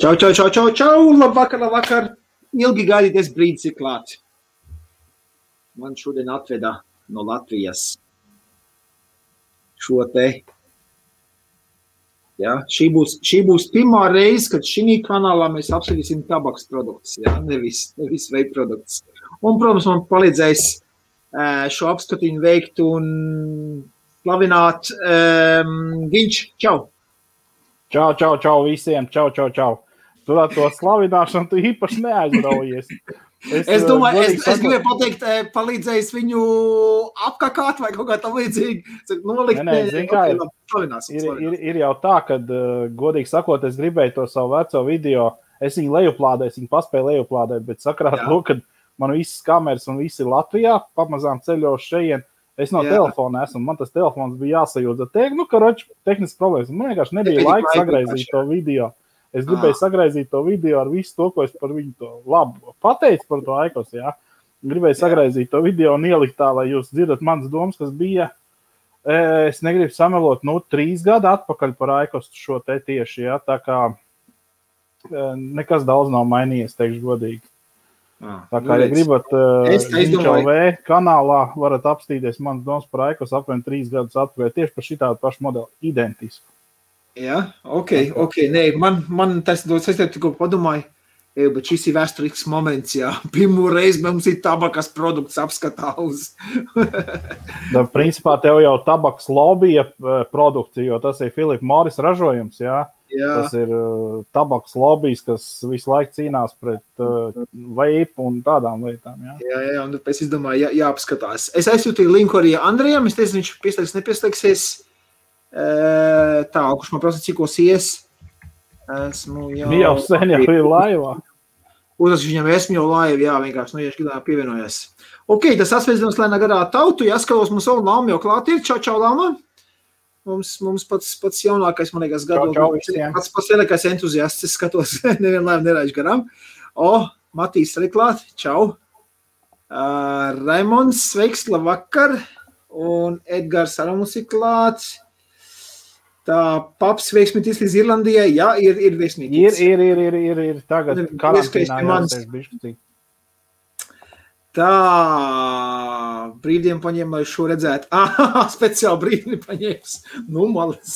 Čau, labvakar. Ilgi gaidīties brīdis ir klāts. Man šodien atveda no Latvijas šo te. Ja, šī būs pirmā reize, kad šī kanālā mēs apskatīsim tabaks produktus, ja, nevis vape produktus. Un, protams, man palīdzēs šo apskatiņu veikt un slavināt Viņš. Čau! Čau visiem, čau. Tu ar to slavināšanu tu īpaši neaizraujies. Es domāju, es gribēju pateikt, palīdzējis viņu apkakāt vai kaut kā tam līdzīgi. Nolikt, ir jau tā, kad, godīgi sakot, es gribēju to savu veco video, es viņu lejuplādēju, viņu paspēju lejuplādēt, bet sakarā to, kad man visas kameras un visi ir Latvijā, pamazām ceļošu šeien, es no telefona esmu, man tas telefons bija jāsajūdza. Tehnisks problēmas, man vienkārši nebija laika sagraizīt to video. Es gribēju sagraizīt to video ar visu to, ko es par viņu to labu pateicu par to Aikos, jā. Gribēju sagraizīt to video un ielikt tā, lai jūs dzirdat manas domas, kas bija, es negribu samelot, 3 gadu atpakaļ par Aikos šo te tieši, jā, tā kā nekas daudz nav mainījies, teikšu godīgi. Tā kā, ja gribat Viņš.LV kanālā, varat apstīties manas domas par Aikos apvien 3 gadus atpakaļ, tieši par šitādu pašu modeli, identisku. Jā, ok. Nē, man tas dod, es tikko padomāju, bet šis ir vēsturisks moments, jā. Pirmo reizi mums ir tabakas produkts apskatā uz. Principā tev jau tabakas lobija produkcija, jo tas ir Philip Morris ražojums, jā. Tas ir tabakas lobijs, kas visu laiku cīnās pret vape un tādām lietām, jā. Jā, un pēc izdomāju, jāapskatās. Es aizsūtīju linku arī Andrijam, es teicu, viņš pieslēgs, nepieslēgsies. Tā, kurš man prasa, cikos ies. Esmu jau sen jau ir laivā. Uzrakstīšu viņam, esmu jau laiva, jā, vienkārši, ja šķidā pievienojas. Ok, tas asveicināms lēnā garā tautu, jāskatos, mums savu Lama jau klāt ir. Čau, Lama. Mums pats jaunākais, man liekas, pats lielākais entuziasts, es skatos, nevienu laivu neraišu garām. Matīs arī klāt, čau. Raimonds, sveiks, labvakar. Un Edgars arī mums ir klāts. Tā paps veiksmītis līdz Irlandijai, jā, ir veiksmītis. Ir tagad karantīnā jāsēž bišķi. Tā, brīvdienu paņēmu, lai šo redzētu. Speciāli brīvdienu paņēms. Malas.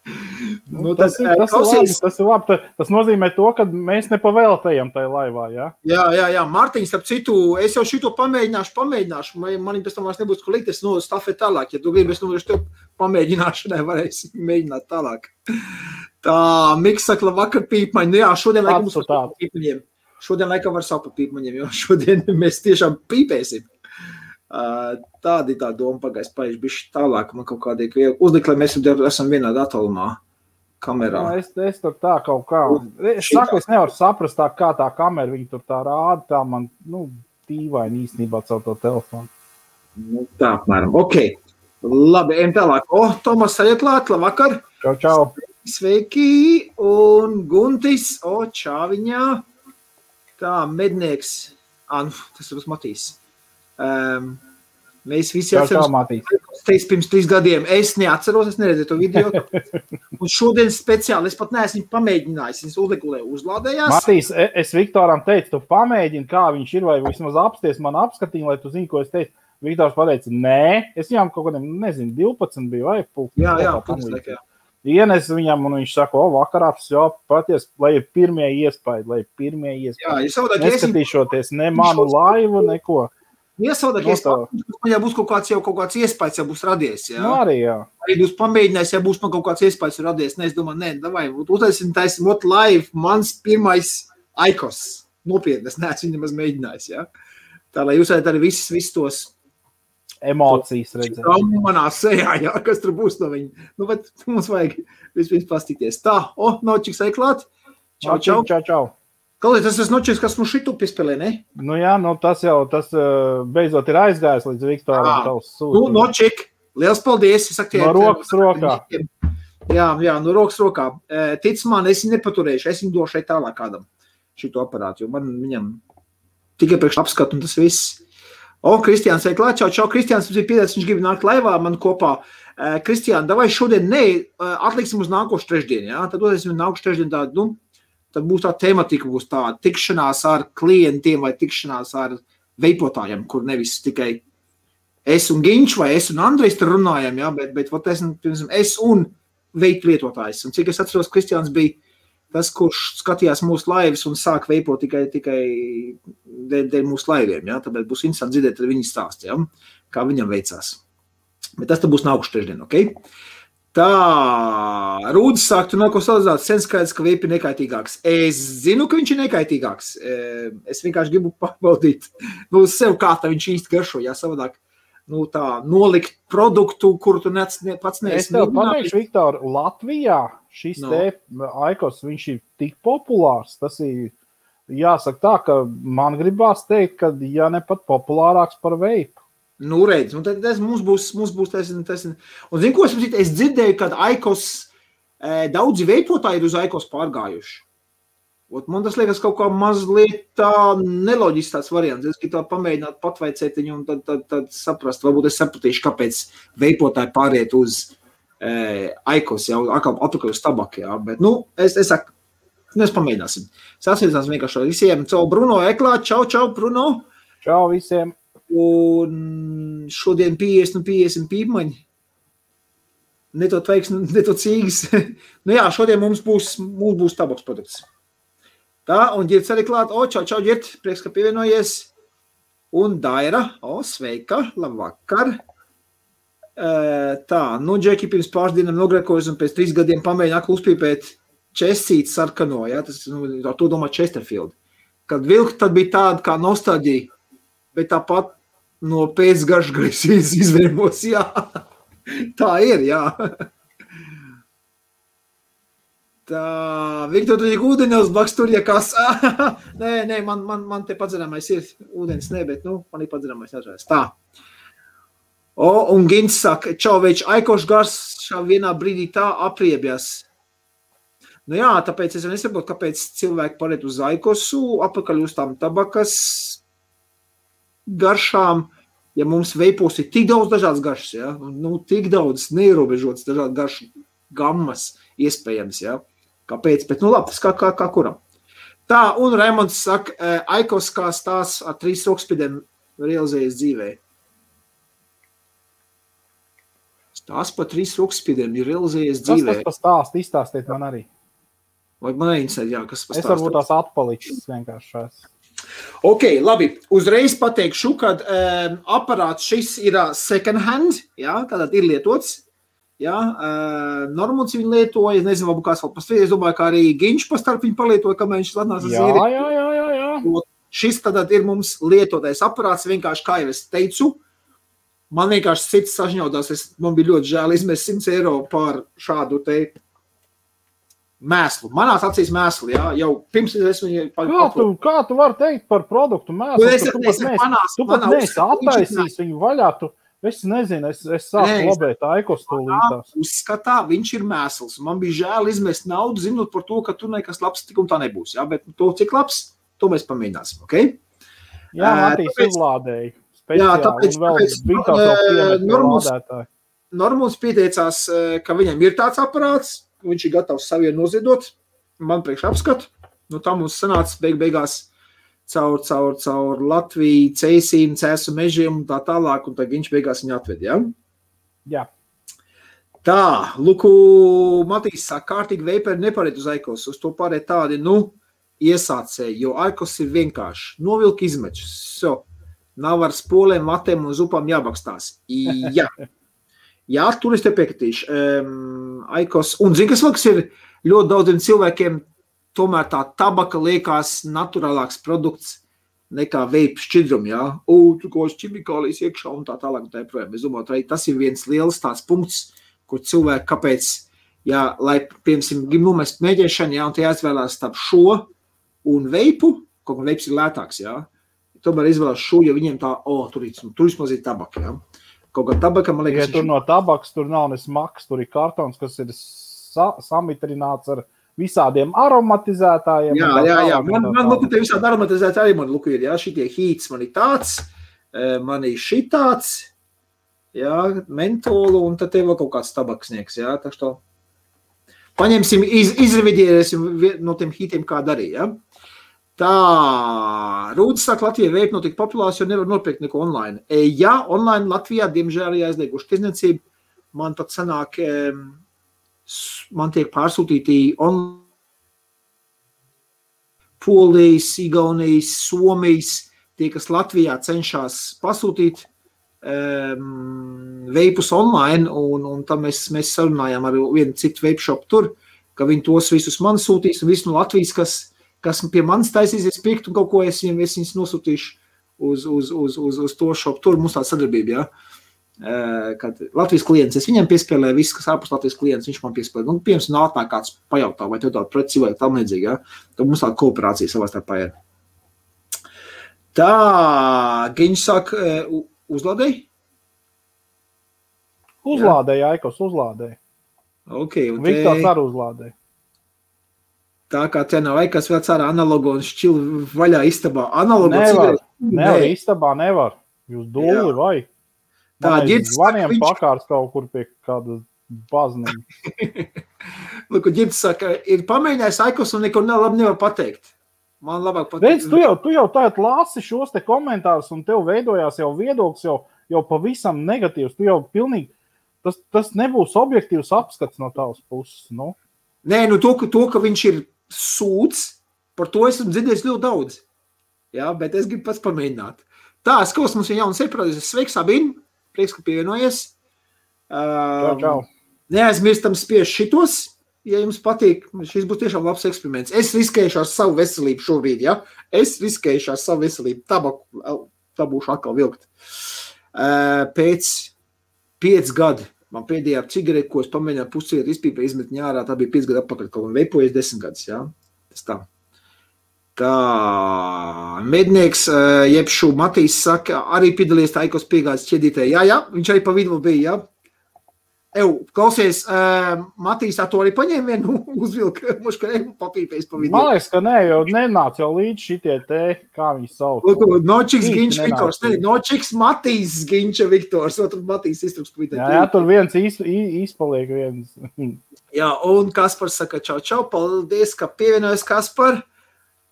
Tas ir labi. Tas nozīmē to, ka mēs nepavēltējam tajā laivā, jā? Jā. Mārtiņš, starp citu, es jau šito pamēģināšu. Man pēc tam vairs nebūs ko likt, es stafēt tālāk. Ja tu gribi, es tev pamēģināšanai varēsi mēģināt tālāk. Tā, Miks saka, labvakar pīpmaņi. Jā, šodien laikam mums var pīpmaņiem. Šodien laikam var sapu pīpmaņiem, jo šodien mēs tiešām pīpēsim. Tāda ir tā doma pagājis paieši bišķi tālāk. Man kaut kādīgi uzlikt, lai mēs esam vienādā attālumā kamerā. Es tur tā kaut kā. Es nevaru saprast tā, kā tā kamera viņa tur tā rāda. Tā man, tīvaini īstenībā caur to telefonu. Tā apmēram. Ok. Labi, ejam tālāk. Tomas arī klāt, labvakar. Čau. Sveiki. Un Guntis. Čāviņā. Tā, mednieks. Tas ir Matīs. Mēs visi atceros pirms 3 gadiem. Es neatceros, es neredzēju to video. Un šodien speciāli, es pat neesmu pamēģinājis. Es uzlādējās. Matīs, es Viktoram teicu, tu pamēģini, kā viņš ir, vai vismaz apsties man apskatīni, lai tu zini, ko es teicu. Viktors pateica, nē, es viņam kaut kādiem, 12 biju, vai pulkstens. Jā, pulkstens, jā. Ienes viņam, un viņš saka, vakarā, paties, lai ir pirmie iespēji. Jā, neskatīšoties ne manu laivu, neko. Iesaudak, ja būs kaut kāds iespējas, ja būs radies, jā. Arī, jā. Arī būs pamēģinājis, ja būs man kaut kāds iespējas radies. Es domāju, davai, uztaisim live, mans pirmais Aikos. Nopietni, es neesmu viņam mēģinājis, jā. Tā, lai jūs arī visus tos emocijas redzēt. Manā sejā, jā, kas tur būs no viņa. Bet mums vajag vispirms pastīties. Tā, Nočiks aiklāt. Čau. Klausies, tas nočiks, kas mums šitu piespēlē, ne? Jā, tas beidzot ir aizgājis līdz Viktoram tavs sūtījums. Nočik, liels paldies. No rokas rokā. Jā, no rokas rokā. Tic man, es viņu nepaturēšu, es viņu došu tālāk kādam šito aparātu, jo man viņam tikai priekš apskatu un tas viss. Kristiāns ir klāt, čau, Kristiāns mums ir piedāts, viņš grib nākt laivā man kopā. Kristiāna, davai šodien atliksim uz nākošu trešdienu, jā? Tad dosim nākošu trešdienu tādu, tad būs tā tematika, būs tā tikšanās ar klientiem vai tikšanās ar veipotājiem, kur nevis tikai es un Ginč vai es un Andrejs tur runājam, ja, bet es un veipu lietotājs. Un cik es atceros, Kristiāns bija tas, kurš skatījās mūsu laivas un sāk veipot tikai dēļ mūsu laiviem. Ja? Tāpēc būs interesanti dzirdēt viņa stāstu, ja? Kā viņam veicās. Bet tas būs nākuši trešdien, ok? Tā, Rūdis sāk, tu nav ko salīdzināt, sen skaidrs, ka veipi ir nekaitīgāks. Es zinu, ka viņš ir nekaitīgāks. Es vienkārši gribu pārbaudīt, sev kā tā viņš īsti garšo, jā, savādāk. Tā nolikt produktu, kuru tu pats neesi. Es tev pateikšu, Viktor, Latvijā šis Aikos, viņš ir tik populārs. Tas ir, jāsaka tā, ka man gribās teikt, ka ja ne pat populārāks par veipu. Redz, tad mums būs tas. Un zinu, ko es dzirdēju, kad Aikos, daudzi veipotāji ir uz Aikos pārgājuši. Man tas liekas kaut kā mazliet tā neloģisks tāds variants. Es gribu tā pamēģināt patveicēt viņu un tad saprast. Varbūt es sapratīšu, kāpēc veipotāji pāriet uz Aikos, jau atpakaļ uz tabaku. Jā. Bet, es saku, mēs pamēģināsim. Sasveicināsim vienkārši visiem. Čau, Bruno Eklā. Čau, Bruno. Čau visiem. Un šodien 50 pīpmaņi. Ne to tveiks, ne to cīgas. Jā, šodien mums būs tabaks produkts. Tā, un Ģirts arī klāt. Čau, Ģirt, prieks, ka pievienojies. Un Daira, sveika, labvakar. Tā, Džeki pirms pāris dienām nogrekojas un pēc 3 gadiem pamēģina aklu uzpīpēt Česīti sarkano, jā, tas, ar to domā Chesterfield. Kad vilka, tad bija tāda kā nostalģija, bet tāpat no pēcgaršgrais izvēmos, jā. Tā ir, jā. Tā, Viktor, tu tik ūdeņos blaks tur, ja kas. Nē, man te padzerāmais ir ūdens, bet, man ir padzerāmais atžēs. Tā. Un Gins saka, čau, več, Aikoš gars šā vienā brīdī tā apriebjas. Jā, tāpēc es nesaprotu, kāpēc cilvēki pariet uz Aikosu, apakaļ uz tām tabakas garšām, ja mums veipos ir tik daudz dažādas garšas, ja? Tik daudz neierobežotas dažādas garšu gammas iespējams, ja? Kāpēc? Bet, labi, tas kā kuram. Tā, un Raimonds saka, Aikos kā stāsts ar 3 rokspidiem realizējas dzīvē. Stāsts par 3 rokspidiem ir realizējas dzīvē. Kas tas par stāstu? Izstāstiet man arī. Vai man neinteresē, jā, kas par stāstu? Es varbūt tās atpalicis vienkārši šās. Ok, labi. Uzreiz pateikšu, kad aparāts šis ir second hand, jā, tātad ir lietots. Ja, Normons viņu lietoja, es nezinu, varbūt kāds vēl pastāv, es domāju, kā arī Ginč pastarp viņu palietoja, kamēr viņš ladnās zīri. Jā. Šis tad ir mums lietotais aparāts, vienkārši, kā jau es teicu, man vienkārši cits sažņaudās, man bija ļoti žēl izmest 100 eiro par šādu te mēslu. Manās acīs mēslu, jā, jau pirms es viņu... Kā tu vari teikt par produktu mēslu? Tu pat neesi attaisījis viņu vaļā, Es nezinu, es sāku labēt Aikos tūlītās. Uzskatā, viņš ir mēsls. Man bija žēl izmest naudu, zinot par to, ka tur nekas labs tik un tā nebūs. Ja? Bet to, cik labs, to mēs pamēģināsim. Okay? Jā, Matīs uzlādēja speciāli un vēl bija lādētāji. Normons pieteicās, ka viņam ir tāds aparāts, viņš ir gatavs saviem noziedot. Man priekš apskatu. Tā mums sanāca beigās caur Latviju, ceisīm, cēsu mežiem un tā tālāk, un tā viņš beigās viņu atved, ja? Jā. Tā, Luku Matīs saka, kārtīgi veiperi nepariet uz Aikos, uz to pārēt tādi, iesācēji, jo Aikos ir vienkārši. Novilk izmečus, nav ar spolēm, vatēm un zupām jābakstās. Jā, tur es te piekritīšu. Aikos, un zini, kas ir ļoti daudziem cilvēkiem, tomēr tā tabaka liekas naturālāks produkts nekā veipu šķidrumi, jā. Tu ko ķimikālijas iekšā un tā tālāk un tā projām. Es domāju, tas ir viens liels tāds punkts, kur cilvēki, kāpēc, lai, piemēram, grib numest mēģēšanu, un te jāizvēlās starp šo un veipu, kaut kā veips ir lētāks, jā. Tomēr izvēlās šo, jo viņiem tā, tur ir mazīt tabaka, jā. Kaut kā tabaka, man liekas... Ja tur no tabaks, tur nav ne smaks, tur ir kartons, kas ir samitrināts ar visādiem aromatizētājiem. Jā. Man te visādi aromatizētāji man luku ir, jā, šitie hīts man ir tāds, man ir šitāds, jā, mentolu, un tad tev vēl kaut kāds tabaksnieks, jā, tā što. Paņemsim, izrevidierēsim no tiem hitiem, kā darīja. Tā, Rūdis saka, Latvijā veip notika populārs, jo nevar nopirkt neko online. Ja, online Latvijā, diemžēl, aizlieguši tirdzniecību, man pat sanāk, man tiek pārsūtīti online Polijas, Igaunijas, Somijas, tie, kas Latvijā cenšas pasūtīt veipus online, un tam mēs sarunājām ar vienu citu veip shop tur, ka viņi tos visus man sūtīs, un visu no Latvijas, kas pie manis taisīsies pirkt, un kaut ko es viņus nosūtīšu uz to shop tur, mums tāda sadarbība, ja? Kad Latvijas klients, es viņam piespēlēju viss, kas ārpus Latvijas klients, viņš man piespēlēja. Nu, piemēram, nātnāk kāds pajautā, vai tev tāda preci vai tam līdzīgi, ja? Tad mums tāda kooperācija savā starpā ir. Tā, Giņš saka, uzlādēji? Uzlādēji, Aikos, uzlādēji. Okay, un Viktors arī uzlādēji. Tā kā te nav Aikas vēl cārā analogu un šķilu vaļā istabā. Analogu nevar, istabā nevar. Jūs dūli vai? Tā, zvaniem pakārs kaut kur pie kāda bazniņa. Lūk, Ģirds saka, ir pamēģinājis Aikos un neko labi nevar pateikt. Man labāk pateikt. Redz, tu jau tagad lasi šos te komentārus un tev veidojās jau viedoklis jau pavisam negatīvs. Tu jau pilnīgi, tas nebūs objektīvs apskats no tavas puses, nu? Nē, nu to, ka viņš ir sūds, par to esmu dzirdējis ļoti daudz. Jā, bet es gribu pats pamēģināt. Tā, skaus mums ir jauns eprodīzes. Sveiks, Sabīn! Prieks, ka pievienojies. Čau. Neaizmirstam spiež šitos, ja jums patīk. Šis būs tiešām labs eksperiments. Es riskējuši ar savu veselību šobrīd, ja? Es riskējuši ar savu veselību. Tā būšu atkal vilkt. Pēc 5 gadu man pēdējā cigareti, ko es pamēģināju puscigaretu izpīpē, izmet ņārā, tā bija 5 gadu atpakaļ, kaut man veipojies 10 gadus, ja? Tas tā. Tā, mednieks, jebšu Matīs saka, arī piedalījies tā Aikos piegādes ķedītē. Jā, viņš arī pa vidu bija, jā. Klausies, Matīs, tā to arī paņēma vienu uzvilka, muš, ka papīpēs pa vidu. Man liekas, ka ne, jo nenāc jau līdz šitie te, kā viņi sauc. Nočiks Giņš Viktors, Nočiks Matīs Giņša Viktors, tur Matīs iztruks pa vidu. Jā, tur viens izpaliek viens. Jā, un Kaspars saka, čau, paldies, ka pievienojas Kaspar.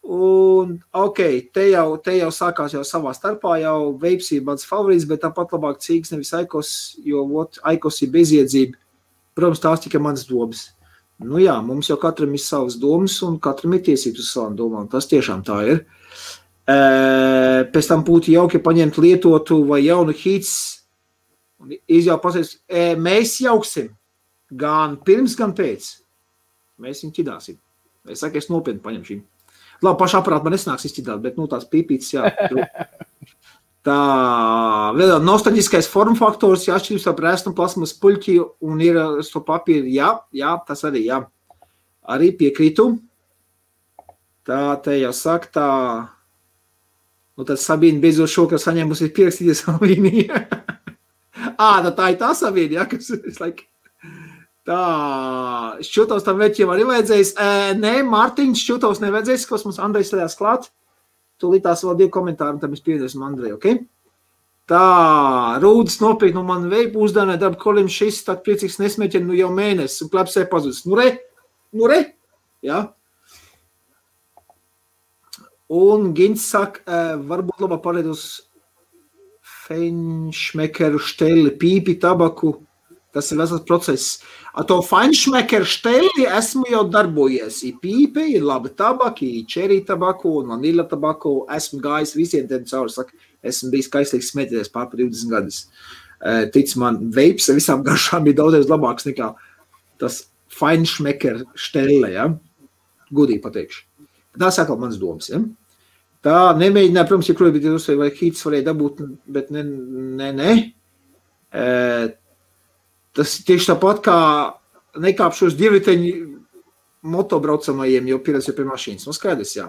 Un, te jau sākās jau savā starpā, jau veips ir mans favorīts, bet tāpat labāk cīgs nevis Aikos, jo Aikos ir beziedzība. Protams, tās tikai mans domas. Nu jā, mums jau katram ir savas domas un katram ir tiesības uz savām domām. Tas tiešām tā ir. Pēc tam būtu jauki paņemt lietotu vai jaunu hīts un izjau pasēs, mēs jauksim gan pirms, gan pēc. Mēs viņu ķidāsim. Es saku, es nopietni paņem šīm. Labi, pašu aparātu man nesnāks izķidāt, bet, tas pīpītis, jā. Tā, vēl nostalģiskais formfaktors, jā, atšķirības ar prēstu un plasmas puļķi un ir to papīru, jā, tas arī, jā. Arī piekrītu. Tā, te jau saka, tā, tad Sabīna beidzot šokar saņēmusi pierakstīties Sabīnī. Tā ir tā Sabīna, jā, kas es like... Tā, šķūtos tam veķiem arī vajadzējis. Nē, Mārtiņš, šķūtos nevajadzējis, kas mums Andrejs sēdās klāt. Tūlītās vēl 2 komentāri, un tad mēs pievienosim Andreju, ok? Tā, Rūdis nopietni no man veipu uzdānē darba kolim šis, tad priecīgs nesmēķeni, jau mēnesis, un klepsē pazudis. Nu re, jā. Un Gins saka, varbūt labā pārēt uz feinšmekeru šteli, pīpi, tabaku. Tas ir vesels process. Ar to feinšmekeru šteli esmu jau darbojies. Ir pīpe, ir laba tabaka, ir čerī tabaku un vanila tabaku. Esmu gājis visiem tiem cauri. Saka, esmu bijis kaislīgs smēķēties pār 20 gadus. Tic man, veips visām garšām ir daudzreiz labāks nekā tas feinšmekeru štele, ja? Gudīgi pateikšu. Tā saka manas domas, ja? Tā nemēģināja, protams, ja krojot, bet vai hīts varēja dabūt, bet ne. Tas tieši tāpat kā nekāpšos divriteņu motobraucamajiem, jo pieredz jau pie mašīnas. Nu, skaidrs, jā.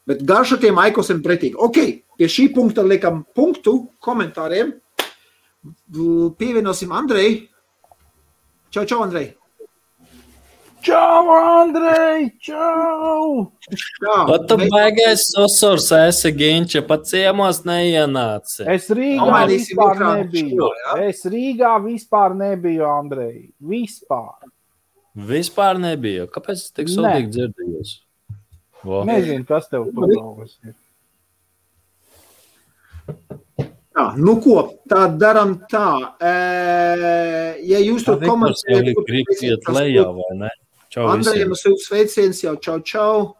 Bet garša tiem Aikosiem pretīgi. Ok, pie šī punkta liekam punktu komentāriem. Pievienosim Andrei. Čau, Andrei. Čau, Andrej, čau! Pat tu baigais sosurs esi, Ginča, pat ciemos neienāci. Es Rīgā vispār nebiju, Andrej. Vispār. Vispār nebija. Kāpēc es tik sodīgi dzirdējos? Nezinu, kas tev tur galvas ir. Jā, nu ko, tā daram tā. Ja jūs tur komentējat... Grib iet lejā, vai ne? Čau Andrejam silts sveiciens, jau čau.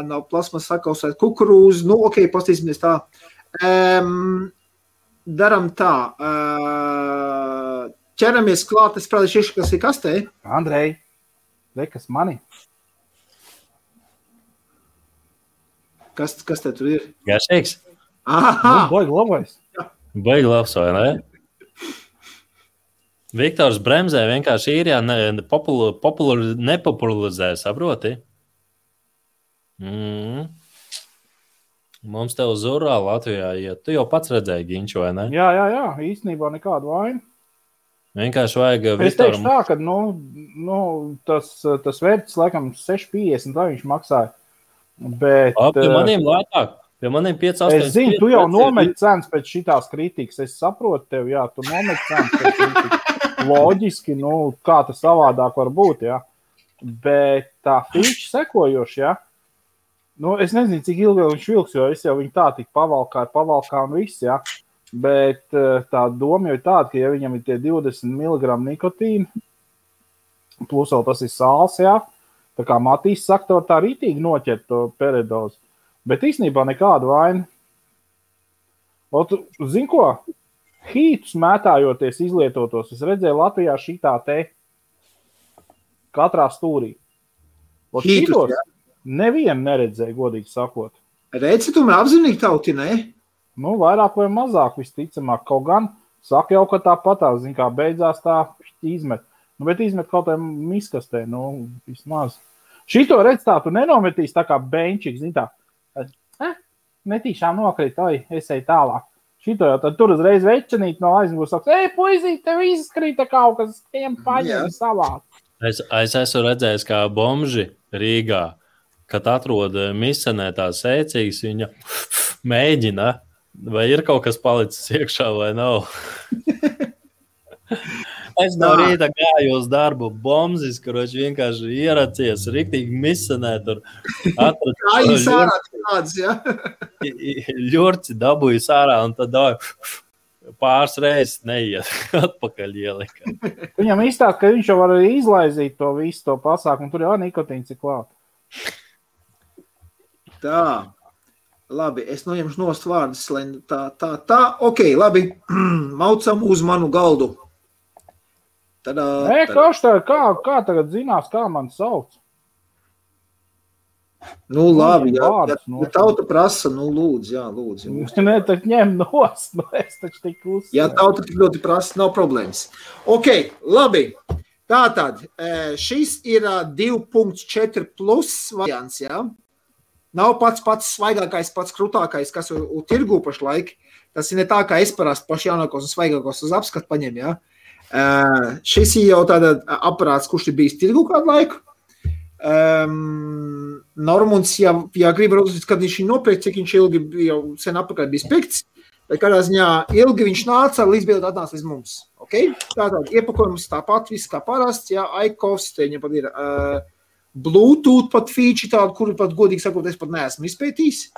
Nav plasmas sakausēt kukurūzu. Nu, ok, pastīsimies tā. Daram tā. Ķeramies klāt, es prātīšu, kas ir kastē. Andrej, kas mani? Kas te tur ir? Garšīgs? Aha! Baigi labais. Baigi labs, vai ne? Viktors bremzē vienkārši īrijā nepopularizē, saproti? Mums tev zurā Latvijā iet. Tu jau pats redzēji Ginču, vai ne? Jā, īstenībā nekādu vainu. Vienkārši vajag Viktoram... Es teikšu tā, ka tas vērts laikam 6,50, tā viņš maksāja. Bet... Pie maniem lētāk. Pie maniem 5,8. Es zinu, tu jau nometi cenas pēc šitās kritikas. Es saprotu tev, jā, tu nometi cenas pēc kritikas. Loģiski, kā tas savādāk var būt, jā. Bet tā feature sekojoši, jā. Es nezinu, cik ilgi viņš vilks, jo es jau viņu tā tik pavalkā un viss, jā. Bet tā doma jau ir tāda, ka ja viņam ir tie 20 mg nikotīna, plus vēl tas ir sāls, jā, tā kā Matīs saka, tā rītīgi noķert to peridozu. Bet īstenībā nekādu vainu. Zini ko? Hītus mētājoties izlietotos, es redzēju Latvijā šitā te katrā stūrī. Hītus, jā? Nevienu neredzēju, godīgi sakot. Redzi, tu mē apzinīgi tauti, ne? Vairāk vai mazāk visticamāk. Kaut gan saka jau, ka tāpatās, zin kā beidzās tā izmet. Bet izmet kaut kā miskastē, vismaz. Šito redz tā, tu nenometīs tā kā benčik, zin tā. Netīšām nokrīt, es eju tālāk. Šito jau tad tur uzreiz večanīt no aizmūs saka, puisīt, tev izskrīta kaut kas, tiem paņem savāt. Es esmu redzējis, kā bomži Rīgā, kad atrod misenē tās ēcīgas, viņa mēģina, vai ir kaut kas palicis iekšā vai nav. Es no rīta gāju uz darbu bombzis, kurš vienkārši ieracies, riktīgi misenē tur. Kā jūs ārā tāds, jā? Ļurci dabūju sārā un tad pāris reizes neiet atpakaļ ielika. Viņam izstāst, ka viņš jau var izlaizīt to visu to pasākumu, tur jau nikotīns ir klāt. Tā, labi, es noņemšu nost vārdus, lai tā, ok, labi, maucam uz manu galdu. Kā tagad zinās, kā man sauc? Labi, ja tauta prasa, lūdzu, jā, lūdzu. Nē, tad ņem nost, es taču tik uzsver. Ja tauta tik ļoti prasa, nav problēmas. Ok, labi. Tātad, šis ir 2.4 plus variants, jā. Nav pats svaigākais, pats krutākais, kas ir tirgū pašlaik. Tas ir ne tā, kā es parasti paši jaunākos un svaigākos uz apskatu paņem, jā. Šis ir jau tāda aparāts, kurš ir bijis tirgu kādu laiku. Normunds, ja grib raudzīt, kad viņš nopirkt, cik viņš ilgi jau sen apakaļ bijis pirkts, bet kādā ziņā ilgi viņš nāca, līdz beidzot atnāca līdz mums. Okay? Tātad iepakojums tāpat, viss kā parasts, jā, iCoffs, te viņam pat ir Bluetooth pat feature tādu, kuru pat godīgi sakot, es pat neesmu izpētījis.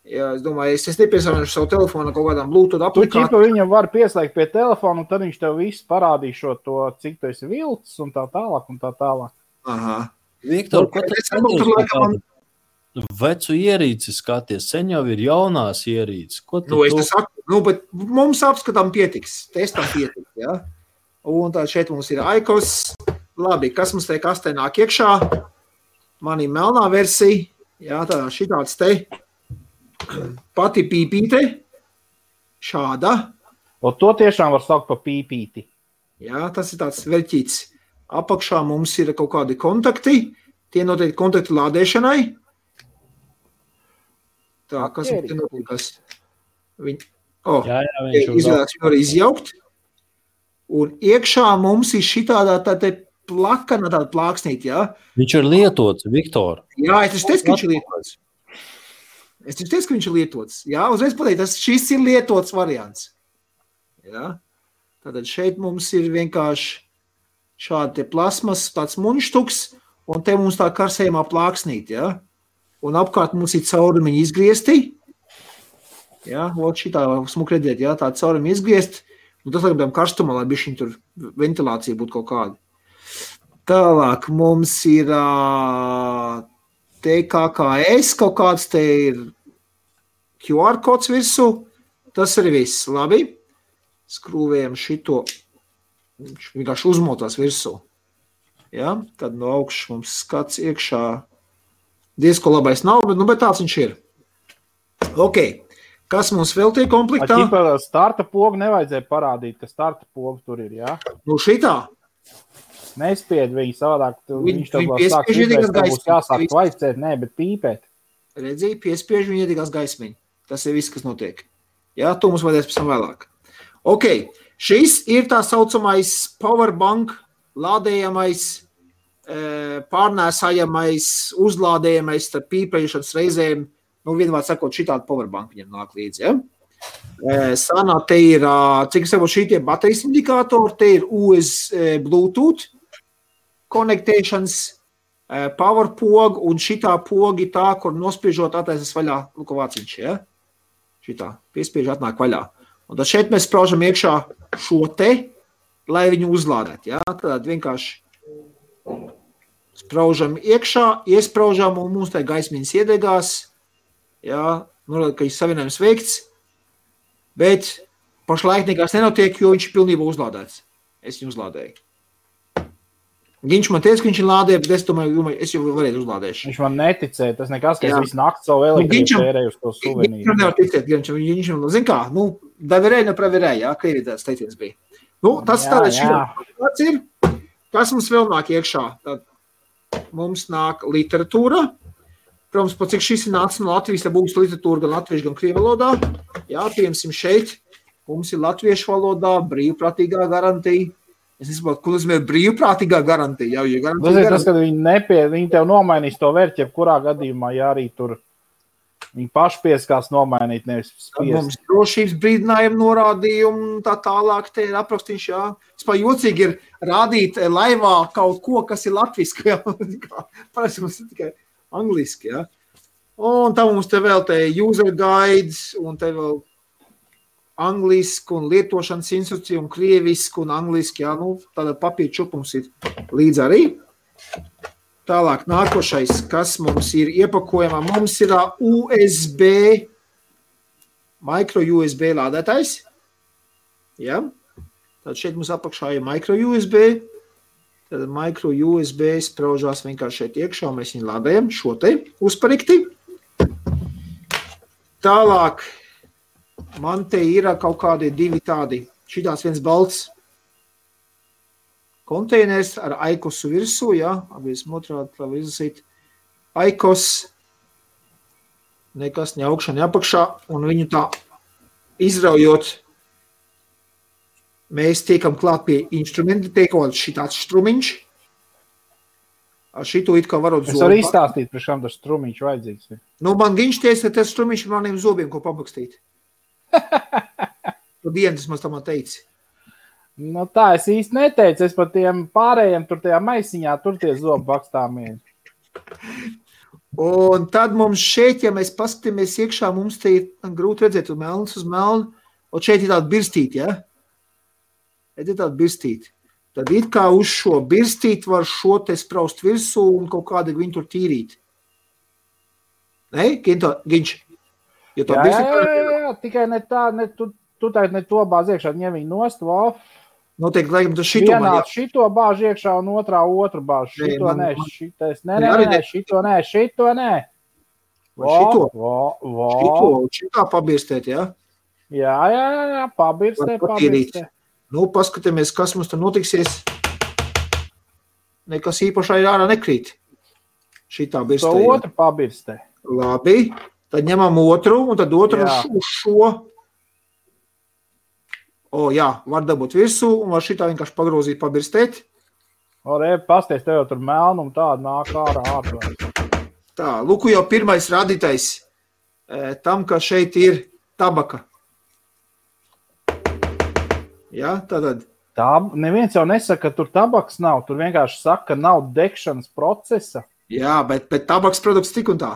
Jā, es domāju, es nepiesavienošu savu telefonu kaut kādām Bluetooth aplikācijām. Tu viņam var pieslēgt pie telefonu, un tad viņš tev visu parādīšo to, cik tu esi vilcis un tā tālāk. Aha. Viktor, ko tu skaties? Vecu ierīci skaties, sen jau ir jaunās ierīces. Es te saku, bet mums apskatām pietiks, testam pietiks, jā. Un tā šeit mums ir iCoffs. Labi, kas mums te kastē nāk iekšā? Man ir melnā versija, jā, tā šitāds te. Pati pīpīte, šāda. Un to tiešām var saukt pa pīpīti. Jā, tas ir tāds veļķīts. Apakšā mums ir kaut kādi kontakti. Tie noteikti kontakti lādēšanai. Tā, kas ir notikas? Viņš izvēlēts viņu arī izjaukt. Un iekšā mums ir šitādā tāda plakana, tāda plāksnīt, jā. Viņš ir lietots, Viktor. Jā, es teicu, ka viņš ir lietots. Jā, uzreiz pateikt, šis ir lietots variants. Jā. Tātad šeit mums ir vienkārši šādi te plasmas, tāds muņštuks, un te mums tā karsējumā plāksnīt, ja? Un apkārt mums ir caurumiņi izgriezti, ja? Ot šitā smuk redzēt, ja? Tā caurumiņi izgriezt, un tas laikam karstumā, lai bišķiņ tur ventilācija būtu kaut kāda. Tālāk mums ir TKKS, kaut kāds te ir QR kods virsū, tas arī viss, labi. Skrūvējam šito, viņš vienkārši uzmotās virsū. Ja? Tad no augšas mums skats iekšā, diezko labais nav, bet tāds viņš ir. Ok, kas mums vēl tie komplektā? Starta pogu nevajadzēja parādīt, ka starta pogu tur ir, jā? Nu šitā? Nespied viņu savādāk, viņš tev sāk pīpēt, tev būs jāsāk vaicēt, nē, bet pīpēt. Redzēji, piespiež viņu iedīgās gaismiņu. Tas ir viss, kas notiek. Jā, to mums vajadzēs pēc tam vēlāk. Ok, šis ir tā saucamais powerbank, lādējamais, pārnēsājamais, uzlādējamais starp pīpējušanas reizēm, nu vienvārds sakot, šitādi powerbank viņam nāk līdzi, ja? Sanā, te ir, cik es šī tie baterijas indikātori, te ir USB Bluetooth connectations, power poga un šitā pogi tā, kur nospiežot attaisas vaļā lukavāciņš, ja? Šitā, piespiež atnāk vaļā. Un tad šeit mēs spraužam iekšā šo te, lai viņu uzlādēt, ja? Tad vienkārši spraužam iekšā, iespraužam un mums tā gaismiņas iedegās, ja? Norāda, ka ir savienojums veikts, bet pašlaik nekās nenotiek, jo viņš ir pilnībā uzlādēts. Es viņu uzlādēju. Viņš man teica, ka viņš ir lādē, bet es domāju, es jau varētu uzlādēšu. Viņš man neticēja, tas nekas, ka es visu nakti savu elektrību tērēju uz to suvenīru. Viņš nevar ticēt, viņš zin kā, nu, daverēja, nepraverēja, jā, Krievijā tāds teiciens bija. Nu, tas tāds ir. Kas mums vēl nāk iekšā? Tad mums nāk literatūra. Protams, pat cik šis ir nācis no Latvijas, tad būs literatūra gan latviešu, gan krievu valodā. Jā, piemēram, šeit mums ir latviešu valodā brīvprātīgā garantija. Es nesaprotu, ko nozīmē brīvprātīgā garantija. Tas, kad viņi tev nomainīs to vērķi, kurā gadījumā, ja arī tur viņi paši pieskās nomainīt, nevis spiest. Mums drošības brīdinājumu norādījumu, tā tālāk te ir aprakstīņš, jā. Vispār jocīgi ir rādīt laivā kaut ko, kas ir latviski, jā. Parasti mums ir tikai angliski, jā. Un tā mums te vēl te user guides, un te vēl angliski un lietošanas instrukcija un krieviski un angliski, jā, nu, tāda papīra čupums ir līdz arī. Tālāk nākošais, kas mums ir iepakojumā, mums ir USB, micro USB lādētājs, jā. Tad šeit mums apakšā ir micro USB, tad micro USB spraužās vienkārši šeit iekšā, mēs viņu lādējam šo te uzparikti. Tālāk, man te ir kaut kādi divi tādi, šitās viens balts konteiners ar aikosu virsū, jā, abies otrādi, lai izlasīt. Aikos, nekas ne augšā, ne apakšā, un viņu tā izraujot, mēs tiekam klāt pie instrumenta, tiekot šitāds strumiņš. Ar šito it kā varot zobu. Es varu izstāstīt, priekš kam tas strumiņš vajadzīgs. Nu, man viņš teica, ka tas strumiņš ir maniem zobiem, ko pabakstīt. Tu dienas man tam teici. Nu tā, es īsti neteicu, es par tiem pārējiem tur tajā maisiņā, tur tie zobu bakstāmie. Un tad mums šeit, ja mēs paskatāmies iekšā, mums te ir grūti redzēt, un melns uz melnu, un šeit ir tāda birstīte, ja? Ir tāda birstīte. Tad it kā uz šo birstīti var šo te spraust virsū un kaut kādi viņu tur tīrīt. Ne? Ginč? Jā, tikai ne tā, tu tagad ne to bāz iekšā, ņem viņu nost, wow. Noteikti, laikam, tas šito man jā. Šito bāž iekšā un otrā otru bāž. Šito nē, šito nē. Šitā pabirstēt, jā? Jā, pabirstē. Nu, paskatāmies, kas mums tur notiksies. Nekas īpašā ir ārā nekrīt. Šitā birstē. To otru pabirstē. Labi, tad ņemam otru, un tad otru uz šo. O, jā, var dabūt virsū, un var šitā vienkārši pagrozīt, pabirstēt. Pasties, tev jau tur melnum tāda nāk ārā ārā. Tā, lūku jau pirmais rādītais tam, ka šeit ir tabaka. Ja, tātad Tā neviens jau nesaka, ka tur tabaks nav. Tur vienkārši saka, ka nav degšanas procesa. Jā, bet tabaks produkts tik un tā.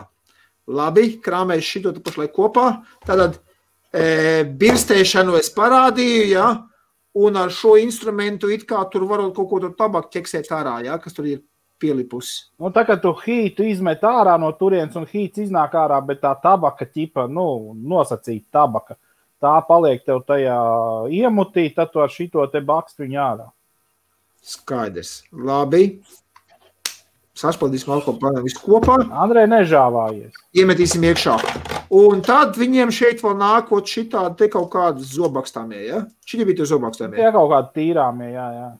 Labi, krāmēs šito tu pašlaik kopā. Tātad birstēšanu es parādīju, jā, un ar šo instrumentu it kā tur varot kaut ko tur tabaku ķeksēt ārā, jā, kas tur ir pielipusi. Nu, tā kā tu hītu izmet ārā no turienes un hīts iznāk ārā, bet tā tabaka ķipa, nosacīta tabaka, tā paliek tev tajā iemutī, tad tu ar šito te bakstu viņu ārā. Skaidrs. Labi. Sašpaldīsim alkoholu visu kopā. Andrej, nežāvājies. Iemetīsim iekšā. Un tad viņiem šeit vēl nākot šitādi te kaut kādas zobakstāmie, ja? Šitie bija tie zobakstāmie. Jā, kaut kādi tīrāmie, jā.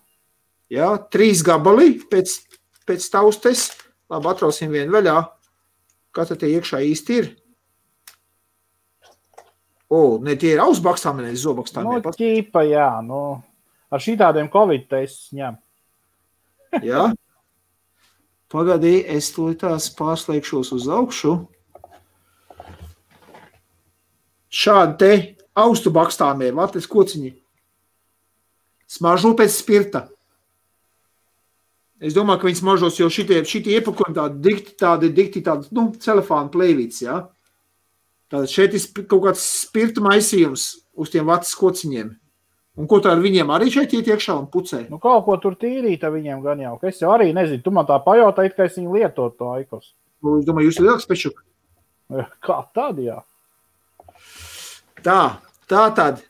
Jā, 3 gabali pēc taustes. Labi, atrausim vienu vaļā. Kas tad tie iekšā īsti ir? Ne, tie ir ausbakstāmie, ne zobakstāmie. Ķīpa, jā. Ar šitādiem Covid testus ņem. Jā. Pagadī, es tās pārslēgšos uz augšu. Šādi te austu bakstāmie, vatlis kociņi. Smaržo pēc spirta. Es domāju, ka viņi smaržos, jo šitie iepakojumi tādi dikti, celefāna plēvīts, jā. Tātad šeit ir kaut kāds spirta maisījums uz tiem vatlis kociņiem. Un ko tā ar viņiem arī šeit iet iekšā un pucē? Kaut ko tur tīrīt ar viņiem gan jau. Es jau arī nezinu. Tu man tā pajautāji, ka es viņu lietotu to aikos. Es domāju, jūs ir lielāks pečuk. Kā tad, jā? Tā tad.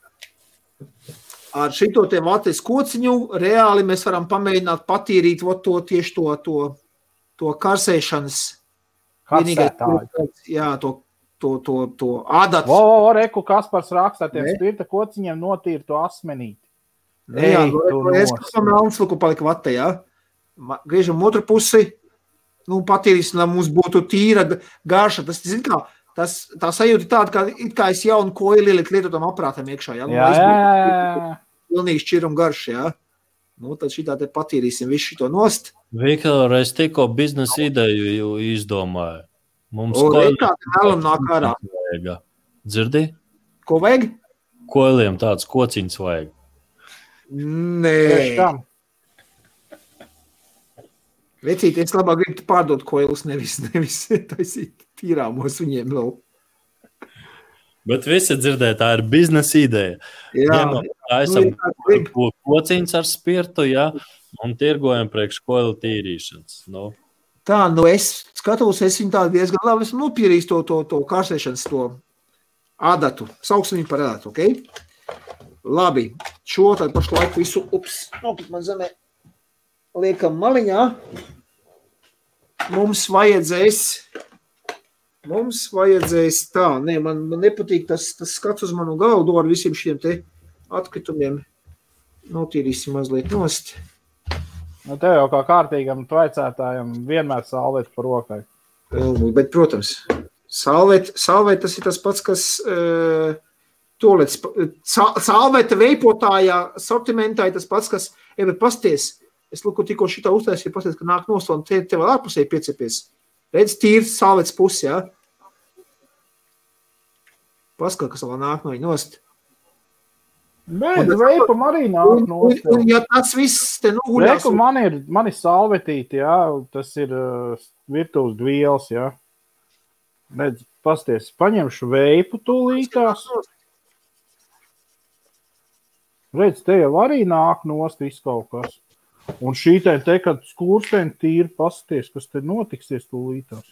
Ar šito te vatlis kociņu reāli mēs varam pamēģināt patīrīt to karsēšanas. Karsētāju. Jā, to ādatu. Reku Kaspars rakstā tiem spirta kociņiem notīra to asmenīti. Jā, es kā melns luku palika vatē, jā. Griežam otru pusi, patīrīsim, lai mums būtu tīra garša. Tas, zin kā, tā sajūta tāda, kā es jaunu koili lietotam aprātam iekšā, jā. Jā. Pilnīgi šķirum garš, jā. Tad šitā te patīrīsim visu šito nost. Viktor, es tikko biznesa ideju izdomāju. Mums nāk ārā. Dzirdi? Ko vajag? Koiliem tāds kociņš vajag. Nē. Vecīt, es labāk gribu pārdot koilus, nevis taisīt tīrāmos viņiem vēl. Bet visi dzirdē, tā ir biznesa ideja. Jā. Taisam kociņš ar spirtu, jā, un tirgojam priekš koilu tīrīšanas. Tā, es skatos, es viņu tādu diezgan labi esmu nopierījis to kārsēšanas, to ādatu. Sauksim viņu par ādatu, ok? Labi, šo tad pašlaik visu, man zemē, liekam maliņā. Mums vajadzēs tā, man nepatīk tas skats uz manu galdu ar visiem šiem te atkritumiem. Notīrīsim mazliet nost. Tev jau kā kārtīgam tvaicētājam vienmēr salvēt par rokai. Bet, protams, salvēt tas ir tas pats, kas salvēta veipotājā, sortimentā ir tas pats, kas, pasties, es tikko šitā uztaisīju, pasties, ka nāk nost, un te vēl ārpusēji piecepies. Redz, tīrs salvēts pusi, jā? Paskat, kas vēl nāk no viņa nost. Bet veipam arī nāk nost. Un ja tas viss te noguļās... Reku, man ir salvetīti, jā, tas ir virtuves dvielas, jā. Redz, pasties, paņemšu veipu tūlītās. Redz, te jau arī nāk nost viss kaut kas. Un šī te, kad skursteņi tīri pasties, kas te notiksies tūlītās.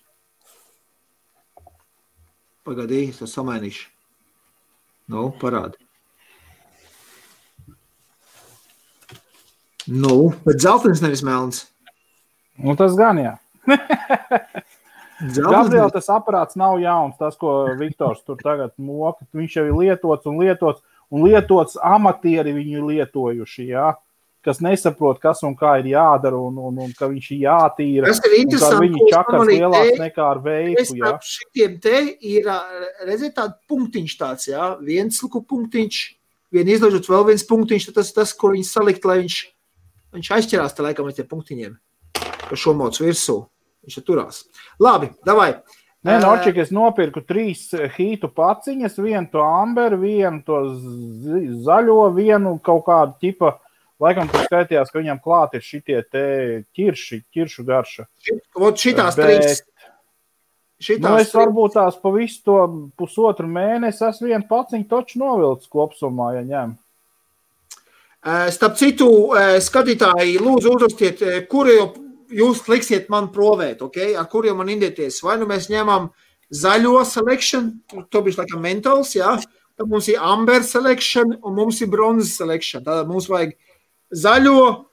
Pagadī, es to samainīšu. Parādi. Bet zeltens nevis melns. Tas gan, jā. Gabriel, tas aparāts nav jauns, tas, ko Viktors tur tagad moka. Viņš jau ir lietots amatieri viņu lietojuši, jā. Kas nesaprot, kas un kā ir jādara, un ka viņš ir jātīra. Tas ir interesanti. Un viņi čakars lielāks nekā ar veipu, jā. Šitiem te ir, redziet, tāda punktiņš tāds, jā. Viens punktiņš, vien izlaižot vēl viens punktiņš, tas, ko viņi salikt, lai viņš aizķerās te laikam ar tie punktiņiem, ka šo mocu virsū. Viņš turās. Labi, davai. Nē, Norčik, es nopirku 3 hītu paciņas, vienu to amberu, vienu to zaļo, vienu kaut kādu ķipa Laikam tur skaitījās, ka viņam klāt ir šitie te ķiršu garša. Šitās trīs. Es varbūt tās pa visu to pusotru mēnesi esmu vienu paciņu toču novilcis kopsumā, ja ņem. Starp citu, skatītāji, lūdzu uzrakstiet, kuru jūs liksiet man provēt, okay? Ar kuriem man indieties. Vai nu mēs ņemam zaļo selection, to bišķi laikam mentāls, jā. Tad mums ir amber selection un mums ir bronzes selection. Tātad mums vajag zaļo,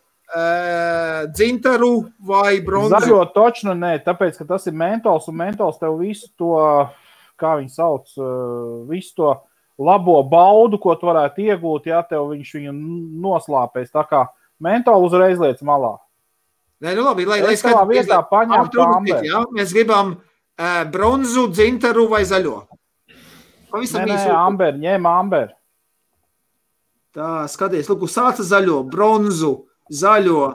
dzintaru vai bronzu. Zaļo točnu nē, tāpēc, ka tas ir mentols, un mentols tev visu to, kā viņi sauc, visu to labo baudu, ko tu varētu iegūt, ja tev viņš viņu noslāpēs. Tā kā mentolu uzreiz liec malā. Nē, nu labi, lai tavā vietā paņemtu amber. Ja? Mēs gribam bronzu, dzintaru vai zaļo. Nē, amber, ņem amber. Tā, skaties, lūk, sāca zaļo, bronzu, zaļo,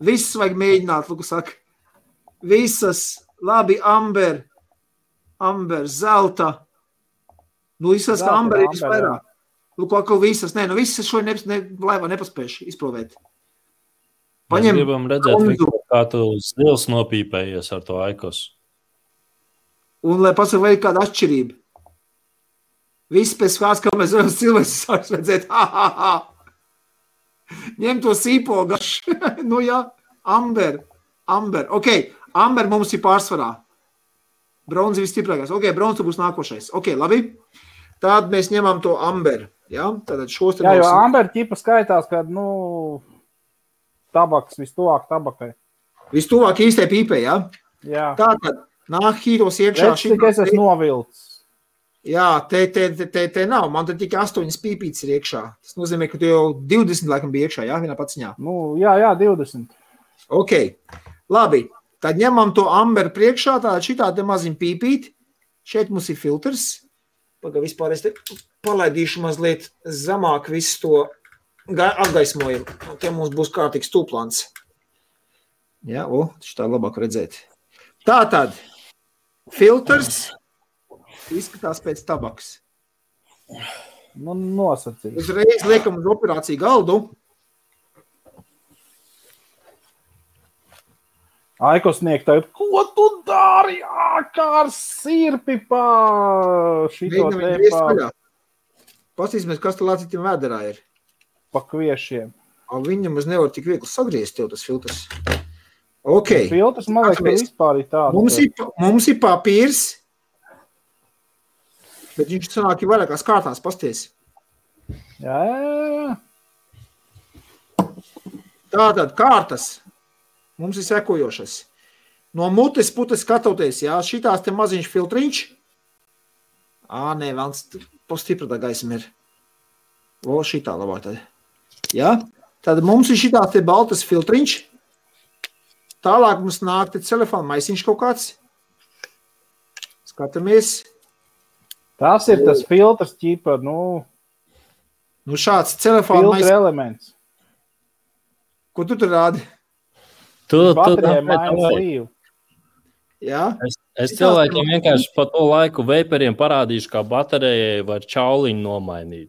visus vajag mēģināt, lūk, saka, visas, labi, amber, zelta, nu, visas, kā amber ir visvairāk, lūk, atkal visas, nē, nu, visas šo laivā nepaspējuši izprovēt. Mēs gribam redzēt, kā tu stils nopīpējies ar to aikos. Un, lai pasaka, vai ir kāda atšķirība. Viss pēc kāds, kā mēs varam cilvēks sāks redzēt, ņem to sīpogašu, nu jā, amber, ok, amber mums ir pārsvarā, bronzi visstiprākais, ok, bronzi būs nākošais, ok, labi, tad mēs ņemam to amber, jā, tātad šos te jā, jo amber ķipa skaitās, kad, tabaks vistuvāk tabakai. Vistuvāk īstai pīpē, jā? Jā. Tātad, nāk hītos iekšā. Es esmu novilcis. Jā, te nav. Man te tikai 8 pīpītes ir iekšā. Tas nozīmē, ka tu jau 20 laikam bija iekšā, jā, vienā paciņā. Jā, 20. Ok, labi. Tad ņemam to amber priekšā, tātad šitā te maziņ pīpīt. Šeit mums ir filtrs. Paga vispār es te palaidīšu mazliet zemāk visu to apgaismojumu. Te mums būs kārtīgs tūplāns. Jā, šitā labāk redzēt. Tātad, filtrs izskatās pēc tabaks. Nosacīt. Uzreiz liekam uz operāciju galdu. Aikosnieki tagad, ko tu dari? Kā ar sirpi pa šito te pa... Pastīsimies, kas tā lācītiem vēderā ir. Pa kviešiem. Viņam uz nevar tik viegli sagriezt tev tas filtrs. Ok. Filtrs, man liekas, ka vispār ir tāds. Mums ir papīrs. Bet viņš sanāk ir vairākās kārtās, pasties. Jā. Tātad kārtas mums ir sekojošas. No mutes putes skatoties, jā, šitās te maziņš filtriņš. Nē, vēlns postipratā gaisma ir. Šitā labāk tad. Jā, tad mums ir šitās te baltas filtriņš. Tālāk mums nāk te telefona maisiņš kaut kāds. Skatamies. Tas ir tas filtrs ķipa, šāds telefona filtra elements. Ko tu tur rādi? Baterijai mainas līvu. Jā? Es cilvēkiem vienkārši pa to laiku veiperiem parādīšu, kā baterijai var čauliņu nomainīt.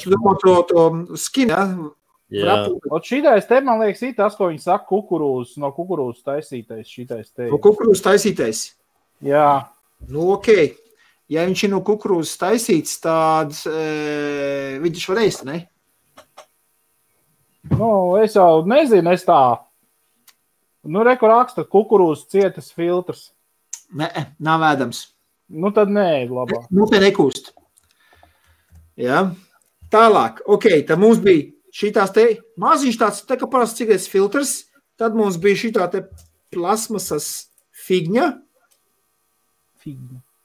Tu domā to skinu, jā? Jā. Šitais te, man liekas, ir tas, ko viņi saka, no kukurūzas taisītais šitais te. No kukurūzas taisītais? Jā. Ok. Ja viņš ir no kukurūzas taisīts, tad viņš var ēst, ne? Es jau nezinu, es tā. Reku raksta kukurūzas cietas filtrs. Nē, nav ēdams. Tad nē, labāk. Te nekūst. Jā. Tālāk, ok, tad mums bija šitās te maziņš tāds, tā kā parasti cigaretes filtrs, tad mums bija šitā te plasmasas figņa.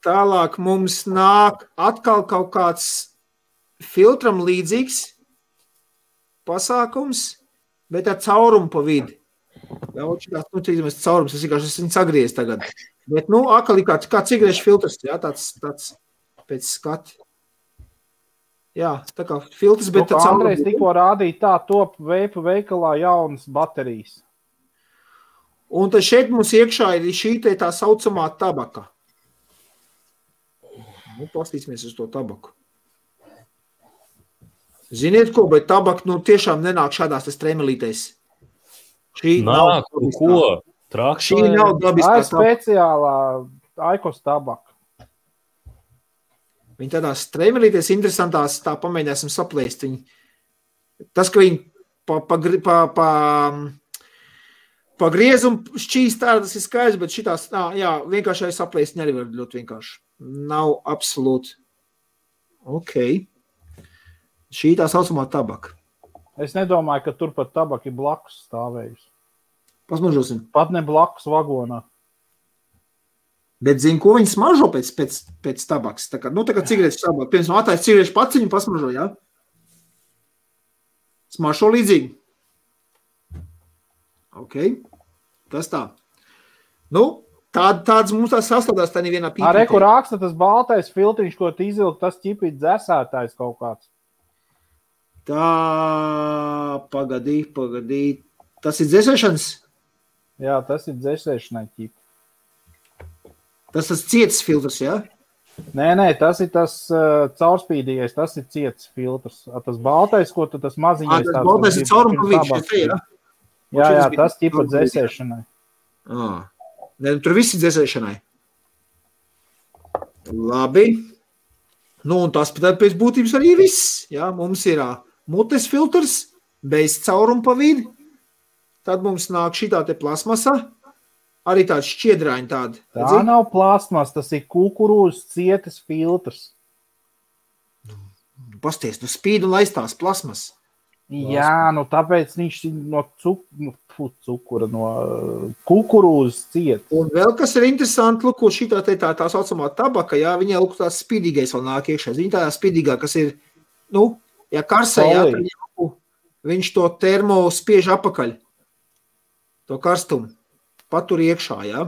Tālāk mums nāk atkal kaut kāds filtram līdzīgs pasākums, bet ar caurumu pa vidi. Šitās, caurums, es vienkārši sagriez tagad. Bet, atkal ir kā cigarešu filtrs, jā, tāds pēc skati. Jā, tā kā filtrs, bet tā caurums. Andrejs tikko rādīja tā top veipa veikalā jaunas baterijas. Un tad šeit mums iekšā ir šī tā saucamā tabaka. Pastīsimies uz to tabaku. Ziniet ko, bet tabaka tiešām nenāk šādās stremelītēs. Šī Nāk, ko? Šī nav dabiskā tabaka. Speciālā Aikos tabaka. Viņi tādās stremelītēs interesantās, tā pamēģināsim saplēst. Tas, ka viņi pa griezumu šķīst tādas ir skaidrs, bet šitās, vienkārši saplēst arī var ļoti vienkārši. Nav absolūti. Ok. Šī tā saucamā tabaka. Es nedomāju, ka tur pat tabaka ir blakus stāvējusi. Pasmažosim. Pat ne blakus vagonā. Bet zinu, ko viņi smažo pēc tabakas. Tā kā cigaretes tabaka. Piemēram, attājas cigarešu paciņu pasmažo, jā? Smažo līdzīgi. Ok. Tas tā. Tāds mums tās sastādās tā nevienā pīpītē. Reku raksta tas baltais filtriņš, ko izvilkt, tas ķipīt dzesētājs kaut kāds. Tā, pagadī. Tas ir dzēsēšanas? Jā, tas ir dzēsēšanai ķipi. Tas ciets filtrs, jā? Nē, tas ir tas caurspīdīgais, tas ir ciets filtrs. Tas baltais, ko tu tas maziņais... Tas baltais ir caurumavīgs, jā? Jā, tas ķipa dzēsēšanai. Ne, tur viss ir dzēsēšanai. Labi. Un tas pēc būtības arī viss. Jā, mums ir mutes filtrs, bez caurumpavīdi. Tad mums nāk šitā te plasmasa. Arī tāds šķiedraiņi tādi. Tā nav plasmas, tas ir kukurūzas cietas filtrs. Pasties, spīd un laistās plasmas. Jā, tāpēc viņš no cukura, no kukurūzas ciet. Un vēl kas ir interesanti, lūk, šitā tā saucamā tabaka, jā, viņai lūk tās spīdīgais vēl nāk iekšā. Viņa tā spīdīgā, kas ir, ja karsē, jā, viņš to termo spiež apakaļ. To karstumu. Patur iekšā, jā.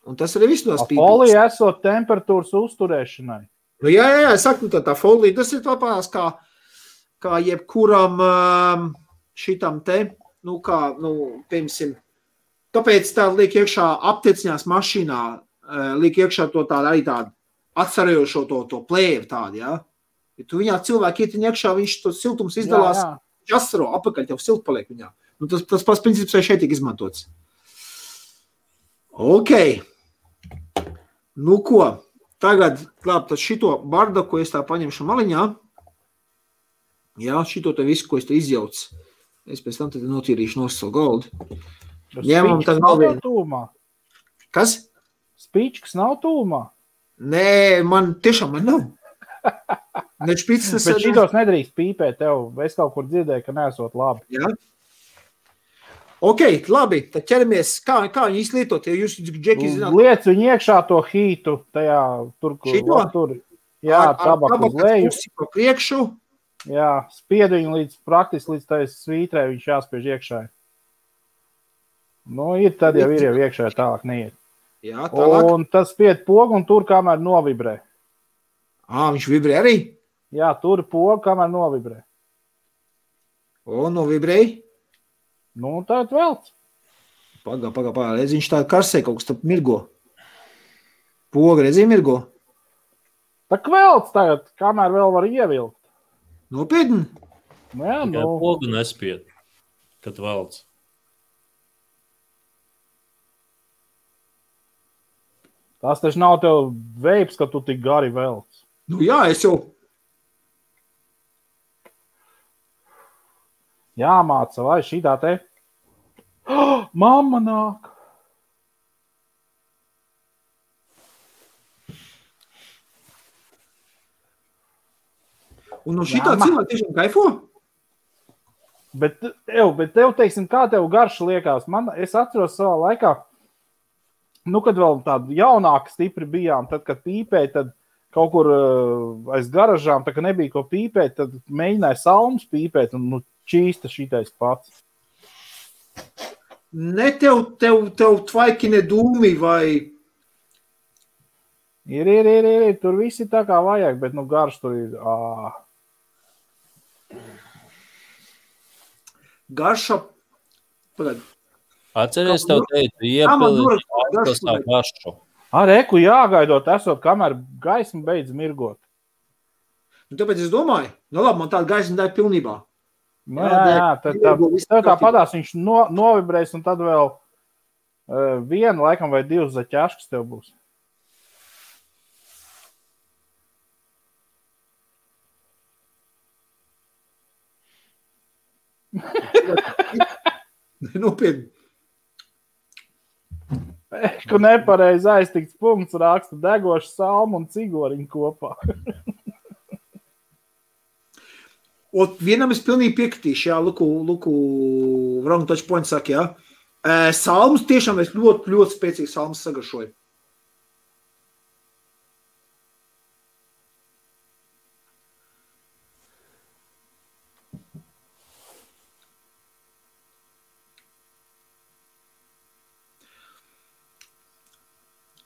Un tas arī viss no spīdīgas. Folija esot temperatūras uzturēšanai. Jā, es saku, tā folija, tas ir tāpēc kā jebkuram šitam te, piemēram, tāpēc tā liek iekšā aptieciņās mašīnā, liek iekšā to tādu arī tādu atsarojošo to plēvu tādu, jā. Ja tu viņā cilvēki ietiņ iekšā, viņš to siltums izdalās, viņš asaro, apakaļ tev silt paliek viņā. Tas pats princips šeit tiek izmantots. Ok. Ko? Tagad, tad šito bardaku es tā paņemšu maliņā. Jā, šito te visu, ko es te izjaucu. Es pēc tam tad notīrīšu nosau goldu. Ņemam tad nav tūmā. Kas? Spīčkas nav tūmā. Nē, man nav. Ne špicas. Bet šitos nedrīkst pīpēt tev. Es kaut kur dzirdēju, ka neesot labi. Jā. Ok, labi, tad ķeramies. Kā viņi izlietot? Ja jūs, Džeki, zināt? Liec viņu iekšā to hītu tajā, tur, tur. Jā, tabaku uz leju. Pa priekšu. Jā, spied viņu praktiski līdz tai svītrē, viņš jāspiež iekšā. Ir tad jau ir iekšā, tālāk neiet. Jā, tālāk. Un tas spied pogu un tur, kamēr novibrē. Viņš vibrē arī? Jā, tur pogu, kamēr novibrē. Novibrēja? Tād velc. Pagā, redz, viņš tā karsē kaut kas tā mirgo. Poga, redzi, mirgo? Tā velc tagad, kamēr vēl var ievilkt. Nopietni? Jā, pogu nespied, kad velc. Tas taču nav tev veips, ka tu tik gari velc. Jā, es jau. Jāmāca, vai šitā te. Mamma nāk. Un no šitā cilvēka tiešām kaifo? Bet tev, teiksim, kā tev garša liekas? Es atceros savā laikā, kad vēl tādu jaunāku stipri bijām, tad, kad pīpēja, tad kaut kur aiz garažām, tā kā nebija ko pīpēt, tad mēģināja salmus pīpēt un čīsta šitais pats. Ne tev tvaiki ne dūmi vai... Ir, tur visi tā kā vajag, bet garš tur ir... Garša... Pagad. Atceries tev teicu, iepilīt tā garšu. Reku jāgaidot esot, kamēr gaisma beidz mirgot. Un tāpēc es domāju, labi, man tāda gaisma dēļ pilnībā. Nu, jā, tev tā padās, viņš novibrēs, un tad vēl vienu, laikam, vai 2 zaķāškas tev būs. Nopietni. Ka nepareizi aiztikts punkts raksta degošu salmu un cigoriņu kopā. Un vienam es pilnīgi piekritīšu, jā, Luku wrong touch point saka, jā. Salmus tiešām es ļoti, ļoti spēcīgi salmus sagaršoju.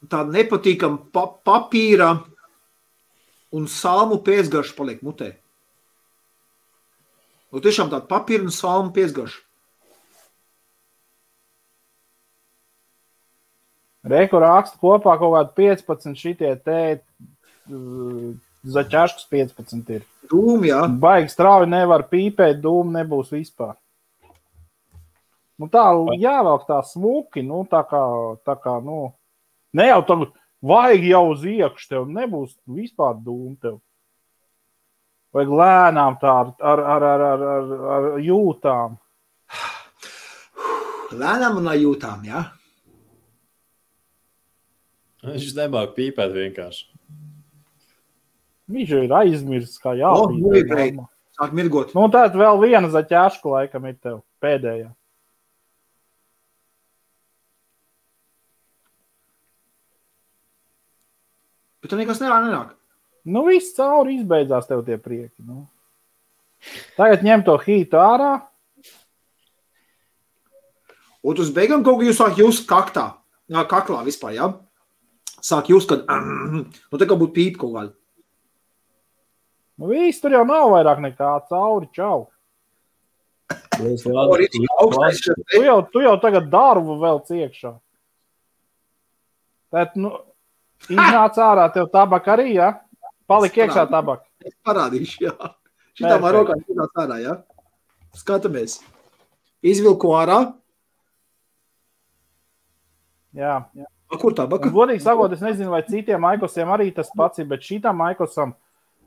Tāda nepatīkama papīra un salmu pēcgarša paliek mutē. Nu, tiešām tāda papīra un salmu pēcgarša. Reku raksta kopā kaut kādu 15 šitie te zaķaškas 15 ir. Dūmi, jā. Baigi strauji nevar pīpēt, dūmi nebūs vispār. Nu tā jāvelk tā smuki, nu tā kā, nu, ne jau tagad vajag jau uz iekšu tev, nebūs vispār dūmi tev. Vajag lēnām tā ar jūtām. Lēnām un ar jūtām, jā. Viņš nemāk pīpēt vienkārši. Viņš ir aizmirsts, kā jāpīpēt. Sāk mirgot. Nu tātad vēl viena zaķāška laikam ir tev, pēdējā. Bet tu nekas nenāk. Nu, viss cauri izbeidzās tev tie prieki. Nu. Tagad ņem to hītu ārā. Un uz beigām kaut kā jūs sāk just kaklā vispār, jā? Sāk just, kad, nu te kā būtu pīpa kaut kāda. Nu, viss tur jau nav vairāk nekā cauri, čau. Tu jau tagad darbu vēl ciekšā. Tēt, nu, iznāc ārā tev tabak arī, jā? Palik iekšā tabak. Es parādīšu, jā. Šitā man rokā iznāc ārā, jā. Skatamies. Izvilku ārā. Jā. Kur tabaka? Godīgi sakot, es nezinu, vai citiem Maikosiem arī tas pats ir, bet šitam Maikosam,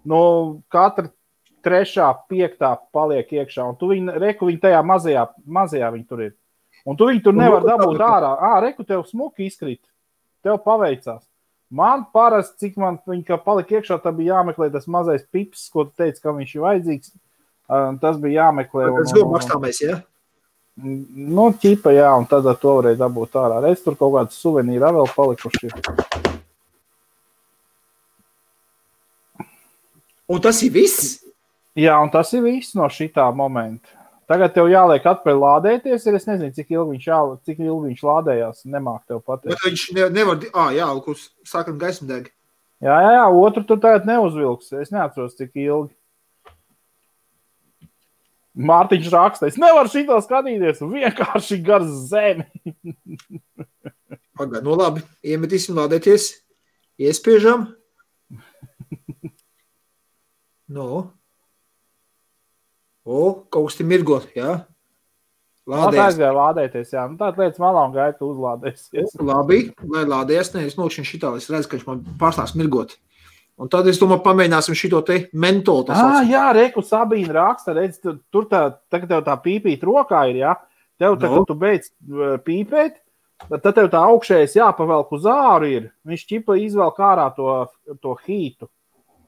nu, katra 3., 5. paliek iekšā. Un tu reku viņi tajā mazajā viņi tur ir. Un tu viņi tur nevar dabūt ārā. Reku tev smuki izkrīt. Tev paveicās. Man parasti, cik man viņa palika iekšā, tad bija jāmeklē tas mazais pips, ko tu teici, ka viņš ir vajadzīgs. Tas bija jāmeklē. Tas bija makstāmais, jā? Nu, ķipa, jā, un tad to varēja dabūt ārā. Reiz tur kaut kāds suvenīri vēl palikuši. Un tas ir viss? Jā, un tas ir viss no šitā momenta. Tagad tev jāliek atpēc lādēties, es nezinu, cik ilgi viņš lādējās, nemāk tev pateikt. Bet viņš nevar, jā, kurš sākam gaismu deg. Jā, otru tu tagad neuzvilks, es neatceros, cik ilgi. Mārtiņš raksta, es nevaru šito skatīties, vienkārši gar zemi. Pagad, nu labi, iemetīsim lādēties, iespiežam. Nu. Kaut kas te mirgot, jā? Lādējas. Tā lādēties, jā. Nu, tāda lietas malā un gaita uzlādēsies. Labi, lai lādējas, es nokšanu šitā, es redzu, ka viņš man pārstāks mirgot. Un tad es domāju, pamēģināsim šito te mentolu. Jā, reku Sabīna raksta, redz, tur tagad tev tā pīpīt rokā ir, jā? Tev tagad tu beidz pīpēt, tad tev tā augšējais jāpavelk uz āru ir. Viņš ķipa izvelk ārā to hītu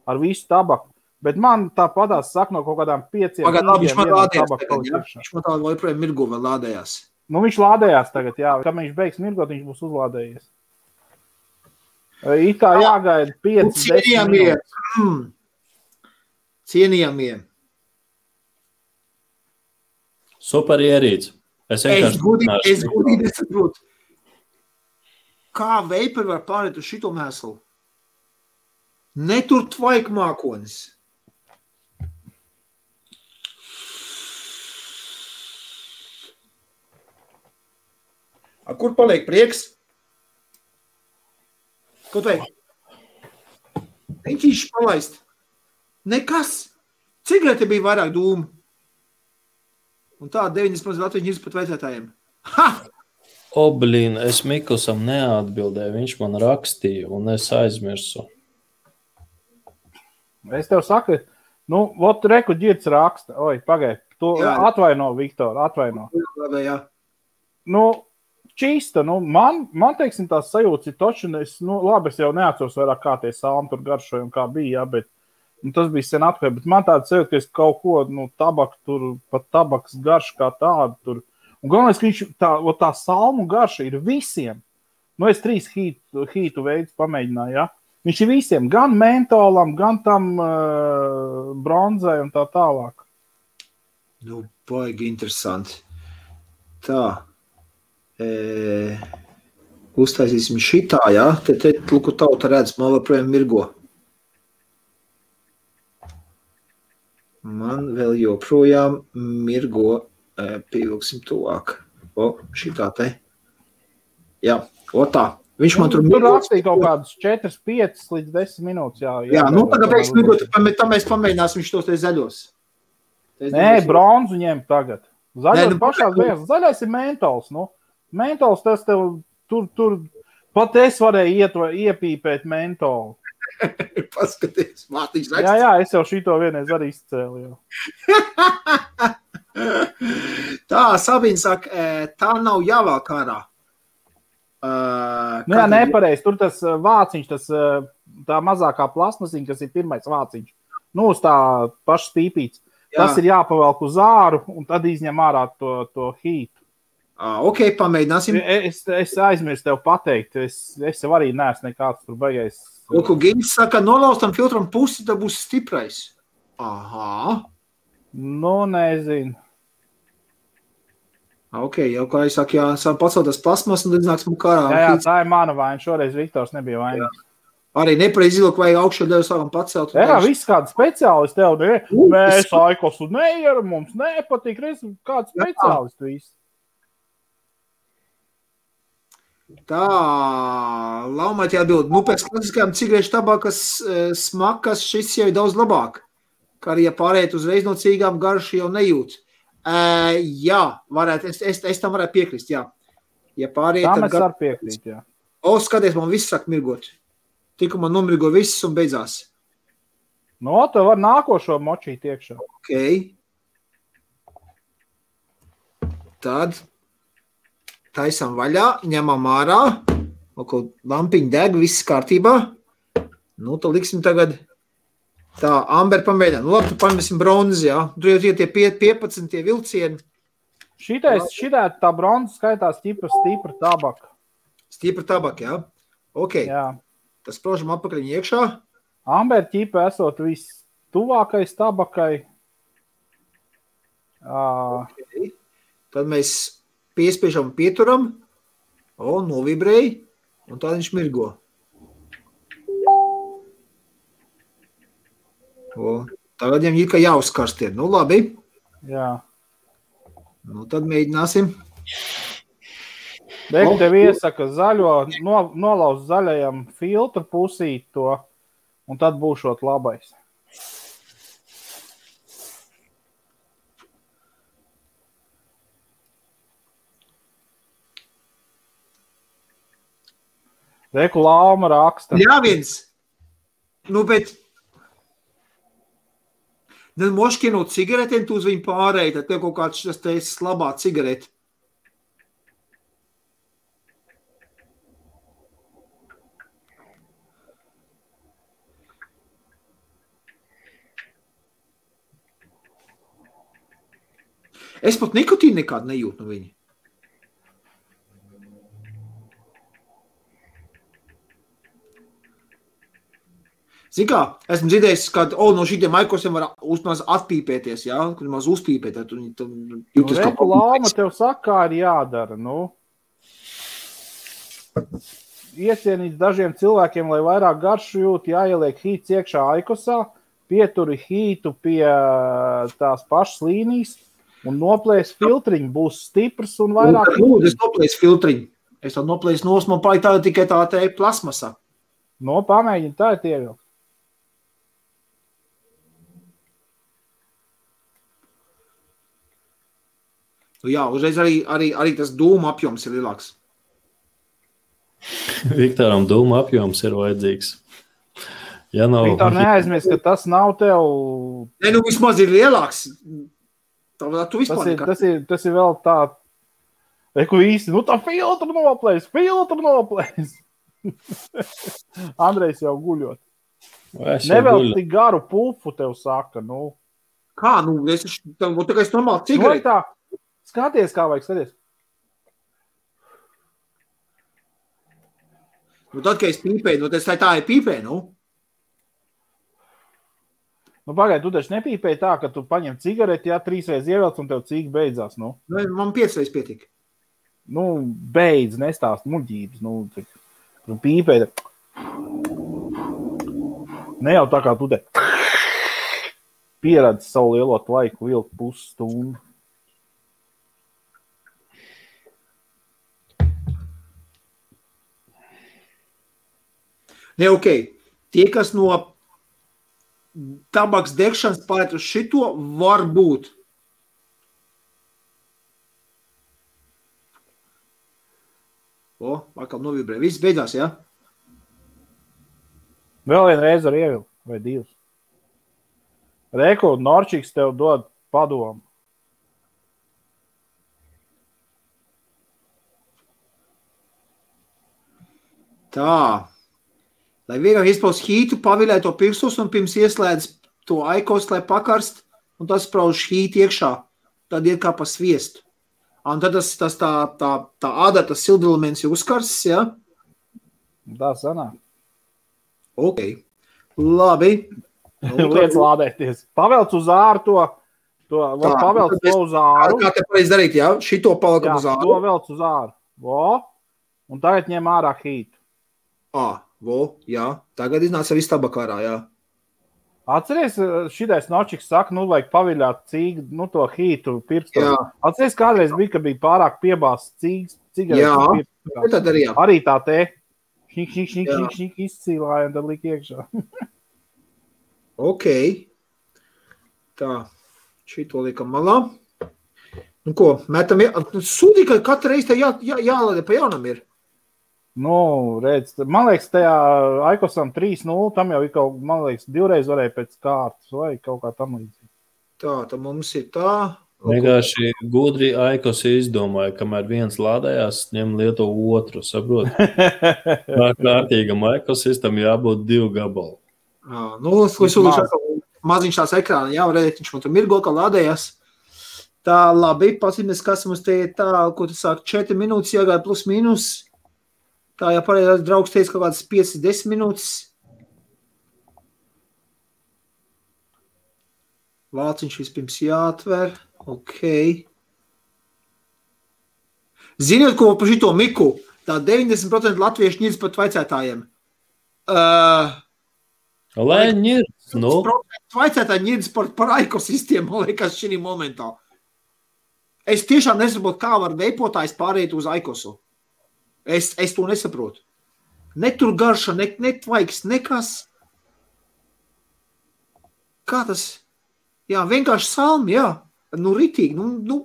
ar visu tabaku. Bet man tā padās saka no kaut kādām 5. Viņš man lādējās tagad, jā? Viņš man tā joprojām mirgo vēl lādējās. Nu, viņš lādējās tagad, jā. Kad viņš beigs mirgot, viņš būs uzlādējies. It kā jāgaida 5-10 minūtes. Cienījamie. Super ierīts. Es godīgi nesaprotu. Kā veiperi var pārēt uz šito mēslu? Netur tvaik mākonis. Kur paliek prieks? Ko teik? Viņš palaist. Nekas. Cigarete bija vairāk dūmu. Un tā 90% Latvijas pat vecētājiem. Ha! Blīn, es Mikusam neatbildēju, viņš man rakstīja, un es aizmirsu. Es tev saku, vot reku ģirds raksta. Oi, pagaid, tu atvaino, Viktor, atvaino. Jā. Čista, man teiksim, tās sajūtas ir toči, labi, es jau neatceros vairāk kā tie salmi tur garšoja un kā bija, bet tas bija sen atpakaļ, bet man tāda sajūta, ka es kaut ko, tabaku tur, pat tabaks garš kā tādu tur. Un galvenais, ka viņš tā salmu garša ir visiem. Es 3 hītu veidus pamēģināju, ja? Viņš ir visiem, gan mentolam, gan tam bronzai un tā tālāk. Baigi interesanti. Tā. Uztaisīsim šitā, ja? Te luku tauta redz, man vēl mirgo. Man vēl joprojām mirgo, pievilksim tuvāk. Šitā te. Jā, tā. Viņš man tur rakstīja kaut kādus 4, 5 līdz 10 minūtes. Jā, tagad pēc mirgot, tā mēs pamēģināsim viņš tos te zaļos. Nē, bronzu ņem tagad. Zaļos pašās beigās. Zaļais ir mentols, Mentols tas tev tur pat es varēju iepīpēt mentolu. Paskaties, Mārtiņš raksta. Jā, es jau šito vienreiz arī izcēlu. Tā, Sabīna saka, tā nav jāvāk ārā. Jā, nepareiz. Tur tas vāciņš, tā mazākā plasmasiņa, kas ir pirmais vāciņš. Uz tā paša stīpīts. Tas ir jāpavelk uz āru un tad izņem ārā to hītu. Ok, pamēģināsim. Es aizmirstu tev pateikt. Es jau arī neesmu nekāds tur baigais. Lūku, Giņš saka, nolaustam filtram pusi, tad būs stiprais. Aha. Nezinu. Ok, jau kā es saku, sāk paceltas plasmas un tad nāks mums kārā. Jā, tā ir mana vaina. Šoreiz Viktors nebija vainīgs. Arī nepareizi izlūk, vai augšā ļauj sākam pacelt. Jā, viss kāds speciālists tev, mēs Aikosu neieram, mums nepatīk, kāds speciālists viss. Tā, Laumēt jāatbild. Pēc klasiskajām cigarešu tabakas smakas šis jau ir daudz labāk. Kā arī, ja pārēt uzreiz no cīgām garšu jau nejūt. Jā, varētu, es tam varētu piekrist, jā. Ja pārēt, tam es varu piekrist, jā. Skaties, man viss sāk mirgot. Tikko man nomirgo viss un beidzās. Tev var nākošo močīt iekšā. Ok. Tad taisam vaļā, ņemam ārā, lampiņa deg, viss kārtībā. Tad liksim tagad tā, Amber pamēģināt. Labi, tu pamēsim bronzi, jā. Tur jau tie 15 tie vilcieni. Šitā tā bronza skaitās stipra tabaka. Stipra tabaka, jā. Ok. Jā. Tas prožam apakaļ iekšā. Amber ķipa esot viss tuvākais tabakai. Okay. Tad mēs piespiežam pieturam, novibrēja, un tā viņš mirgo. Tagad viņam ir, ka jāuzkarst ir. Labi. Jā. Tad mēģināsim. Dēļ tev iesaka zaļo, nolauz zaļajam filtru pusīt to, un tad būšot labais. Reku Lauma raksta. Jā, viens. Bet moškienot cigaretēm, tu uz viņu pārēji, tad tev kaut kāds šis te slabā cigareti. Es pat nikotīnu nekādu nejūtu no viņa. Zini kā, esmu dzirdējis, ka no šitiem Aikosiem var uzmaz atpīpēties, jā? Kad maz uzpīpēt, tad jūtas kā... Reku Lauma tev saka, kā ir jādara, Iecienīts dažiem cilvēkiem, lai vairāk garšu jūt, jāieliek hīts iekšā Aikosā, pieturi hītu pie tās pašas līnijas un noplēs filtriņu, būs stiprs un vairāk... Es noplēs filtriņu. Es tad noplēs nos, man palika tāda tikai tā te plasmasa. Pamēģini, tā ir ievilkt. Jā, uzreiz arī tas dūma apjoms ir lielāks. Viktoram dūma apjoms ir vajadzīgs. Ja nav... Viktor, neaizmirst, ka tas nav tev... Ne, nu vismaz ir lielāks. Tu vispār tas ir vēl tā... Reku īsti, nu tā filtru noplēs. Andrejs jau guļot. Nevēl tik garu pulfu tev saka, nu. Kā, nu, es tā normāli cigareti. Tā, skaties, kā vajag, skaties. Nu, tad, kad es pīpēju, nu, tas tā ir pīpē, nu. Nu, pagaid, tu taču nepīpēji tā, ka tu paņem cigareti, 3 reizes ievelc un tev cīgi beidzās, nu. Man 5 reizes pietika. Nu, beidz, nestāst muļķības, nu, tu pīpēji. Ne jau tā kā tu te pieredzi savu lielo laiku vilkt pusstundu. Ne, ok. Tie, kas no tabaks degšanas pārēt uz šito, var būt. Atkal novibrē. Viss beidzās, jā? Vēl vienu reizi var ievilkt, vai 2. Reku, Norčiks tev dod padomu. Tā. Lai vienam izpaus hītu, pavilē to pirkstus un pirms ieslēdz to aikos, lai pakarst, un tas sprauž hīti iekšā. Tad iet kā pa sviestu. Un tad tā āda, tas sildelements ir uzkarsts, jā? Tā sanāk. Ok. Labi. Liec lādēties. Pavelc uz āru pavelc to uz āru. Kā te pareiz darīt, jā? Šito palikam uz āru. Jā, to velc uz āru. Un tagad ņem ārā hītu. Jā. Tagad iznāca viss tabakārā, jā. Atceries, šitais Nočiks saka, nu, vajag paviļāt cīgu, nu, to hītu pirkstu. Atceries, kādreiz bija, ka bija pārāk piebāsts cīgas, cigaretes pirkstā. Arī tā te šņik izcīlāja un tad lika iekšā. Ok. Tā, šito liekam malā. Nu ko, metam, sūdī, ka katru reizi te jālādē pa jaunam ir. Nu, redz, man liekas, tajā Aikosam 3-0, tam jau ir kaut, man liekas, 2 reizes varēja pēc kārtas vai kaut kā tam līdzīgi. Tā, tad mums ir tā. Vienkārši gudri Aikos izdomāja, kamēr viens lādējās, ņem lieto otru, saprot? Kārtīgam Aikosistam jābūt 2 gabalu. Nu, maziņš tās ekrāna, jā, redzēt, viņš man tur mirgo, ka lādējās. Tā, labi, pasīmies, kas mums te ir tā, ko tu sāk 4 minūtes jāgāja plus mīnus. Tā, ja pareizās draugs teica kaut kādas 5-10 minūtes. Vāciņš vispirms jāatver. Ok. Ziniet, ko par šito Miku? Tā 90% latviešu ņirds pat vaicētājiem. Lai ņirds, nu? Vaicētāji ņirds par ekosistēmu, man liekas, šī momentā. Es tiešām nesaprotu, kā var veipotājs pārēt uz Aikosu. Es to nesaprotu. Ne tur garša, ne tvaiks, nekas. Kā tas? Jā, vienkārši salmi, jā. Nu, ritīgi, nu.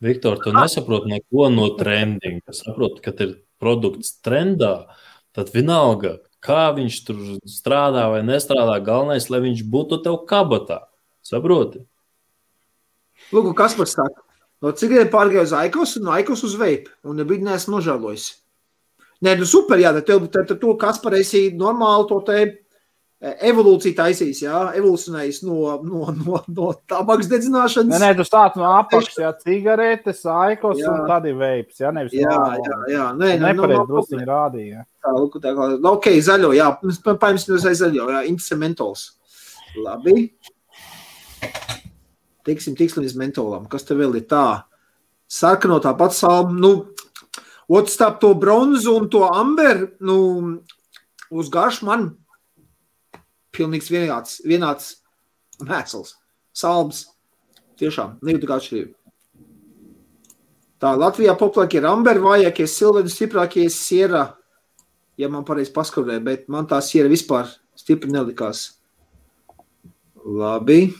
Viktor, tu nesaproti neko no trendinga. Saproti, kad ir produkts trendā, tad vienalga, kā viņš tur strādā vai nestrādā, galvenais, lai viņš būtu tev kabatā. Saproti? Lūk, kas man saka? No cigareti pārgāju uz Aikos un no Aikos uz veipu. Un nebija neesmu nožēlojis. Nē, nu super, jā, tad to Kaspar esi normāli to te evolūciju taisīs, jā, evolūcionējis no tabaks dedzināšanas. Nē, tu stāc no apakšas, jā, cigaretes, Aikos un tad ir veips, jā, nevis jā. Nepareiz drusciņi rādīja. Tā, ok, zaļo, jā, paņems zaļo, jā, Intese mentols. Labi. Tiksim līdz mentolam. Kas te vēl ir tā? Sarkano tāpat salmu. Nu, otrstap to bronzu un to amber, nu, uz garšu man pilnīgs vienāds mēsls. Salms. Tiešām, nejūtu kā atšķirību. Tā, Latvijā populākie ir amber, vājākie silveri, stiprākie siera, ja man pareizi paskurē, bet man tā siera vispār stipri nelikās. Labi.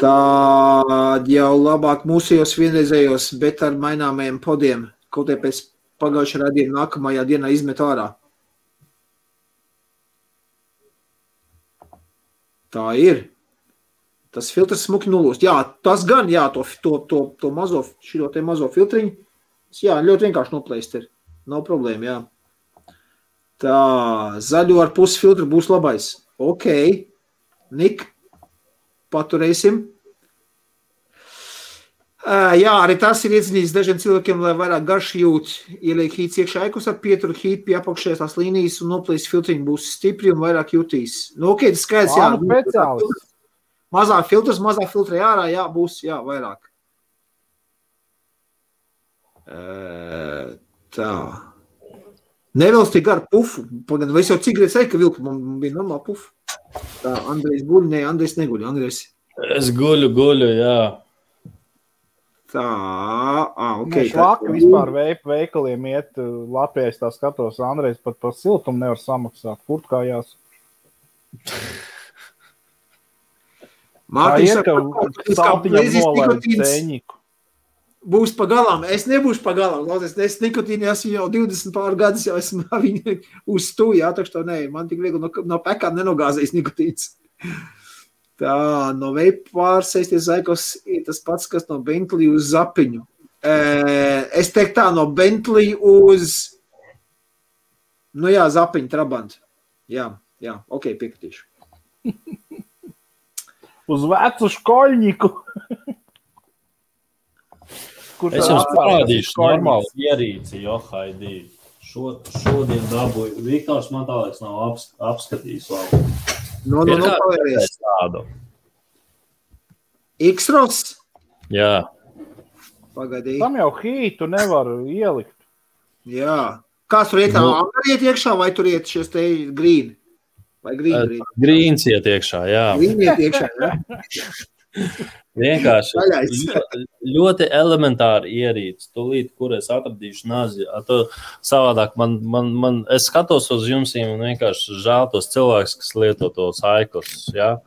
Tad jau labāk mūsējos vienreizējos, bet ar maināmajiem podiem, kaut tie pēc pagājušā radījuma nākamajā dienā izmet ārā. Tā ir. Tas filtrs smuki nulūst. Jā, tas gan, jā, to mazo, šito te mazo filtriņu. Jā, ļoti vienkārši noplēst ir. Nav problēma, jā. Tā, zaļo ar pusi filtru būs labais. Ok. Nik, paturēsim. Jā, arī tas ir iedzinījis dažiem cilvēkiem, lai vairāk garši jūt. Ieliek hīts iekšā ekus ar pieturu hīt pie apakšējās tās līnijas un noplēst filtriņu būs stipri un vairāk jutīs. Nu, ok, tas skaidrs, jā. Mazā filtra jārā, jā, būs, jā, vairāk. Tā. Nevelsti gar pufu. Pagaidām, vai es jau cik reiz ka vilku, man bija normāli pufu. Tā, Andrejs guļ, ne, Andrejs neguļ, Andrejs. Es guļu, jā. Tā, ok. Švaka vispār veikaliem iet Latvijā, tā skatos, Andrejs pat par siltumu nevar samaksāt. Kurtkājās. Mārtiņš saka, saltiņam nolaid ceņiku. Būs pagalām. Es nebūšu pagalām. Es nikotīni esmu jau 20 pār gadus, jau esmu viņu uz stūju, jā, tak što ne. Man tik viegli no pekām nenogāzējis nikotīns. Tā, no veipa pārsēsties zaikos ir tas pats, kas no Bentley uz zapiņu. Es teiktu tā, no Bentley uz, nu jā, zapiņu, Trabant. Jā, ok, piekritīšu. Uz vecu škoļņiku. Es jums parādīšu normālu ierīci, Haidī. Šodien dabūju. Viktors man tā liekas nav apskatījis labi. No, palēries. X-Ros? Jā. Pagadī. Tam jau hītu nevar ielikt. Jā. Kāds tur iet? Angari iet iekšā vai tur iet šies te grīni? Vai grīni? Grīns iet iekšā, jā. Grīni iet iekšā, jā. Vienkārši ļoti elementāri ierīci. Tūlīt, kur es atradīšu nazi. Savādāk es skatos uz jums un vienkārši žēl tos cilvēkus, kas lieto tos aiklus. Ja?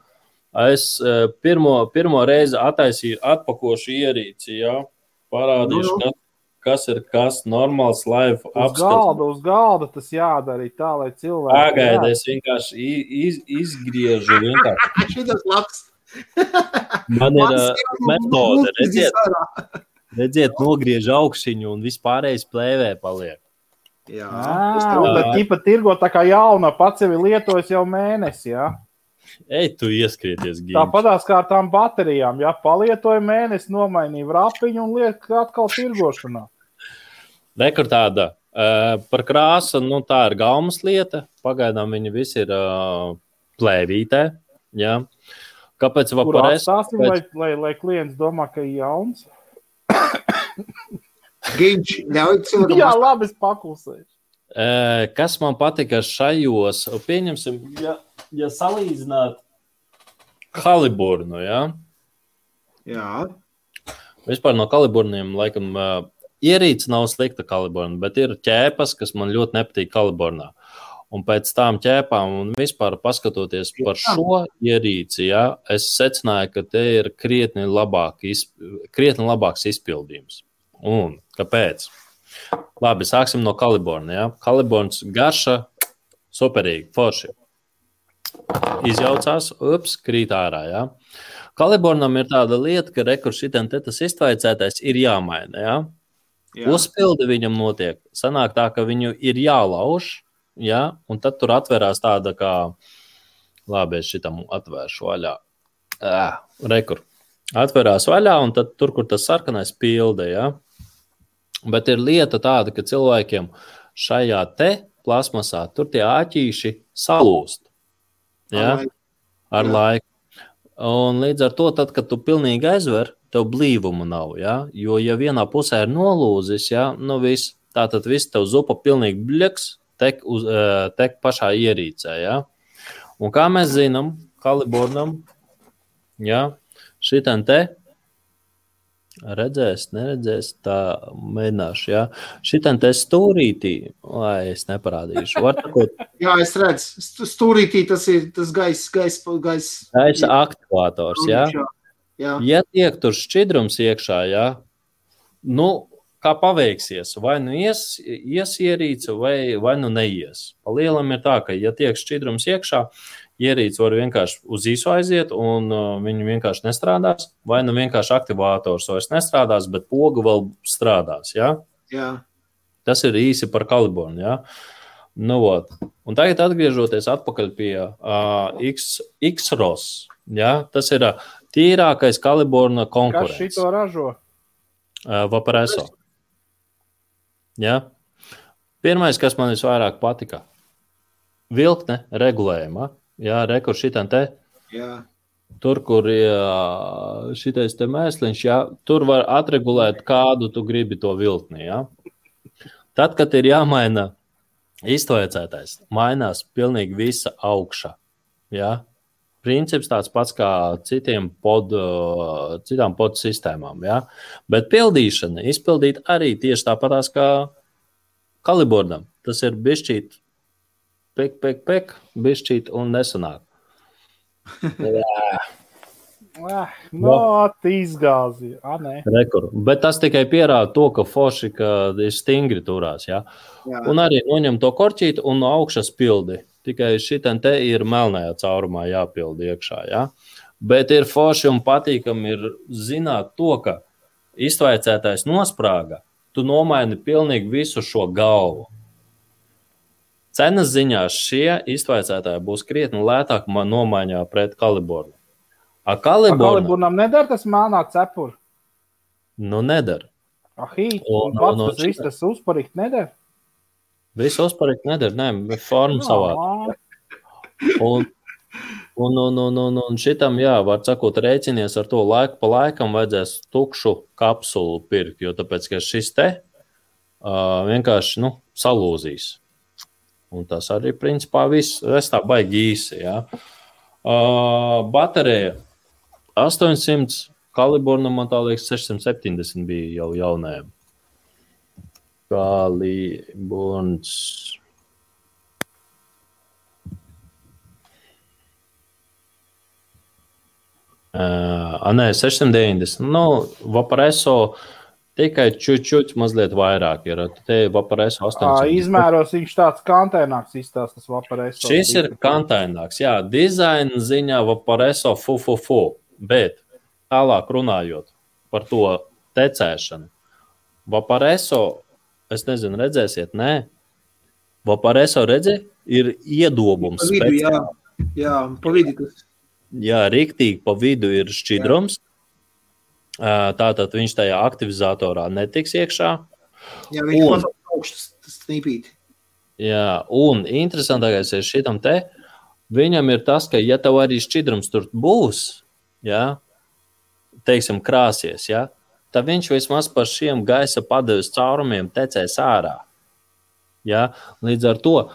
Es pirmo reizi attaisīju atpakošu ierīci, ja? Parādīšu, kas ir kas normāls live apskats. Uz galda tas jādara tā, lai cilvēki... Pagaidi, es vienkārši izgriežu vienkārši. Šitas labs. Man ir metode, redziet, nogriež augšiņu un vispārējais plēvē paliek. Jā. Bet tīpa tirgo tā kā jauna, pats sevi lietojas jau mēnesi, jā? Ej, tu ieskrieties, Gīms. Tāpatās kā ar tām baterijām, jā, palietoja mēnesi, nomainīja vrapiņu un liek atkal tirgošanā. Rekur tāda, par krāsu, tā ir gaumas lieta, pagaidām viņi visi ir plēvītē, jā. Kāpēc Kur atstāsim, lai klients domā, ka ir jauns? Gīņš, ļauj cilvēkam. Jā, labi, es paklusēšu. Kas man patika šajos, pieņemsim, ja salīdzināt Haliburnu, jā? Jā. Vispār no Kaliburniem, laikam, ierīce nav slikta Kaliburna, bet ir ķēpas, kas man ļoti nepatīk Kaliburnā. Un pēc tām ķēpām un vispār paskatoties par šo ierīci, ja, es secināju, ka te ir krietni labāks izpildījums. Un kāpēc? Labi, sāksim no Kaliburna. Ja. Kaliburns garša, superīgi, forši. Izjaucās, krīt ārā. Ja. Kaliburnam ir tāda lieta, ka šitien te tas iztvaicētais ir jāmaina. Ja. Uzpildi viņam notiek. Sanāk tā, ka viņu ir jālauž. Ja, un tad tur atverās tāda kā, labi, es šitam atvēršu vaļā. Rekur. Atverās vaļā, un tad tur, kur tas sarkanais pilde, ja. Bet ir lieta tāda, ka cilvēkiem šajā te plasmasā tur tie āķīši salūst. Ja, ar laiku. Un līdz ar to, tad, kad tu pilnīgi aizver, tev blīvuma nav, ja. Jo, ja vienā pusē ir nolūzis, ja, viss, tātad viss tev zupa pilnīgi bļaks, tek pašā ierīcē, ja? Un kā mēs zinām, Kaliburnam, ja, šitien te, neredzēs, tā mēģināšu, ja, šitien te stūrītī, lai es neparādīšu, var takot? Jā, es redzu, stūrītī tas ir tas gaisa aktivātors, ja? Jā. Ja tiek tur šķidrums iekšā, jā, nu, kā paveiksies, vai nu ies ierīce, vai nu neies. Pa lielam ir tā, ka, ja tiek šķidrums iekšā, ierīce var vienkārši uz īsu aiziet, un viņi vienkārši nestrādās, vai nu vienkārši aktivātors vairs nestrādās, bet poga vēl strādās, jā? Jā. Tas ir īsi par kalibornu, jā? Nu, ot. Un tagad atgriežoties atpakaļ pie X-ROS, jā? Tas ir tīrākais kaliborna konkurents. Kas šito ražo? Vaporeso. Jā? Pirmais, kas man visvairāk patika, vilkne regulējuma. Jā, rekur šitam te. Jā. Tur, kur šitais te mēsliņš, jā, tur var atregulēt, kādu tu gribi to vilkni, jā. Tad, kad ir jāmaina iztvērcētais, mainās pilnīgi visa augša, jā. Princips tāds pats kā citām pod sistēmām, jā. Bet pildīšana, izpildīt arī tieši tāpatās kā kalibornam. Tas ir bišķīt pek, bišķīt un nesanāk. Izgāzi. Rekur. Bet tas tikai pierāda to, ka forši, ka ir stingri turās, jā. Un arī noņem to korķīti un no augšas pildi. Tikai šitam te ir melnajā caurumā jāpildi iekšā, jā. Bet ir forši un patīkami ir zināt to, ka iztvaicētais nosprāga, tu nomaini pilnīgi visu šo galvu. Cenas ziņā šie iztvaicētāji būs krietni lētāk nomaiņā pret kalibornu. Kalibornam nedara tas melnā cepur? Nu, nedara. Un pats tas viss tas uzparikt nedara? Viss uzparikt nedara, nē, forma savādi. Un šitam, jā, var sakot, rēķinies ar to laiku pa laikam vajadzēs tukšu kapsulu pirkt, jo tāpēc, ka šis te vienkārši, salūzīs. Un tas arī, principā, viss, es tā baigi īsi, jā. Baterija 800, kaliborna, man tā liekas, 670 bija jau jaunajam. Kaliborns. Nē, 690. Vaporeso tikai čučuķi mazliet vairāk ir. Te Vaporeso 800. Izmēros viņš tāds kantaināks izstāst, tas Vaporeso. Šis ir kantaināks, jā. Dizaina ziņā Vaporeso fu. Bet tālāk runājot par to tecēšanu. Vaporeso, es nezinu, redzēsiet, nē. Vaporeso redzi, ir iedobums. Pa vidu, jā, pa vidu tas. Jā, riktīgi pa vidu ir šķidrums. Tātad viņš tajā aktivizatorā netiks iekšā. Jā, viņš mazāk augšas snīpīt. Jā, un interesantākais ir šitam te, viņam ir tas, ka ja tev arī šķidrums tur būs, jā, teiksim, krāsies, jā, tad viņš vismaz par šiem gaisa padeves caurumiem tecēs ārā. Jā, līdz ar to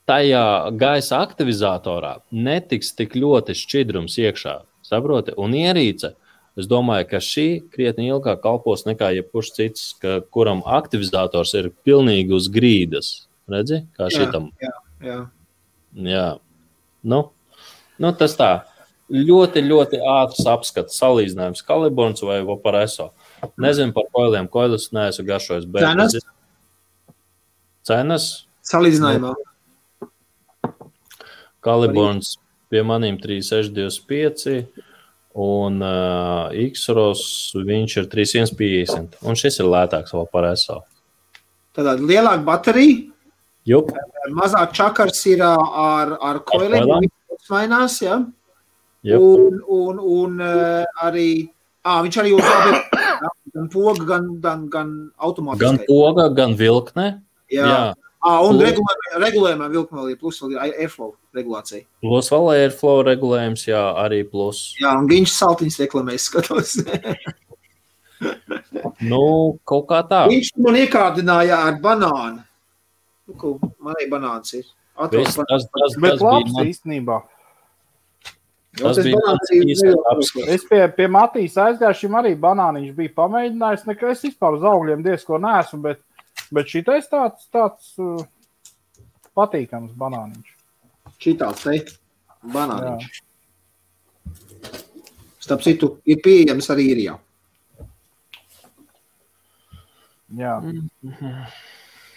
tajā gaisa aktivizatorā netiks tik ļoti šķidrums iekšā, saproti? Un ierīce, es domāju, ka šī krietni ilgāk kalpos nekā jebkurš cits, kuram aktivizators ir pilnīgi uz grīdas. Redzi, kā šitam? Jā. Nu, tas tā. Ļoti, ļoti ātrs apskats, salīdzinājums Kaliborns vai Vaporeso. Nezinu par koiliem, koilus neesmu garšojis. Cenas? Salīdzinājumā. Kaliborns pie manīm 3625 un X-ROS viņš ir 3150. Un šis ir lētāks Vaporeso. Tātad lielāka baterija, Jup. Mazāk čakars ir ar koiliem, viņš mainās, jā? Un arī, viņš arī gan poga, gan automātiski. Gan poga, gan vilkne. Jā. Un regulējumā vilkme vēl ir plus, vēl ir airflow regulācija. Plus vēl airflow regulējums, jā, arī plus. Jā, un viņš saltiņas reklamēs skatos. Kaut kā tā. Viņš man iekārdināja ar banānu. Man arī banāns ir. Bet labs īstenībā. Tas bija mans īstais apskats. Es pie Matīs aizgāju, šim arī banāniņš bija pamēģinājis. Es vispār uz augļiem diezko neesmu, bet šitais tāds patīkams banāniņš. Šitāds te banāniņš. Starp citu, ir pieejams arī īrijā. Jā.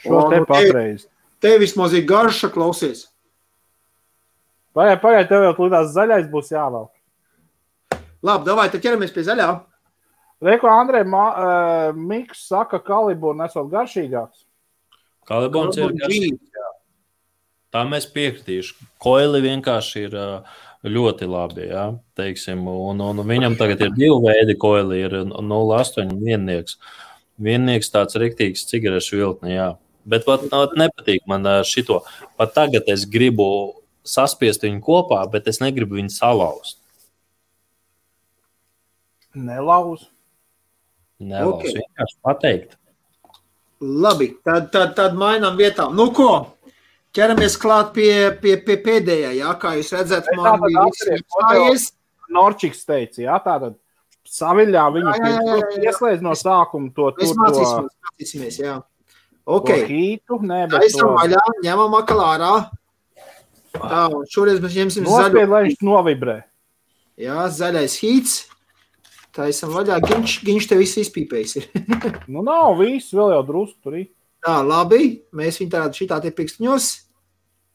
Šo te patreiz. Te vismaz ir garša, klausies. Pagaid, tev jau klīdās zaļais būs jāvēl. Labi, davai, tad ķeramies pie zaļā. Reiko, Andrej, Miks saka, Kalibūna esot garšīgāks. Kalibons ir garšīgs, jā. Tā mēs piekritīšu. Koili vienkārši ir ļoti labi, jā, teiksim. Un viņam tagad ir 2 veidi koili, ir 0,8 un viennieks. Viennieks tāds riktīgs cigarešu viltne, jā. Bet pat nepatīk man šito. Pat tagad es gribu saspiest viņu kopā, bet es negribu viņu salauzt. Nelauz. Okay. Vienkārši pateikt. Labi, tad mainām vietām. Nu ko, ķeramies klāt pie pēdējā, jā, kā jūs redzat, man bija viss. Norčiks teica, jā, tātad saviļā viņi ieslēdz no sākuma to. Mēs mācīsimies, jā. Ok. Hītu, Taisam vaļā, ņemam akal ārā. Tā, šoreiz mēs ņemsim zaļu. Nospied, lai viņš novibrē. Jā, zaļais hīts. Taisam vaļā, Giņš te viss izpīpējis ir. Nu nav, viss vēl jau drusku tur ir. Tā, labi, mēs viņu tādu šitā te pikstiņos.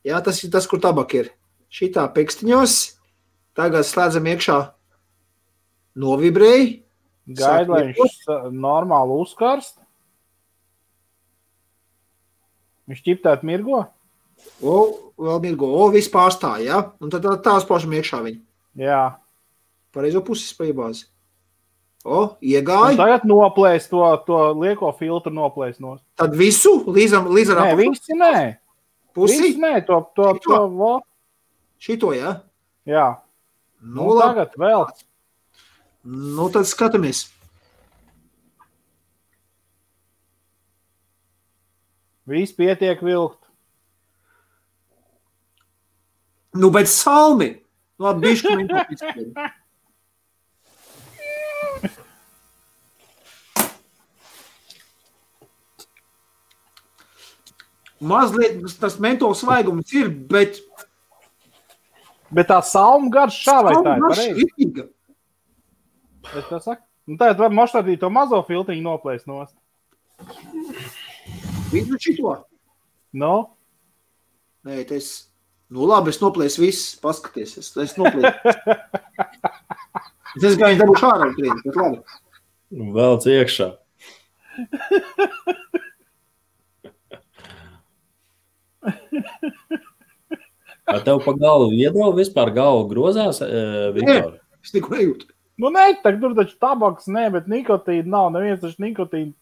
Jā, tas ir tas, kur tabak ir. Šitā pikstiņos. Tagad slēdzam iekšā novibrēji. Gaid, lai viņš normāli uzkarst. Viņš ķiptēt mirgo? Vēl mirgo. Viss pārstāja, jā? Un tad tās pašam iekšā viņu. Jā. Pareizo puses paiebāzi. Iegāja. Un tagad noplēs to lieko filtru noplēs no. Tad visu? Līdz ar nē, visi nē. Pusi? Visi nē, to. Šito, jā? Jā. Nu tagad vēl. Nu, tad skatamies. Viss pietiek vilkt. Nu, bet salmi. Nu, bišķi viņi to izpēd. Mazliet tas mentols svaigums ir, bet... Bet tā salmu garš šā vai tā ir pareizi? Salmu garš tā saka? Nu, tā var moštādīt to mazo filtriņu noplēst nost. Vidu šito? No? Nē, tas... Nu, labi, es noplēsu viss, paskaties. Es noplēsu. Es gāju dabūšu ārā trīni, bet labi. Velc iekšā. Vai tev pa galvu iedrau vispār galvu grozās, Viktor? Es neko nejūtu. Nu, nē, tur taču tabaks, nē, bet nikotīna nav. Neviens taču nikotīnu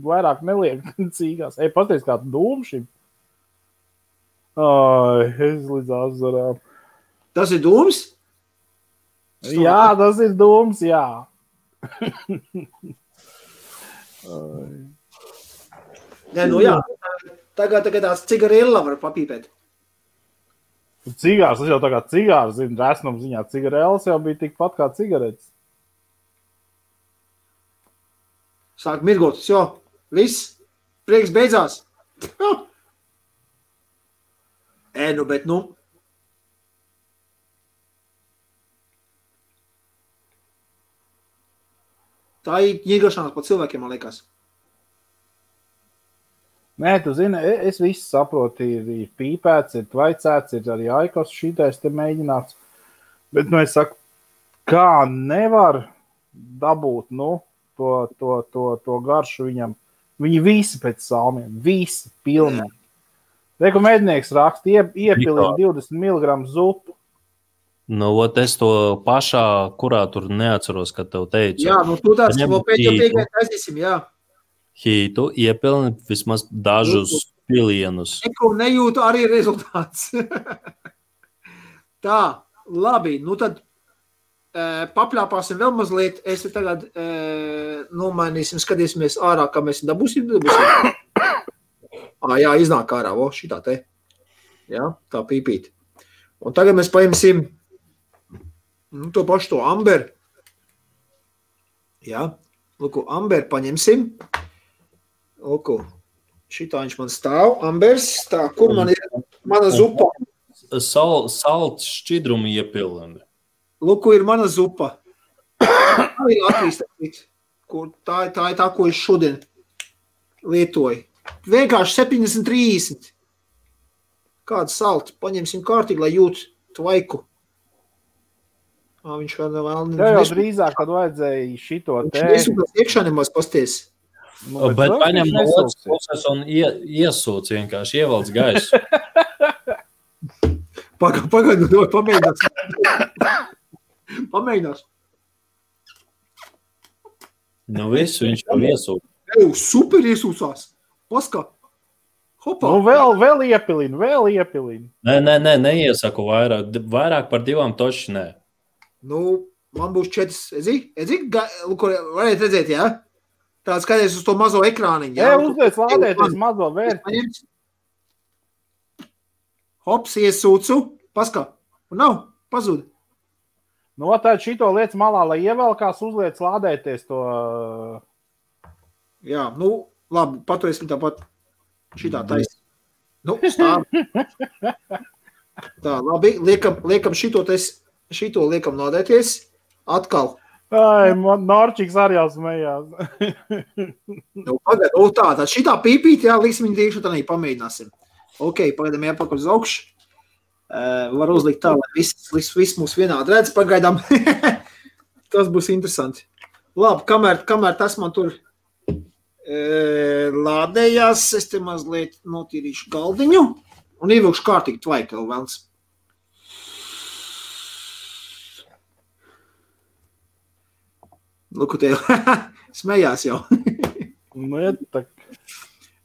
vairāk neliek cīgās. Pasties kā dūmu šim. Ai, es līdz azarām. Tas ir dūms? Jā, tas ir dūms, jā. Nē, nu jā. Tagad tās cigarilla var papīpēt. Cigārs, tas jau tā kā cigārs, zinu, resnums ziņā. Cigarēlis jau bija tikpat kā cigaretes. Sāk mirgot, jo, viss, prieks beidzās. Nu, bet nu. Tā ir ņirgašanās pa cilvēkiem, man liekas. Nē, tu zini, es visu saprotu, ir pīpēts, ir tvaicēts, ir arī aikos šitais te mēģināts. Bet, nu, es saku, kā nevar dabūt, nu, to garšu viņam. Viņi visi pēc salmiem, visi pilnīgi. Reku mednieks raksta, iepilīja 20 mg zupu. Nu, es to pašā, kurā tur neatceros, kad tev teicu. Jā, nu, tu tāds, ko pēdējā taisīsim, jā. Hītu iepilni vismaz dažus pilienus. Neko nejūtu arī rezultāts. Tā, labi, nu tad papļāpāsim vēl mazliet. Es tagad nomainīsim, skatīsimies ārā, kā mēs dabūsim. Jā, iznāk ārā, šitā te. Jā, tā pīpīt. Un tagad mēs paimsim to pašu to amber. Jā, lūku, amber paņemsim. Lūku, šitā viņš man stāv, ambers, tā, kur man ir mana zupa? Salts šķidrumu iepilni. Lūku, ir mana zupa. Tā ir Latvijas, kur tā ir tā, ko es šodien lietoju. Vienkārši 70-30. Kādu saltu paņemsim kārtīgi, lai jūt tvaiku. Viņš vēl Tev jau drīzāk, kad vajadzēja šito te. Viņš nesūkās iekšā nemaz pasties. Bet paņem no otras puses un iesūc vienkārši, ievelc gaisu. Pagaidu, pamēģinās. Pamēģinās. Nu visu viņš jau iesūc. Super iesūcās. Paskā. Hopā. Nu vēl iepilinu. Nē, neiesaku vairāk. Vairāk par 2 toši nē. Nu, man būs 4. Varētu redzēt, jā? Tāds skaties uz to mazo ekrāniņu. Jā, uzliec lādēties mazo vērti. Hops, iesūcu. Paskā. Un nav. Pazūd. Nu, tad šito liec malā, lai ievelkās, uzliec lādēties to. Jā, nu, labi, paturēsim tāpat šitā taisa. Nu, stāv. Tā, labi, liekam šito liekam lādēties. Atkal. Ai, Norčiks arī jau smējās. Nu, pagaid, tā, šitā pīpīt, jā, liksim viņu tīkšu, tā pamēģināsim. Ok, pagaidām jāpakaļ uz augšu. Var uzlikt tā, lai viss mūs vienādi redz, pagaidām. Tas būs interesanti. Labi, kamēr tas man tur lādējās, es te mazliet notīrīšu galdiņu un ievilkšu kārtīgi tvaiku vēl vēlns. Luku tev, smējās jau.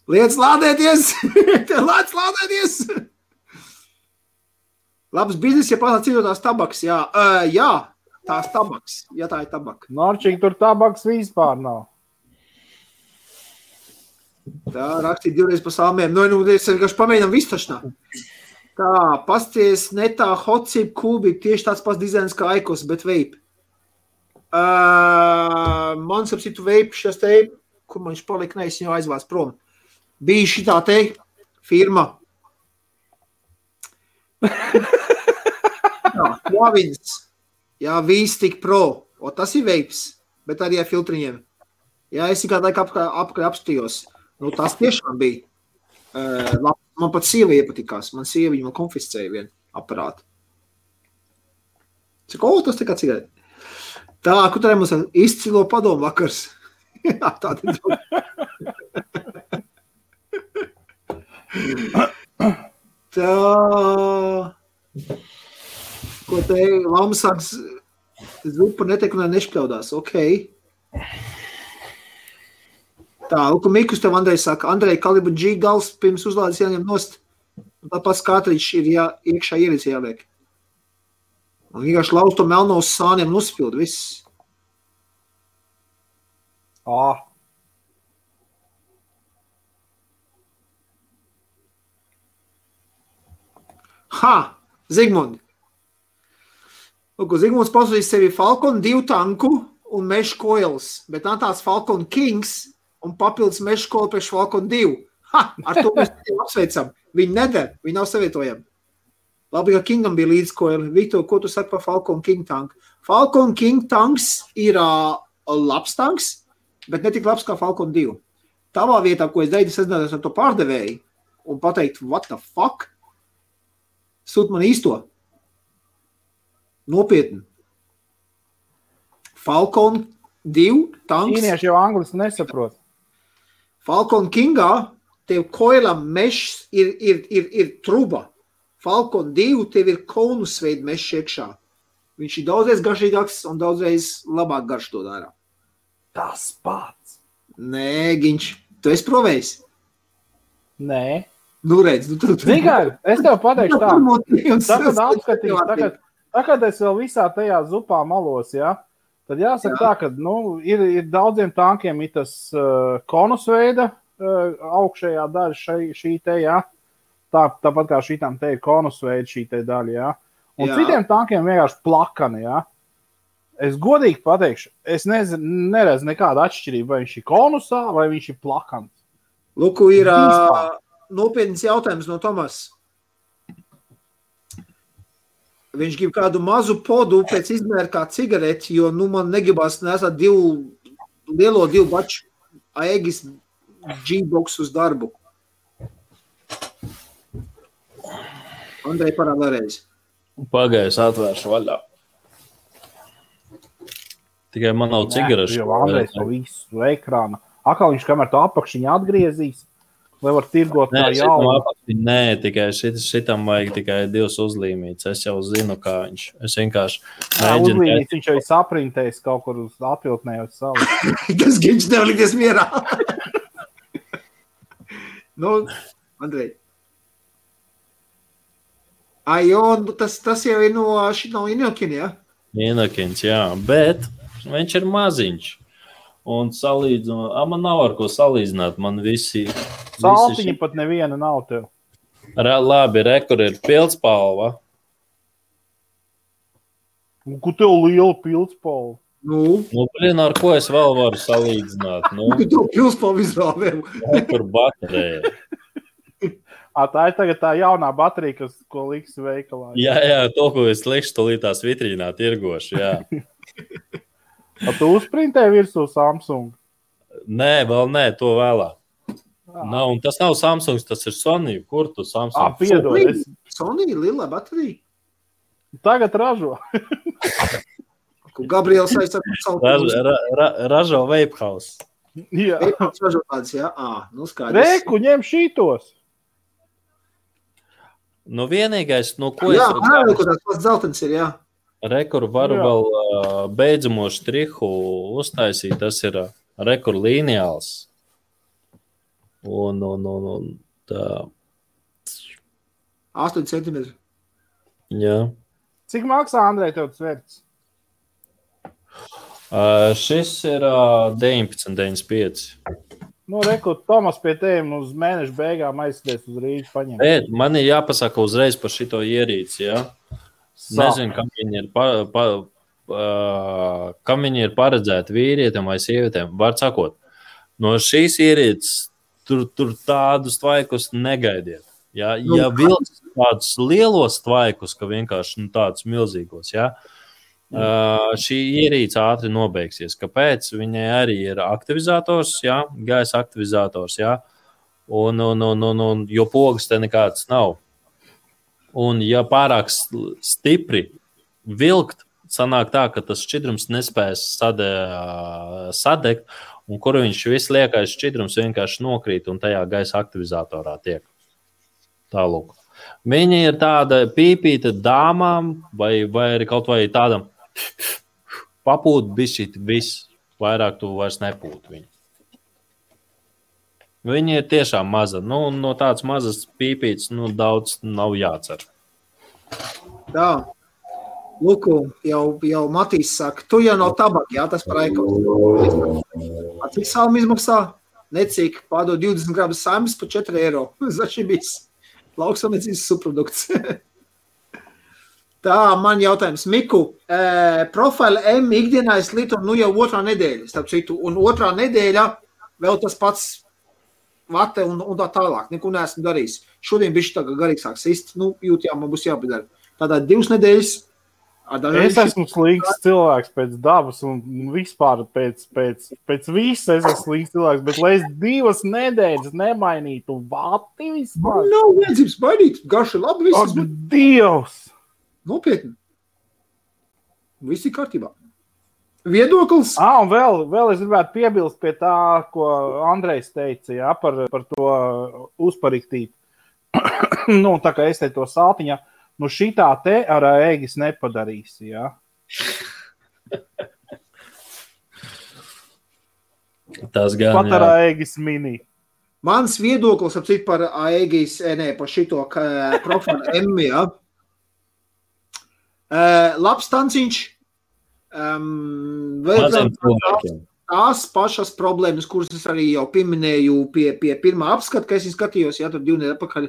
Liec lādēties! Tev lēc lādēties! Labs biznes, ja pārnāt citotās tabaks, jā. Jā, tās tabaks, ja tā ir tabaka. Norčīgi, tur tabaks vispār nav. Tā, rakstīt 2 pa salmiem. Nu, es vienkārši pamēģinām vistašnā. Tā, pasties netā hotcip kūbi, tieši tāds pats dizains kā Aikos, bet vape. Man sapsitu vape šas te, kur man viņš palika, ne, es viņu aizvāc prom. Bija šitā te firma. Jā, Klavins. Jā, V-Stick Pro. O, tas ir vapes, bet arī ar filtriņiem. Jā, es kādu laiku apakaļ apstījos. Nu, tas tiešām bija. Man pat sieva iepatikās. Man sieva viņu konfiscēja vienu aparātu. Cik, tas tā kā cigareti. Tā, kur tā mums izcilo padomu vakars. Jā, tāda tā. Ko te Lama sāks zupa netiek un nešpļaudās. Ok. Tā, Luka Mikus tev Andrej saka, Andrej, kalibru G gals pirms uzlādes jāņem nost. Un tāpēc kātriņš ir iekšā ierīce jāliek. Un vienkārši lauz to melno uz sāniem un uzspild viss. Ha! Zigmund! Lūk, Zigmunds pasūtīs sevi Falcon 2 tanku un mesh coils, bet nav tāds Falcon Kings un papildus mesh coil priekš Falcon 2. Ha! Ar to mēs apsveicam. Viņi neder, viņi nav savietojami. Labi, ka Kingam bija līdz coil. Viktor, ko tu saki par Falcon King tanku? Falcon King tanks ir labs tanks, bet ne tik labs kā Falcon 2. Tavā vietā, ko es darīju, es sazinātos ar to pārdevēju un pateikt, what the fuck? Sūt man īsto. Nopietni. Falcon 2 tanks. Ķīnieši jau angliski nesaprot. Falcon Kingā tev koilam mešs ir truba. Falcon 2 tev ir konusveida mešs iekšā. Viņš ir daudzreiz garšīgāks un daudzreiz labāk garš to dara. Tas pats. Nē, Giņš, tu esi provējis? Nē. Nu redz, tu. Tikai, es tev pateikšu tā. Tagad apskatīs, tagad es vēl visā tajā zupā malos, ja? Tad jāsaka tā, ka ir daudziem tankiem ir tas konusveida augšējā daļa šī te, ja? Tāpat kā šitām te ir konusveida šī te daļa, ja? Un citiem tankiem vienkārši plakani, ja? Es godīgi pateikšu, es neredzu nekādu atšķirību, vai viņš ir konusā, vai viņš ir plakans. Luku, ir nopietns jautājums no Tomas. viņš grib kādu mazu podu pēc izmēra kā cigareti, jo, man negribas nesāt divu baču Aegis G-box uz darbu. Andrej, parād vēlreiz. Pagājis atvēršu vaļā. Tikai man nav cigarešu. Jo Andrejs to visu ekrāna. Akā viņš kamēr to apakšiņu atgriezīs, lai var tirgot tā jaunu. Nē, tikai šitam vajag tikai 2 uzlīmītes. Es jau zinu, kā viņš. Es vienkārši mēģinu. Uzlīmītes viņš jau saprintējis kaut kur uz atviltnējot savu. Tas viņš nevar likties mierā. Andrej. Tas jau ir no Inokina, jā? Inokins, jā, bet viņš ir maziņš. Un man nav ar ko salīdzināt, man visi... Saltiņi pat neviena nav tev. Labi, kur ir pildspalva. Un ko tev liela pildspalva? Ar ko es vēl varu salīdzināt? Tev pildspalva izrāvēm. Kur baterēja. Tā ir tagad tā jaunā baterija, ko liks veikalā. Jā, to, ko es likšu tolītās vitrīnā tirgošu, jā. Tu uzprintēji virsū Samsung? Nē, vēl nē, to vēlāk. Un tas nav Samsung, tas ir Sony. Kur tu Samsung? Piedod. Sony, lila baterija? Tagad ražo. Gabriels aizsaka. Ražo Vape House. Jā. Vape House ražo tādas, jā? Skaidrs. Reku, ņem šītos. Vienīgais, ko jā, ko tās pats dzeltens ir, jā. Rekuru varu vēl beidzamo štrihu uztaisīt, tas ir rekuru lineāls. Un tā. 8 centimetri. Jā. Cik maksā, Andrej, tev tas vērts? Šis ir 19,95. Reku, Tomas pie tēm uz mēneša beigām aizsties uz Rīgu paņemt. Bet man ir jāpasaka uzreiz par šito ierīci, jā? Nezinu, kam viņi ir paredzēti vīrietim vai sievietēm. Var sakot, no šīs ierīces tur tādus tvaikus negaidiet. Ja vilks tādus lielos tvaikus, ka vienkārši tādus milzīgos, jā, šī ierīce ātri nobeigsies. Kāpēc? Viņai arī ir aktivizators, jā, gaisa aktivizators, jā, un jo pogas te nekāds nav. Un ja pārāk stipri vilkt, sanāk tā, ka tas šķidrums nespēs sadegt, un kur viņš viss liekais šķidrums vienkārši nokrīt un tajā gaisa aktivizatorā tiek. Tālūk. Viņa ir tāda pīpīta dāmām vai arī kaut vai tādam papūt bišķīt viss, vairāk tu vairs nepūt viņu. Viņa ir tiešām maza. No tādas mazas pīpītes daudz nav jācer. Tā. Luku, jau Matīs saka, tu jau nav tabaka, jā, tas par aikos. Cik salmi izmaksā? Necik, pārdod 20 gramus saimas par 4 eiro. Začibīs. Lauksamniecības subprodukts. Tā, man jautājums. Miku, Profile M ikdienā es lietu jau 2. nedēļa, starp citu, un 2. nedēļa vēl tas pats vate un tā tālāk. Neko neesmu darījis. Šodien bišķi tā garīgs sāks sist, jūt, jā, man būs jāpadara. Tādā 2 nedēļas. Es esmu slinks cilvēks pēc dabas un vispār pēc visa es esmu slinks cilvēks, bet lai es 2 nedēļas nemainītu vati vispār. Man nav vajadzības mainīt, garši labi viss. Ak, Dievs! Nopietni. Viss ir kārtībā. Viedoklis? Un vēl es gribētu piebilst pie tā, ko Andrejs teica, jā, par to uzpariktīt. Tā kā es te to saltiņā, šitā te ar Aegis nepadarīsi, jā. Tas gan, pat ar Aegis mini. Mans viedoklis apcīt par Aegis, par šito Profile M, jā. Labs tanciņš. Tās pašas problēmas, kuras es arī jau pieminēju pie pirmā apskata, ka es skatījos, jā, tur 2 nedēļas atpakaļ,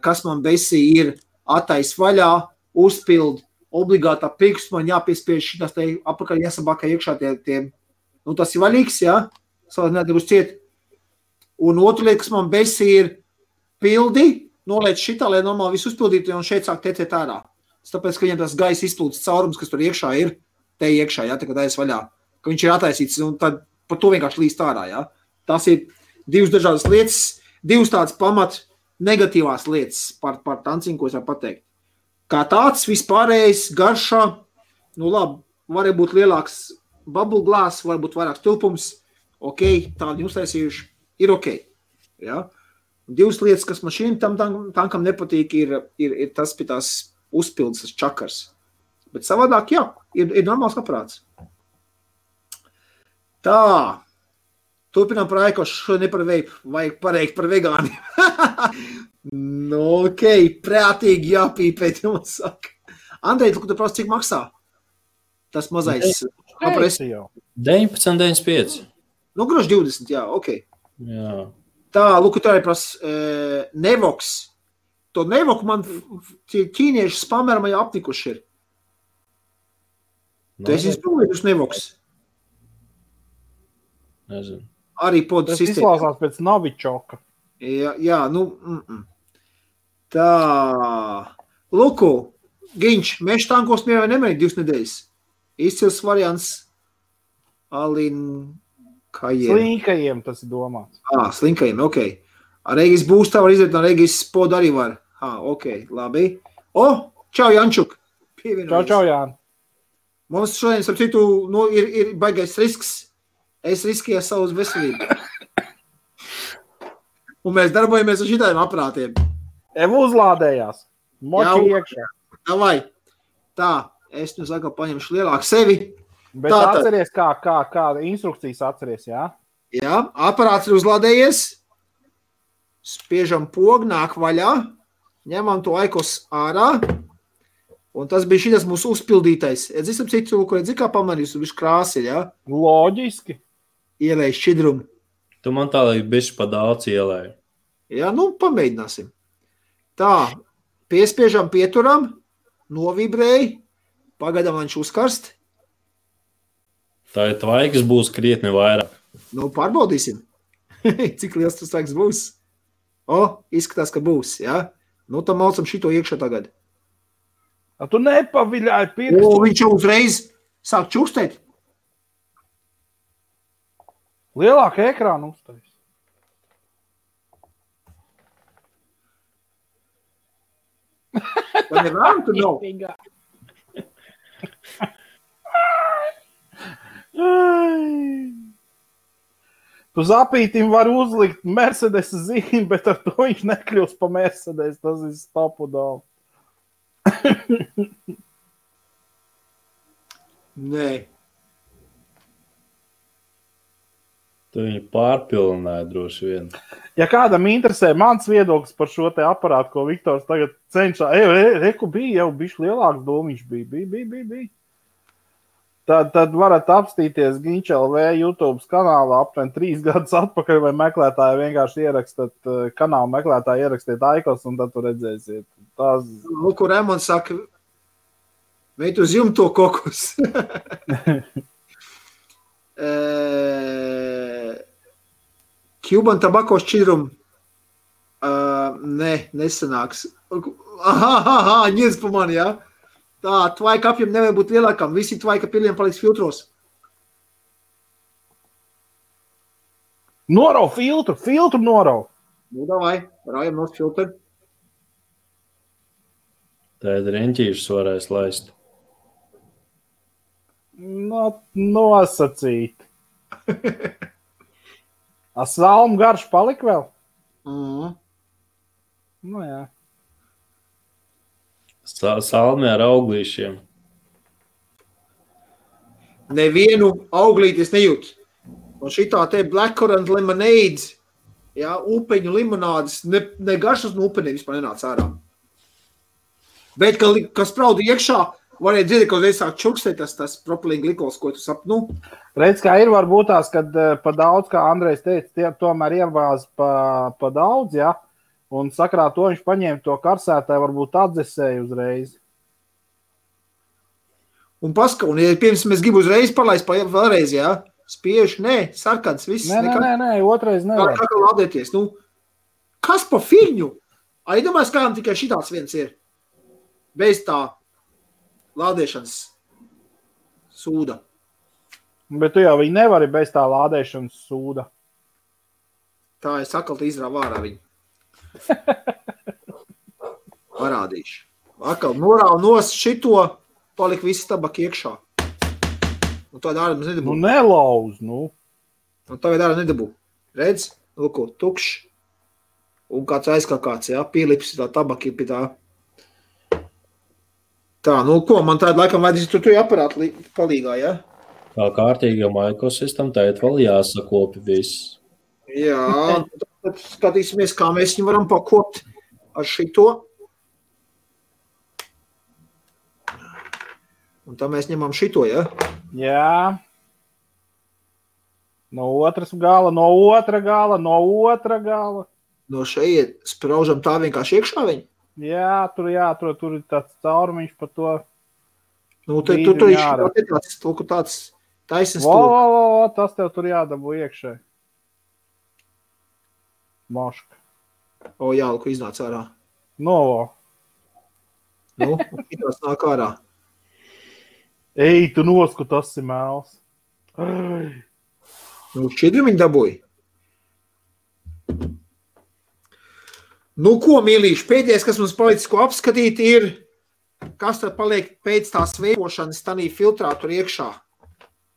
kas man besī ir attais vaļā, uzpild, obligātā pirksts, man jāpiespiež šitās te apakaļ jāsabākā iekšā tie tas ir vaļīgs, jā, savādāk nebūs ciet. Un otra lieta, kas man besī ir pildi, noliec šitā, lai normāli visu uzpildītu, un šeit sāk tecēt ārā. tāpēc, ka viņam tas gaisa izplūdes caurums, kas tur iekšā ir, te iekšā, ja, tā kā taisa vaļā, ka viņš ir attaisīts, un tad par to vienkārši līst ārā, ja. Tas ir divas dažādas lietas, divas tādas pamat negatīvās lietas par tanciņu, ko es varu pateikt. Kā tāds vispārējais garšā, nu labi, var būt lielāks bubble glass, var būt vairāks tilpums, ok, tādi uztaisījuši, ir ok, ja. Divas lietas, kas man šīm tankam nepatīk, ir tas pie tās uzpildes, tas čakars. Bet savādāk, jā, ir normāls aprāts. Tā, turpinām par aikošu, ne par veipu, vajag pareikt par vegāniem. Nu, ok, prātīgi jāpīpēt, jums saka. Andrej, tu prasa, cik maksā? Tas mazais apres. 19,95. Nu, groši 20, jā, ok. Jā. Tā, lūk, tā ir prasa Nevox. To Nevoku man ķīnieši spamerma jau aptikuši ir. Tu esi izpildījuši Nevox? Nezinu. Arī podu Tas sistēma. izklausās pēc Novičoka. Jā, nu. Tā. Luku, Giņš, meža tankos mie vai nemēģi 2 nedēļas. Izcils variants Alin Kajiem. Slinkajiem tas ir domāts. Slinkajiem, ok. Ar Regis būstā var izdarīt, ar Regis podu arī var. Ok, labi. Čau, Jančuk. Čau, Jāni. Mums šodien, starp citu, nu, ir baigais risks. Es riskēju savu veselību. Un mēs darbojamies ar šitājiem aprātiem. Uzlādējās. Moči iekšā. Davai. Tā, es nu saka, paņemšu lielāku sevi. Bet atceries, kā instrukcijas atceries, jā? Jā, aparāts ir uzlādējies. Spiežam pogu, nāk vaļā. Ņemam to aikos ārā. Un tas bija šitas mūsu uzpildītais. Es esam citu, ko redzi, kā pamanījis, un viņš krāsi, jā? Loģiski. Ielēj šķidrumu. Tu man tā, lai bišķi pa daudz ielēju. Jā, nu, pamēģināsim. Tā, piespiežam, pieturam, novibrēji, pagaidām viņš uzkarst. Tā ir tvaikas būs krietni vairāk. Nu, pārbaudīsim. Cik liels tas tvaiks būs? Izskatās, ka būs, jā? Nu, tam maucam šito iekšā tagad. Tu nepaviļāji pirkstu. Viņš jau uzreiz sāk čukstēt. Lielāka ekrāna uztais. Vai nevēram, tu nav? Tu zapītim var uzlikt Mercedes zīmi, bet ar to viņš nekļūs pa Mercedes. Tas ir stopu daudz. Nē. Tu viņu pārpilnāji droši vien. Ja kādam interesē mans viedoklis par šo te aparātu, ko Viktors tagad cenšā, reku bija jau bišķi lielāks domiņš bija. Tad varat apstīties Giņš LV YouTube kanālā aptuveni 3 gadus atpakaļ, vai meklētāji vienkārši ierakstat kanālu meklētāji, ierakstiet aikos, un tad tu redzēsiet. Lūk, Remons saka, veit uz jumto kokus. Cuban tabako šķidrumu. Nesanāks. Ņiedz pa mani, jā? Tā, tvaika apjiem nevajag būt lielākam. Visi tvaika piliem paliks filtros. Norau filtru norau. Nu, davai, rājam nos filtru. Tā ir reņķīšus varēs laist. Nosacīt. Salmu garš palika vēl? Nu jā. Salmi ar auglīšiem. Nevienu auglīti es nejūtu. Un šitā te blackcurrant lemonade, jā, upeņu limonādes, ne garšas no upeniem vispār nenāca ārā. Bet, kas sprauda iekšā, varēja dzirdēt, ka uzreiz sāk čukstēt tas propilīna glikols, ko tu sap, nu. Redz, kā ir varbūt tās, kad pa daudz, kā Andrejs teica, tomēr ievāz pa daudz, jā. Un sakrā to viņš paņēma to karsētāju, varbūt atdzesēja uzreiz. Un ja pirms mēs gribu uzreiz palaist vēlreiz, jā, spiež, sarkans, viss. Nē, otrais nevar. Kā lādēties, nu, kas pa fiņu? Iedomājies, kādam tikai šitāds viens ir. Bez tā lādēšanas sūda. Bet tu jau viņu nevari bez tā lādēšanas sūda. Tā es atkal izrāvu ārā viņu. Parādīšu. Atkal norāvu nost šito, palika visi tabaki iekšā. Un tāda ārā mums nedabū. Nu, nelauz, nu. Un tagad ārā nedabū. Redz? Lūko, tukšs. Un kāds aizkākāts, jā, pielips tā tabaki pie tā. Tā, nu ko, man tāda laikam vajadzīs tu aparātu palīgā, jā? Kā kārtīgam ekosistam, tēt vēl jāsakopi viss. Jā, tad skatīsimies, kā mēs viņu varam pakopt ar šito. Un tā mēs ņemam šito, ja? Jā. No otras gala, no otra gala, no otra gala. No šeit spraužam tā vienkārši iekšā viņu? Jā, tur ir tāds caurumiņš par to. Nu, tur ir tāds taisnes tur. Tas tev tur jādabū iekšē. Moška. O, jā, ko iznāc ārā. No. Nu, šitās nāk ārā. Ej, tu nosku, tas ir mēls. Nu, šķidri viņi dabūja. Nu, ko, mīlīši, pēdējais, kas mums palicis, ko apskatīt, ir, kas tad paliek pēc tās veipošanas tanī filtrā tur iekšā.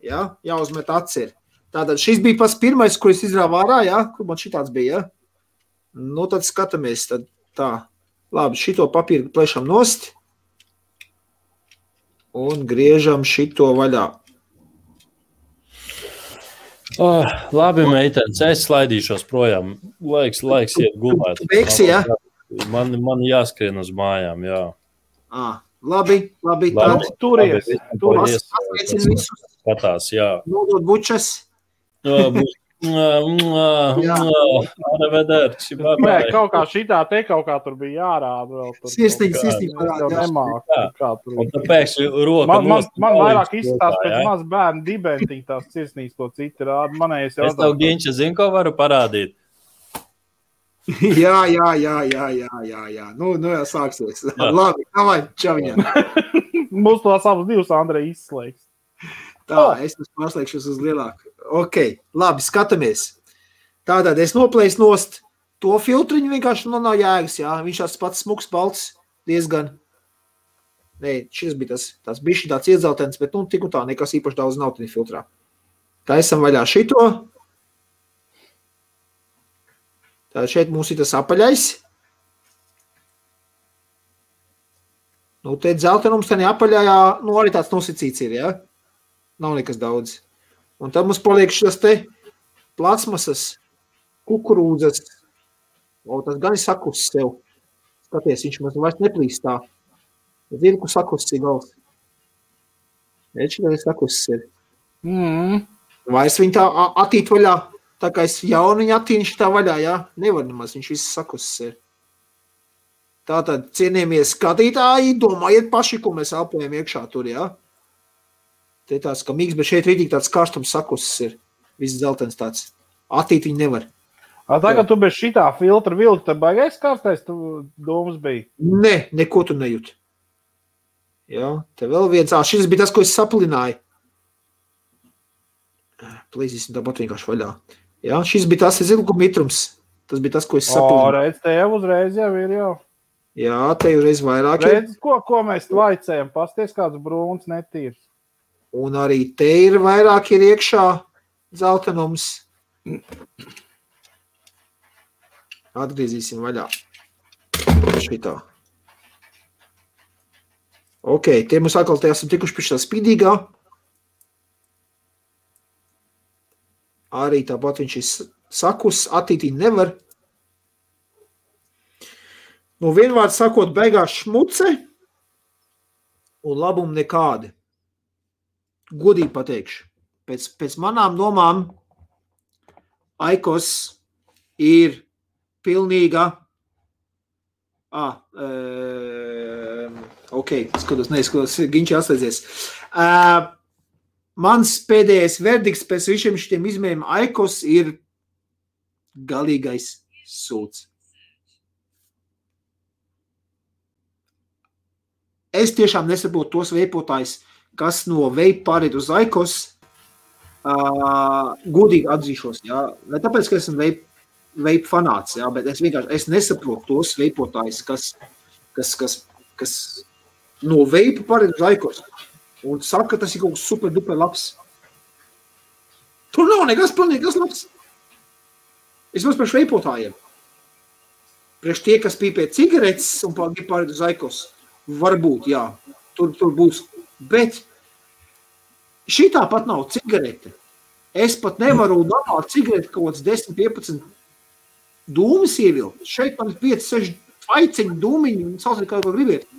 Ja? Jāuzmet atcer. Tātad šis bija pats pirmais, ko es izrāvu ārā, ja? Kur man šitāds bija, ja? Nu, tad skatāmies, tad tā. Labi, šito papīru plešam nost un griežam šito vaļā. Labi, meitenes, es slaidīšos projām. Laiks iet gulēt. Tu beigsi, ja? Man jāskrien uz mājām, jā. Labi. Turies. Pasveicin visus. Skatās, jā. Nodot bučas. Kaut kā šitā te kaut kā tur bija jārāda vēl. Sirsnīgi parādā. Un tāpēc roka man vairāk izstās pēc maz bērnu dibentiņa tās sirsnīgs, ko citi rāda. Manējais jau. Es tev, Ginča, zinu, ko varu parādīt. Jā. Nu jau sāksies. Labi, davai, čaviņā. Mums tās abas divas Andrei izslēgs. Tā, es pārslēgšos uz lielāku. Ok, labi, skatāmies. Tātad es noplēju nost to filtriņu, vienkārši nav jēgas, jā. Viņš tāds pats smuks, balts, diezgan. Nē, šis bija tas bišķi tāds iedzeltens, bet nu tik un tā, nekas īpaši daudz nav tādā filtrā. Taisam vaļā šito. Tātad šeit mums ir tas apaļais. Nu, te dzeltenums, tā apaļājā, nu arī tāds nosacīts ir, jā. Nav nekas daudz. Un tad mums paliek šis te plasmasas, kukurūdzas. O, tas gan ir sakusis sev. Skaties, viņš mums vairs neplīst tā. Zini, kur sakusis ir gals. Redz, šī sakusis ir. Vairs viņi tā attīt vaļā. Tā kā es jaunu viņu attīnu šitā vaļā, jā? Nevar nemaz, viņš viss sakusis ir. Tātad, cienījamies skatītāji, domājiet paši, ko mēs elpojam iekšā tur, jā? Te tāds, ka mīgs, bet šeit rītīgi tāds karstums sakusis ir. Viss zeltens tāds. Attīt viņi nevar. Tagad tu bez šitā filtra vilki, tad baigais karstais tu domas bija? Ne, neko tu nejūt. Jā, te vēl viens. Šis bija tas, ko es saplināju. Plīzīsim tāpat vienkārši vaļā. Jā, šis bija tas ilguma mitrums. Tas bija tas, ko es saplināju. Redz, te jau uzreiz jau ir jau. Jā, te jau reiz vairāk. Redz, ko mēs vaicējam? Pasties kāds brūns netīrs. Un arī te ir vairāk ir iekšā zeltenums. Atgriezīsim vaļā. Šitā. Ok, tie mums atkal te esam tikuši pie šā spīdīgā. Arī tāpat viņš ir sakus, attītīt nevar. Nu, vienvārds sakot, beigās šmuce un labumi nekādi. Godīgi pateikšu. Pēc manām domām Aikos ir pilnīga ok, neskatos, Ginči atslēdzies. Mans pēdējais verdikts pēc visiem šitiem izmēriem Aikos ir galīgais sūds. es tiešām nesaprotu tos veipotājus, kas no veipa pāriet uz Aikos, godīgi atzīšos, jā. Ne tāpēc, ka esmu veipa fanāts, jā, bet es nesaprotu tos veipotājus, kas no veipa pāriet uz Aikos un saka, ka tas ir kaut kas super duper labs. Tur nav nekas pilnīgas labs. Es mums priekš veipotājiem. Priekš tie, kas pīpē cigaretes un pāriet uz Aikos, varbūt, jā, tur būs. Bet šitā pat nav cigarete. Es pat nevaru normāli cigareti kaut kāds 10-15 dūmis ievilkt. Šeit man ir 5-6 aiciņu dūmiņu un sauciet, kā gribiet.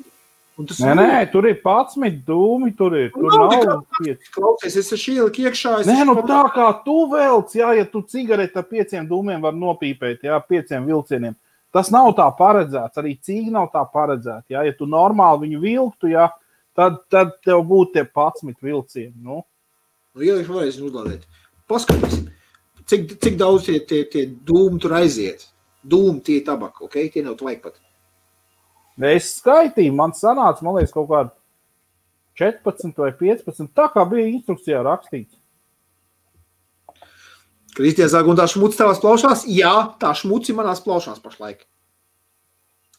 Nē, tur ir 11 dūmi, tur nav 5. Klausies, es esmu ieliku iekšā. Tā kā tu velc, jā, ja tu cigareti ar 5 dūmiem var nopīpēt, jā, 5 vilcieniem. Tas nav tā paredzēts, arī cīgi nav tā paredzēts. Jā. Ja tu normāli viņu vilktu, jā, tad tev būtu tie 11 vilcieni. Nu, ielikšu varēs uzlādēt. Paskatīsim, cik daudz tie dūmi tur aiziet. Dūmi tie tabaka, ok? Tie nav tvajag pat. Es skaitīju, man sanāca, man liekas, kaut kādi 14 vai 15, tā kā bija instrukcijā rakstīts. Kristija saka, un tā šmuci tavās plaušās? Jā, tā šmuci manās plaušās pašlaik.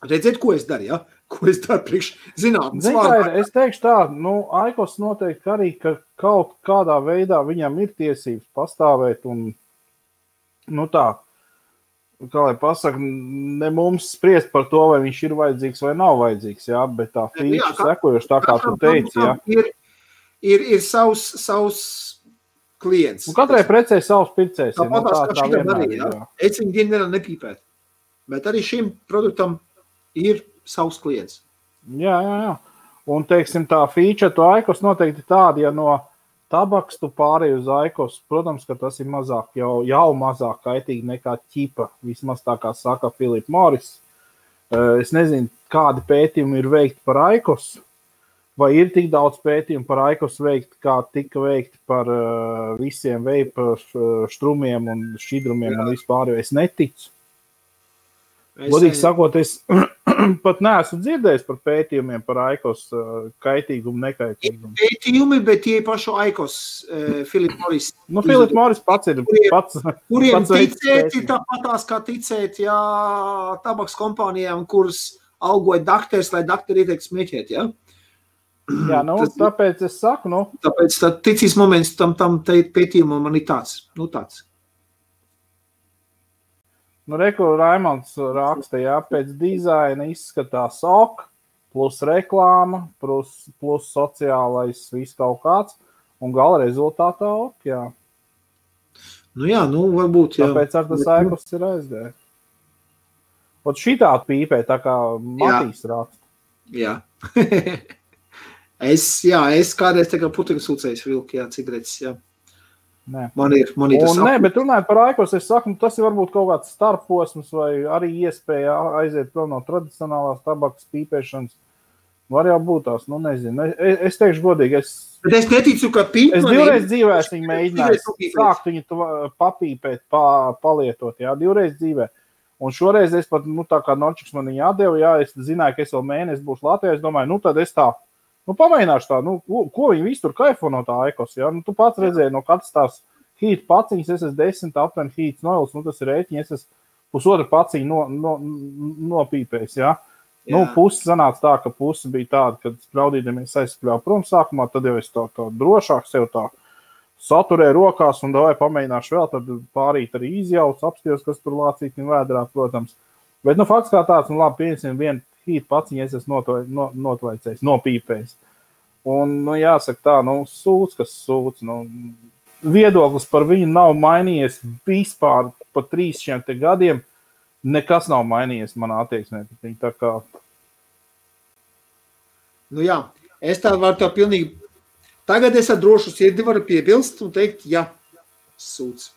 Redziet, ko es daru, ja? Ko es daru priekš zinātnes vārdā? Es teikšu tā, Aikos noteikti arī, ka kaut kādā veidā viņam ir tiesības pastāvēt un, tā, kā lai pasaka, ne mums spriest par to, vai viņš ir vajadzīgs vai nav vajadzīgs, jā, bet tā feature sekojoši, tā kā tu teici, jā. Ir savs klients. Un katrai precē savs pircējs. Tāpatās, kā šitam arī, jā. Es viņu dienu nevaru nepīpēt. Bet arī šim produktam ir savs klients. Jā. Un, teiksim, tā feature to Aikos noteikti tāda, ja no tabaks tu pārēj uz Aikos, protams, ka tas ir mazāk, jau mazāk kaitīgi nekā ķipa, vismaz tā kā saka Philip Morris. Es nezinu, kādi pētījumi ir veikti par Aikos, vai ir tik daudz pētījumu par Aikos veikti, kā tika veikti par visiem veipa štrumiem un šķidrumiem un vispār, jo es neticu. Godīgi sakot, es pat neesmu dzirdējis par pētījumiem par Aikos kaitīgumu, nekaitīgumu. Pētījumi, bet tie pašu Aikos, Philip Morris. Philip Morris pats ir pats. Kuriem ticēt, tāpatās kā ticēt, jā, tabaks kompānijām, kuras algoja dakters, lai dakteri ieteikt smēķēt, jā? Jā, tāpēc es saku, Tāpēc ticīs moments tam pētījumam man ir tāds, tāds. Reku Raimonds raksta, jā, pēc dizaina izskatās ok, plus reklāma, plus sociālais viss kaut kāds, un gala rezultātā ok, jā. Varbūt, jā. Tāpēc ar tas Aikos ir aizgājis. Ot šitā pīpē, tā kā Matīs raksta. Jā. Es kādreiz tā kā putekļu sūcējs vilku, jā, cigaretes, jā. Nē. Man ir tas nē, bet runājot par Aikos, es saku, tas ir varbūt kaut kāds starposms vai arī iespēja aiziet prom no tradicionālās tabakas pīpēšanas. Var jau būt tās, nezinu. Es teikšu godīgi, bet es neticu, ka pīp. Es divreiz dzīvē viņu mēģināju sākt viņu papīpēt, palietot, jā, divreiz dzīvē. Un šoreiz es pat, tā kā Norčiks man viņu atdeva, jā, es zināju, ka es vēl mēnesi būšu Latvijā, es domāju, tad es tā, pamēģināšu tā, ko viņi visu tur kaifo no tā Aikos, jā, tu pats redzēji, no katrs tās hīt paciņas, es esmu 10 aptuveni hīts noils, tas ir rēķiņi, es esmu pusotru paciņu nopīpējis, jā. Pusi sanāca tā, ka pusi bija tāda, kad spraudīdamies aizskļāvu prom sākumā, tad jau es tā drošāk sev tā saturēju rokās un davai pamēģināšu vēl, tad pārīt arī izjauc, apstījos, kas tur lācīt un vēdrā, protams. Bet, fakts kā tāds, labi, pieņemsim vienu hīt paciņu, es esmu notvaicējis, nopīpējis. Un, jāsaka tā, sūds, kas sūds, viedoklis par viņu nav mainījies vispār pa 3 gadiem, nekas nav mainījies manā attieksmē. Tā kā... Jā, es tā varu tā pilnīgi... Tagad es ar drošu sirdi varu piebilst un teikt, jā, sūds,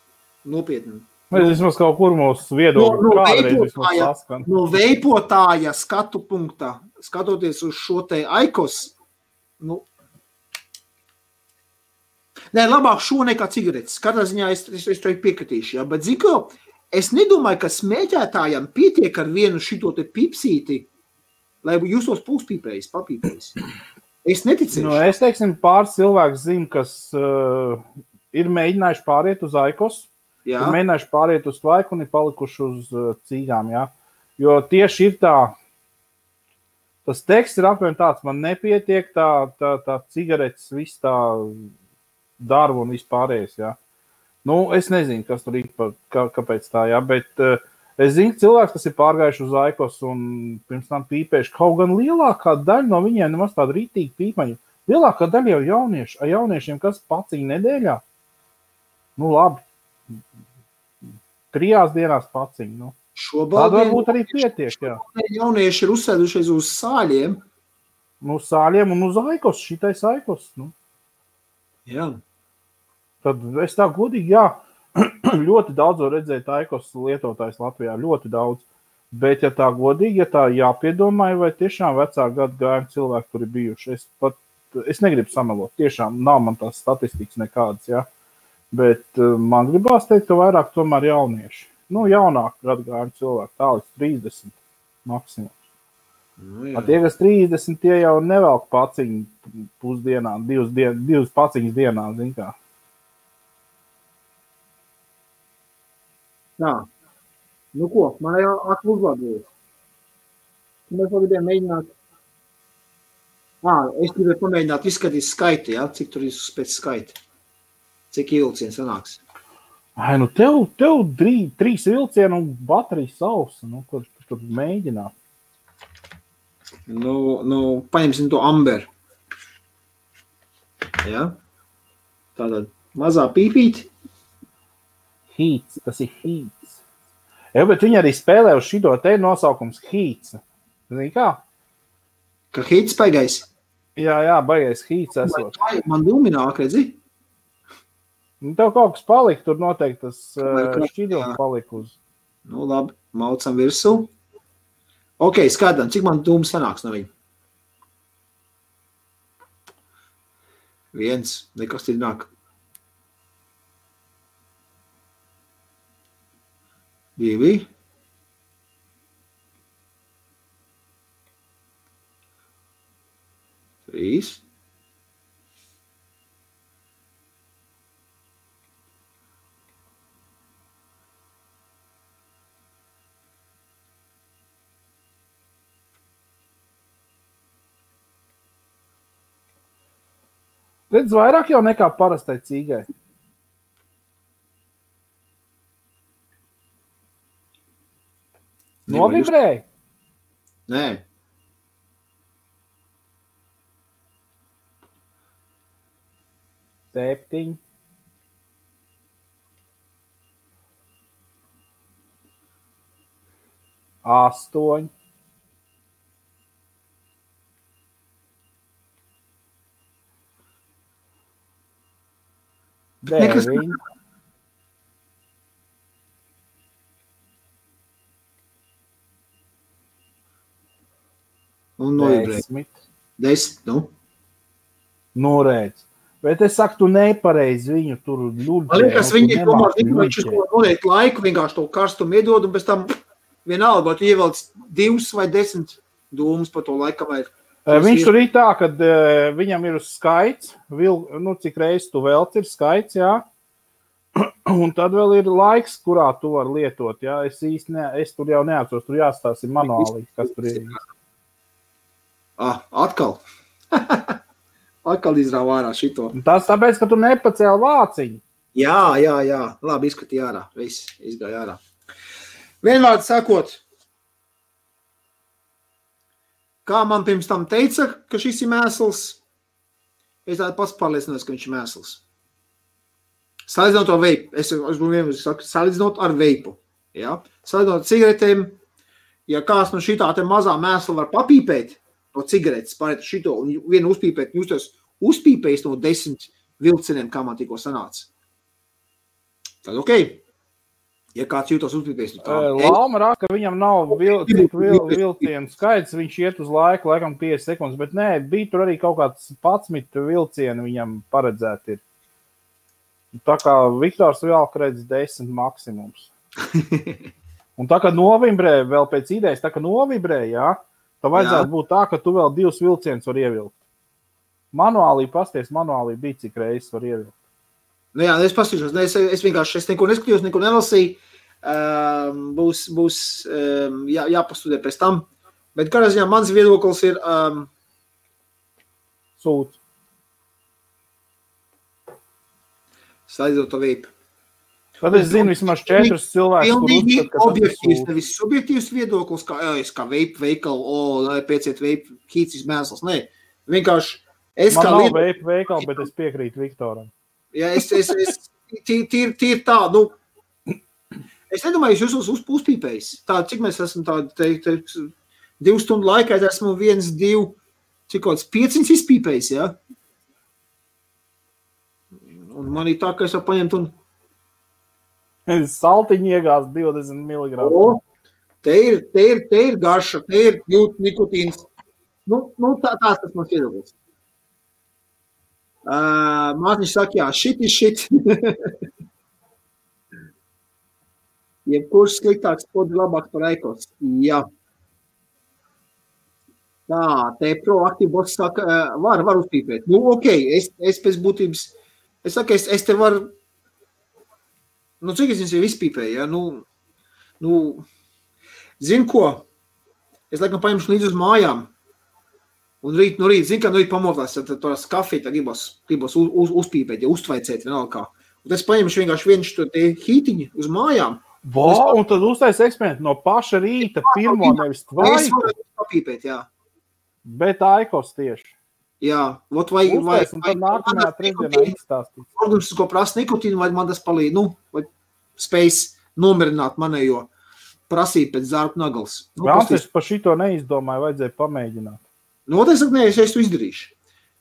nopietni. Mēs vismaz kaut kur mūsu viedokļu kādreiz vismaz saskan. No veipotāja skatu punktā, skatoties uz šo te Aikos, Nē, labāk šo nekā cigaretes. Katrā ziņā es to piekritīšu, jā, bet ziko, es nedomāju, ka smēķētājam pietiek ar vienu šito te pipsīti lai jūs tos puspīpējis, papīpējis. Es neticēšu. Nu, es teiksim, pāris cilvēks zinu, kas ir mēģinājuši pāriet uz Aikos, Jā. ir mēģinājuši pāriet uz Tvaiku un ir palikuši uz cīgām, jā. Jo tieši ir tas teksts ir apmēram tāds, man nepietiek tā cigaretes, viss tā darba un vispārējais, jā. Nu, es nezinu, kas tur ir, kāpēc tā, jā, bet es zinu cilvēks, kas ir pārgājuši uz Aikos un pirms tam pīpējuši. Kaut gan lielākā daļa no viņiem nemaz tāda rītīga pīpaņa. Lielākā daļa jau jaunieši. Ar jauniešiem kas paciņa nedēļā? Nu, labi. 3 dienās paciņa. Nu. Tāda varbūt arī pietiek, jā. Jaunieši ir uzsēdušies uz sāļiem. Nu, sāļiem un uz Aikos, šitais Aikos. Nu. Jā. Tad es tā godīgi, jā. Ļoti daudz var redzēt Aikos lietotājs Latvijā, ļoti daudz. Bet, ja tā godīgi, ja tā jāpiedomāja, vai tiešām vecā gadu gājumi cilvēki tur ir bijuši. Es negribu samelot, tiešām nav man tās statistikas nekādas, jā. Bet man gribās teikt, ka vairāk tomēr jaunieši. Nu, jaunāk gadu gājumi cilvēki, tā līdz 30 maksimums. Nu, tie, kas 30, tie jau nevelk paciņu pusdienā, 2 paciņas dienā, zin kā. Jā. Nu ko, man jau akli uzlabojas. Mēs gribējām mēģināt. Es gribēju pamēģināt izskatīt skaiti, jā? Cik tur ir pēc skaita. Cik vilciens sanāks. Nu tev 3 vilcienu un baterijas sausa. Nu, kur tur mēģināt? Nu, paņemsim to amber. Jā? Tātad mazā pīpīti. Heats, tas ir Heats. Jā, bet viņi arī spēlē uz šito te nosaukums Heats. Zini kā? Ka Heats baigais? Jā, baigais Heats esot. Man ilmināk, redzi? Nu, tev kaut kas palika, tur noteikti tas šķidrums palika uz. Nu, labi, maucam virsū. Ok, skatām, cik man dūms sanāks no viņa? 1, nekas ir nāk. 2. 3. 4. Vairāk jau nekā parastai cīgai. Novibrēji? Nē. Septiņi. 8. 9. Un novibrēji. 10, nu. Nu, redz. Bet es saku, tu nepareizi viņu tur ļuļģē. Man liekas, viņi viņš noliek laiku, vienkārši to karstumu iedod, un pēc tam vienalga, vai tu ievelc 2 vai 10 dūmus pa to laikam. Viņš tur ir tā, kad viņam ir uz skaits, cik reizes tu velc ir skaits, jā. Un tad vēl ir laiks, kurā tu var lietot, jā. Es tur jau neatceros, tur jāstāsta manuāli, kas tur ir. Atkal. Atkal izrāva ārā šito. Tas tāpēc, ka tu nepacēli vāciņu. Jā. Labi, izskatīja ārā. Viss izgāja ārā. Vienvārds sakot, kā man pirms tam teica, ka šis ir mēsls, es tādu pats pārliecinājos, ka viņš ir mēsls. Salīdzinot ar veipu. Es vienmēr saku, salīdzinot ar veipu. Ja? Salīdzinot ar cigaretēm, ja kāds no šitā te mazā mēsla var papīpēt, no cigaretes pārēt šito un vienu uzpīpēt, jūs tos uzpīpējis no 10 vilciniem, kā man tikko sanāca. Tad ok. Ja kāds jūtos uzpīpējis. Lauma rāk, ka viņam nav vilcienu skaits, viņš iet uz laiku, laikam 5 sekundes, bet nē, bija tur arī kaut kāds 11 vilcienu viņam paredzēti ir. Tā kā Viktors vēl redz 10 maksimums. Un tā kā novibrē, vēl pēc idejas, tā kā novibrē, jā, Tā vajadzētu būt tā, ka tu vēl 2 vilcienus var ievilkt. Manuālī bija cik reizes var ievilkt. Nu jā, es pastīšos, es vienkārši neko neskatījos, neko nelasīju. Būs jāpastudē pēc tam. Bet kādā ziņā mans viedoklis ir Sūds. Slaidzot to vīpu. Tad es zinu vismaz 4 cilvēkus, kur uzskat, ka objektīvs, nevis subjektīvs viedoklis, kā veipu veikalu, pēciet veipu kīcis mēsls. Nē, vienkārši es man kā nav veipu veikalu, bet es piekrītu Viktoram. Jā, es tīri tā, es nedomāju, jūs uzpīpējis. Tā, cik mēs esam tādi 2 stundu laikā, es esmu 1, 2, cik kaut kāds 500 izpīpējis, jā? Un man ir tā, ka es jau paņemt un Saltiņi iegās 20 mg. Te ir garša, te ir jūt nikotīns. Tās tas mans viedoklis. Mātiņš saka, jā, shit. Jebkurš sliktāks podi labāk par Eikos. Jā. Tā, te proaktīvi boss saka, var uzpīpēt. Es pēc būtības, es saku, es te varu, cik es viņus jau izpīpēju, ja? Zinu ko, es laikam paņemšu līdz uz mājām, un rīt, zinu, ka rīt pamotās, tad tās kafiju gribos uzpīpēt, ja uztvaicēt vienalga kā. Un es paņemšu vienkārši vienu šo te hītiņu uz mājām. Un tad uztais eksperimentu no paša rīta pirmo nevis tvaiku. Es varu papīpēt, jā. Bet Aikos tieši. Jā, vai un tad nākamajā trešdienā izstāstīt. Organisms, ko prasa nikotīnu, vai man tas palīdz, vai spējas nomierināt manējo prasību pēc zārku nagals. Es par šito neizdomāju, vajadzēja pamēģināt. Es to izdarīšu.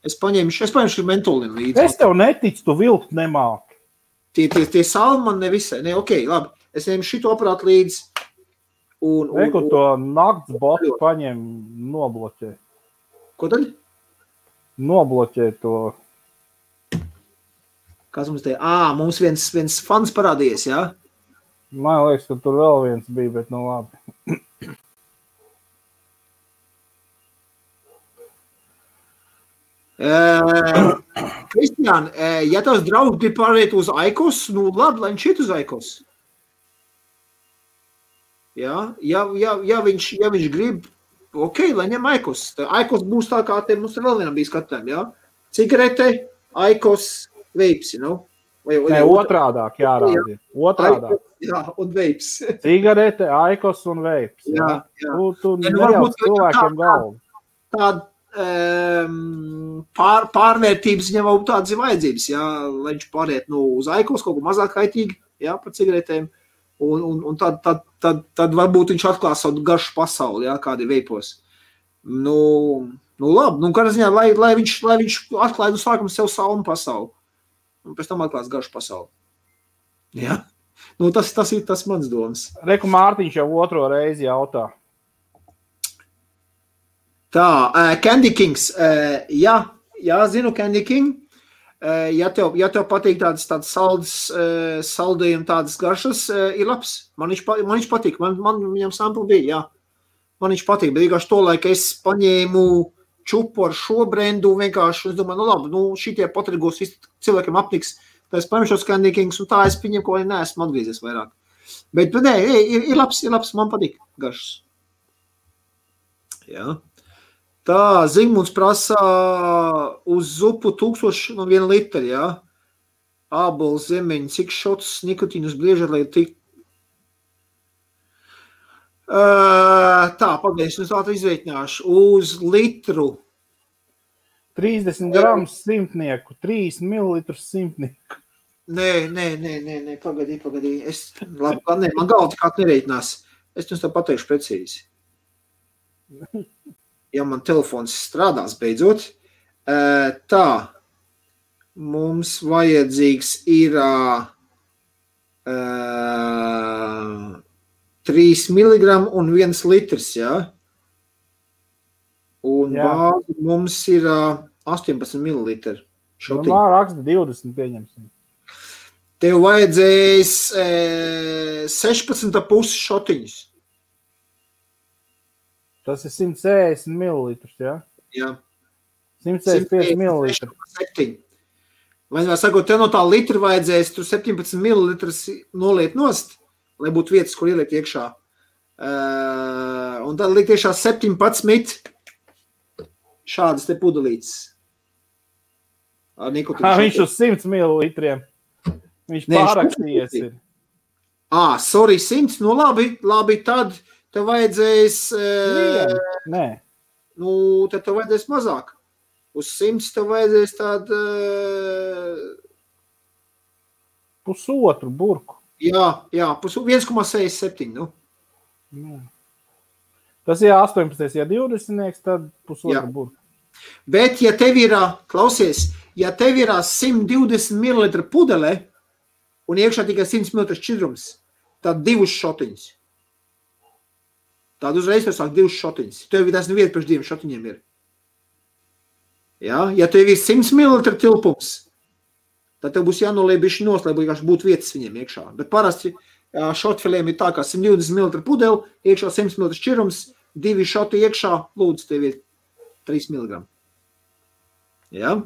Es paņemšu mentolinu līdzi. Es tev neticu, tu vilkt nemāki. Tie salmi man nevisai. Labi. Es ņemu šito aparātu līdzi. Reku to nakts botu paņem nobloķē. Ko tad? Nobloķē to. Kas mums te? Mums viens fans parādījies, jā? Man liekas, ka tur vēl viens bija, bet labi. Kristiān, ja tavs draugs grib pārēt uz Aikos, labi, lai viņš iet uz Aikos. Jā, ja viņš grib, lai ņem Aikos. Aikos būs tā kā te mums vēl vienam bija skatēm, jā? Cigarete, Aikos, veips, Nē, otrādāk jārādi. Otrādāk. Jā, un veips. Cigarete, Aikos un veips. Jā. Tu nejauc cilvēkiem galvu. Tāda pārvērtības viņam vēl tādas ir vajadzības, jā, lai viņš pāriet uz Aikos, kaut ko mazāk kaitīgi, jā, par cigaretēm. Un tad varbūt viņš atklās savu garšu pasauli, jā, kādi veipos. Labi, kādā ziņā, lai viņš atklāja no sākuma sev savu pasauli. Un pēc tam atklās garšu pasauli. Jā. Tas ir tas mans domas. Reku Mārtiņš jau otro reizi jautā. Tā, Candy Kings. Jā, zinu Candy King. Ja tev patīk tādas saldējumi, tādas garšas, ir labs. Man viņš patīk. Man viņam sampli bija, jā. Man viņš patīk, bet vienkārši to laika es paņēmu čupu ar šo brendu vienkārši. Es domāju, labi, šitie patrigos visi cilvēkiem apniks. Tā es paņemšos Candy Kings, un tā es viņiem ko neesmu atgriezies vairāk. Bet nē, ir labs, man patīk garšas. Jā. Tā, Zigmunds prasa uz zupu 1001 litri, jā. Ābols, zemeņi, cik šots nikotīnus bliežat, lai tik. Tā, pagaidzi, es tā izveikņāšu. Uz litru. 30 gramus simtnieku, 3 mililitrus simtnieku. Nē, pagaidī. Labi, man galva tikā nereitinās. Es jums tā pateikšu precīzi. Ja man telefons strādās beidzot. Tā, mums vajadzīgs ir 3 miligramu un 1 litrs, jā? Un bāzi mums ir 18 mililitri. Raksta 20 pieņemsim. Tev vajadzēs 16,5 šotiņus. Tas ir 160 ml, jā? Jā. 165 ml. 7. Vai sakot, tev no tā litra vajadzēs tur 17 ml noliet nost, lai būtu vietas, kur ielikt iekšā. Un tad likt iekšā 17 šādas te pudelītes. Ar nikotīnu. Viņš uz 100 ml. Viņš pārakstījies ir. Sorry, 100. Nu labi, tad tev vajadzēs... Nē. Nu, tad tev vajadzēs mazāk. Uz 100 tev vajadzēs tādu... Pusotru burku. Jā, 1,67, nu. Tas ir 18, ja 20, tad pusotru burku. Bet, ja tev ir, klausies, ja tev ir 120 ml pudele un iekšā tikai 100 ml šķidrums, tad 2 šotiņas. Tad uzreiz var sākt 2 šotiņas. Tev tas neviet pēc 2 šotiņiem ir. Ja tev ir 100 ml tilpums, tad tev būs jānoliek bišķi nost, lai būtu vietas viņiem iekšā. Bet parasti šotfiliem ir tā, kā 120 ml pudeli, iekšā 100 ml šķirums, 2 šoti iekšā, lūdzu, tev ir 3 mg. Ja?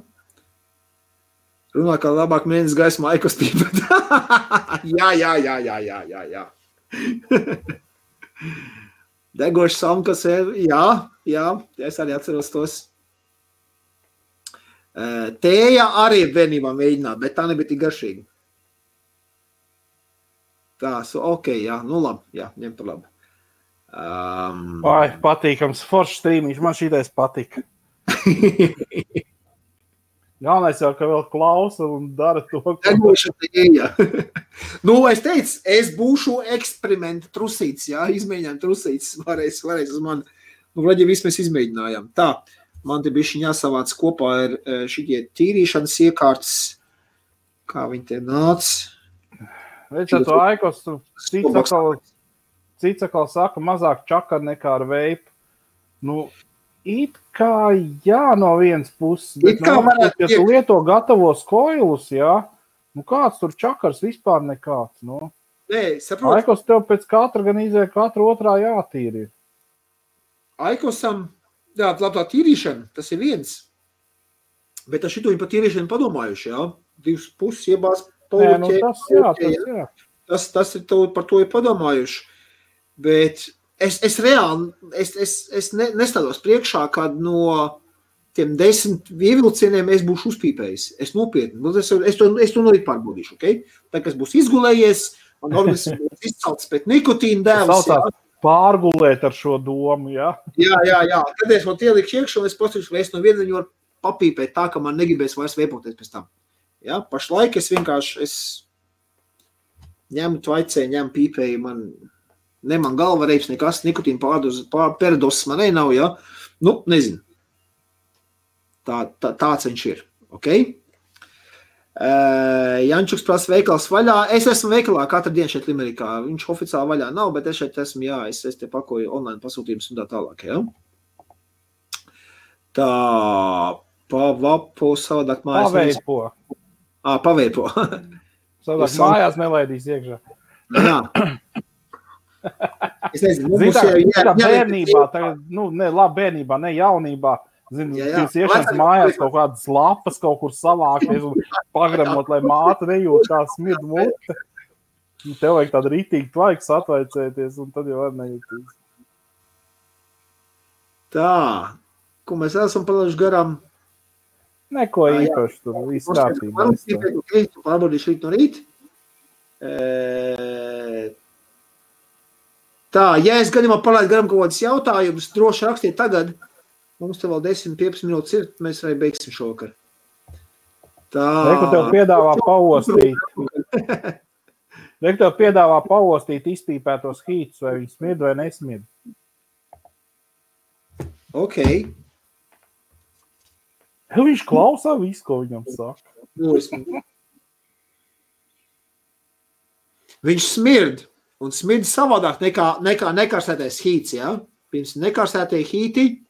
Runā, kā labāk mēnesis gaismā ekostība. Jā. Degoši samkas, jā, es arī atceros tos. Tēja arī bērnībā mēģināt, bet tā nebija tik garšīga. Tā, jā, nu labi, jā, ņem par labi. Patīkams, foršs strīmiņš, man šitais patika. Galvenais jau, ka vēl klausa un dara to. Nu, es teicu, es būšu eksperimenta trusīts, jā, izmēģinājām trusīts, varēs uz mani. Nu, vlaģi viss mēs izmēģinājām. Tā, man te bišķiņ jāsavāc kopā ir šitie tīrīšanas iekārtas, kā viņi te nāc. Veic, to Aikos, cits atkal saka, mazāk čakar nekā ar veipu. Nu, it kā jā no vienas puses, bet ja tu lieto gatavos koilus, jā, nu kāds tur čakars vispār nekāds, nu. Nē, saprot. Aikos tev pēc katra gan izēja katra otrā jātīri. Aikosam, jā, tā tīrīšana, tas ir viens. Bet ar šito viņi par tīrīšanu padomājuši, jā. 2 puses iebās jā. Tas ir par to ir padomājuši. Bet es reāli, es nestādos priekšā, kad no tiem 10 ievilcieniem es būšu uzpīpējis. Es nopietni, es to nolīt pārbaudīšu, ok? Tā, kas būs izgulējies, un organisms būs izcelts pēc nikotīna dēvas. Pārgulēt ar šo domu, jā? Jā. Kad es man ielikšu iekšā, es pasaukšu, vai es no viena viņu varu papīpēt tā, ka man negribēs vairs veipoties pēc tam. Ja, pašlaik es vienkārši ņemu tvaicē, ņemu pīpēju, man galva reips nekas, nikotīna peradosis man nav, ja? Nu, nezinu. Tāds viņš ir, ok? Jančuks prasa veikals vaļā. Es esmu veikalā katru dienu šeit Limerikā. Viņš oficiāli vaļā nav, bet es šeit esmu, jā, es te pakoju online pasūtījumus un tā tālāk, ja? Tā, pavapo, savādāk mājas. Paveipo. Paveipo. Savādāk mājās nelaidīs iekšā. Jā. Es nezinu, tā bērnībā, tagad, labi bērnībā, ne jaunībā, jūs iešanas mājās kaut kādas lapas kaut kur savākties un pagramot, lai māte nejūt kā smird mute. Tev vajag tādu rītīgu tvaiks atvaicēties un tad jau var nejūtīs. Tā, ko mēs esam palaiši garām? Neko īpaši tur, viss kārtībā. Tu pārbaudīšu rīt no rīt. Tā, ja es gadījumā palaidu garam kaut kādas jautājumus, droši rakstiet tagad. Mums te vēl 10-15 minūtes ir, mēs arī beigsim šovakar. Tā. Reku tev piedāvā paostīt izpīpētos hītus, vai viņi smird vai nesmird. Ok. Viņš klausā visu, ko viņam saka. Viņš smird, un smird savādāk nekā nekarsētais hīts, ja? Pirms nekarsētie hīti,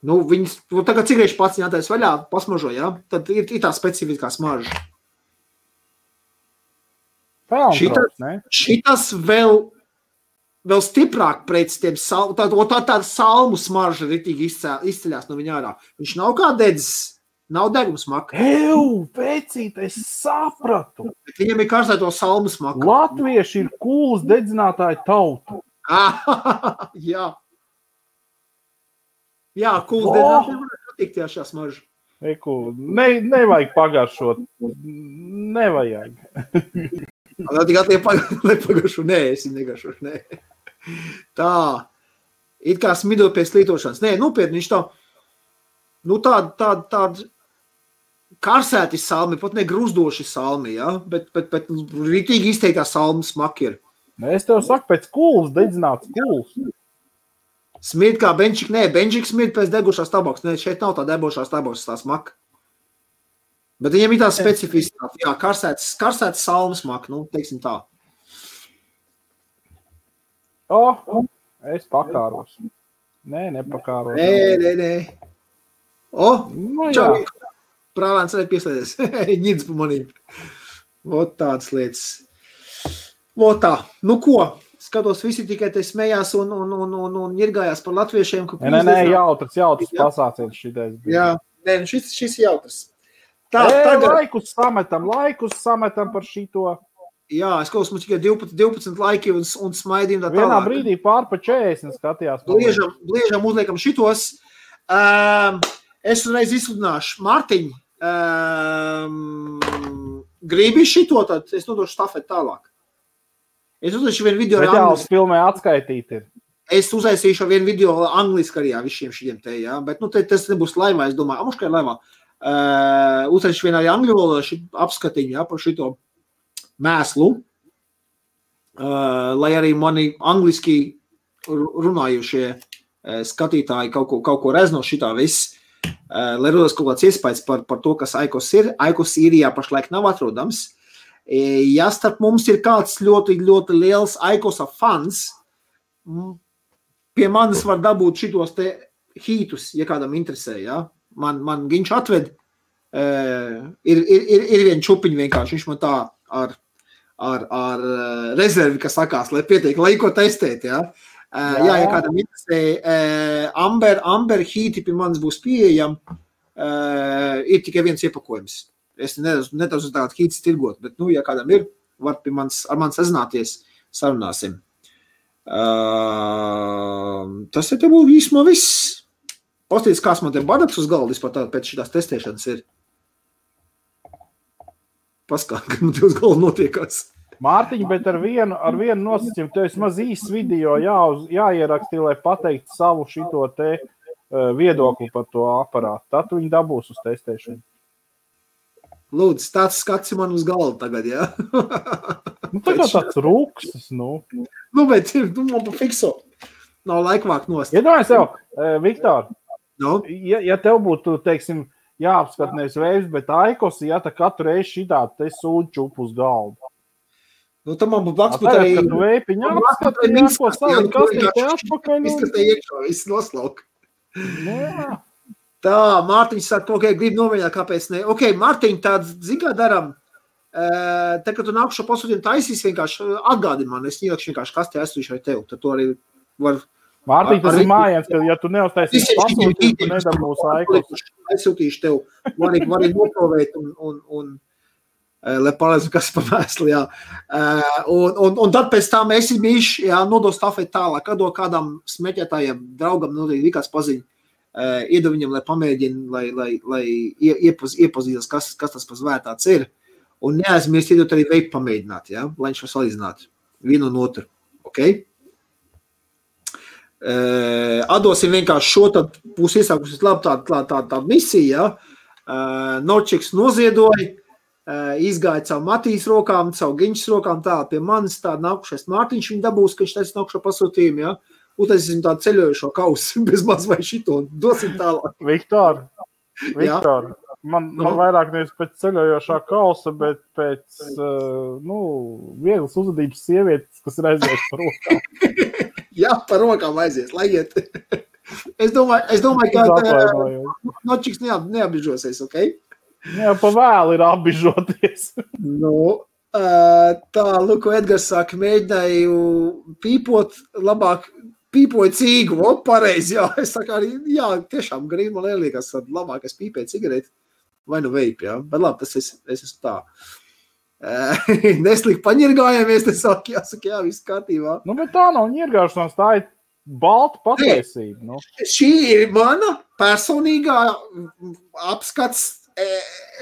viņas, tagad cigarešu pats jātais vaļā, pasmažo, ja? Tad ir tā specifiskā smarža. Šitas vēl vēl stiprāk pret tiem tāda salmu smarža ritīgi izceļās no viņa ārā. Viņš nav kā dedzis, nav degums maka. Vecīt, es sapratu. Bet viņam ir karstēto salmu smaka. Latvieši ir kūlas dedzinātāji tauta. Jā. Jā, kūlas dedzinātāji var patikt šā smarža. Nevajag pagaršot. Nevajag. Nepagašu, nē, es negašu, nē. Tā, it kā smido pēc lietošanas. Nē, nopietni, viņš tāda karsēti salmi, pat ne gruzdoši salmi, ja? Bet rītīgi izteiktā salmi smaki ir. Es tev saku, pēc kūlas dedzināts kūlas. Smid kā benčik, nē, benčik smid pēc degušās tabaks. Nē, šeit nav tā debošās tabaks, tā smaka. Bet viņam ir tā specifiskā, jā, karsēts salmas maka, teiksim tā. Es pakāros. Nē, nepakāros. Nē. Čau, prālēns arī pieslēdies. Ņidz pa manīm. Vot tādas lietas. Vot tā. Nu ko? Skatos, visi tikai te smējās un ņirgājās par latviešiem. Nē, jautrs pasāciens šitais. Jā, nē, šis ir jautrs. Laikus sametam par šito. Jā, es klausos, mums tikai 12 laiki un smaidījumi tā tālāk. Vienā brīdī pār pa 40 skatījās. Bliežam uzliekam šitos. Es uzreiz izsludināšu. Mārtiņ, gribi šito, tad es nodošu stafeti tālāk. Es uztaisīšu vienu video ar angliski. Filmē atskaitīt ir. Es uztaisīšu vienu video angliski arī visiem šiem te, jā. Bet, tas nebūs laivā, es domāju. Amuškai laivā. Uztaisīšu vienu arī angļu valodā apskatiņu, jā, par šito mēslu. Lai arī mani angliski runājušie skatītāji kaut ko rez no šitā viss. Lai rodas kaut kāds iespējas par to, kas Aikos ir. Aikos īrijā pašlaik nav atrodams. Ja starp mums ir kāds ļoti, ļoti liels Aikosa fans, pie manis var dabūt šitos te hītus, ja kādam interesē, ja? Man viņš atved, ir vien čupiņi vienkārši, viņš man tā ar rezervi, kas sakās, lai pietiek, lai ko testēt, ja? Ja kādam interesē, Amber hīti pie manis būs pieejam, ir tikai viens iepakojums. Es nedaudz tādu hītis tirgot, bet, ja kādam ir, var ar mani sazināties, sarunāsim. Tas te būtu īsumā viss. Pastīties, kāds man te badaks uz galda vispār pēc šitās testēšanas ir. Paskāt, ka man te uz galda notiekās. Mārtiņ, bet ar vienu nosacījumu, tev vismaz īsts video jāierakstīja, lai pateikt savu šito te viedokli par to aparātu. Tad viņi dabūs uz testēšanu. Lūdzu, tāds skats man uz galvu tagad, jā? Tagad tāds rūkstas, bet man pa fikso. Nav laikvāk nost. Iedomājies tev, Viktor, ja tev būtu, teiksim, jāapskat nevis vējs, bet Aikos, ja tā katru reizi šitā te sūd čupu uz galvu. Tad man būtu blakus būt arī... Kad tu vēpiņā apskat, jāko savu kastīti atpakaļ. Izskatē iekšā, viss noslauk. Jā. Tā, Mārtiņš saka, grib nomēģināt, kāpēc ne. Mārtiņ, tāds, kā daram, te, kad tu nākušo pasūtījumu taisīs, vienkārši atgādi man, es ielikšu vienkārši kastē aizsūtīšu ar tev, tad tu arī var... Mārtiņ, tas ir mājiens, ka ja tu neuztaisīs pasūtījumu, tu nedabūs Aikos. Aizsūtīšu tev, var arī noprovēt un lai palēdzu, kas pa mēsli, jā. Un tad pēc tam es mīšu, nodos stafeti tālāk, kad kādam smeķētājiem, draugam, kāds paziņ. Iedu viņam, lai pamēģina, lai iepazīstas, kas tas pa zvērtāts ir. Un neaizmirst iedot arī veipu pamēģināt, ja? Lai viņš var salīdzināt vienu un otru. Okay? Atdosim vienkārši šo, tad būs iesākusies labi tāda misija. Ja? Norčiks noziedoja, izgāja caur Matīs rokām, caur Giņšas rokām, tā pie manis tā nākušais Mārtiņš viņa dabūs, ka viņš taisa nākušo pasūtījumu, ja? Utaisīsim tādu ceļojušo kausu, bez maz vai šito, dosim tālāk. Viktor, man vairāk nevis pēc ceļojošā kausa, bet pēc, vieglas uzvedības sievietes, kas ir aizies par rokām. Jā, par rokām aizies, lai iet. Es domāju, ka Nočiks neapbižosies, ok? Jā, pa vēlu ir apbižoties. Tā, Luko Edgars saka, mēģināju pīpot, labāk pīpoju cīgu, pareizi, jā. Es saku arī, jā, tiešām garīgi man liekas, labāk es pīpēju cigareti vai nu veipi, jā. Bet labi, tas es esmu tā. Neslīgi paņirgājāmies, te saka, jā, viss kārtībā. Nu, bet tā nav ņirgāšanās, tā ir balta patiesība. Nu. Šī ir mana personīgā apskats,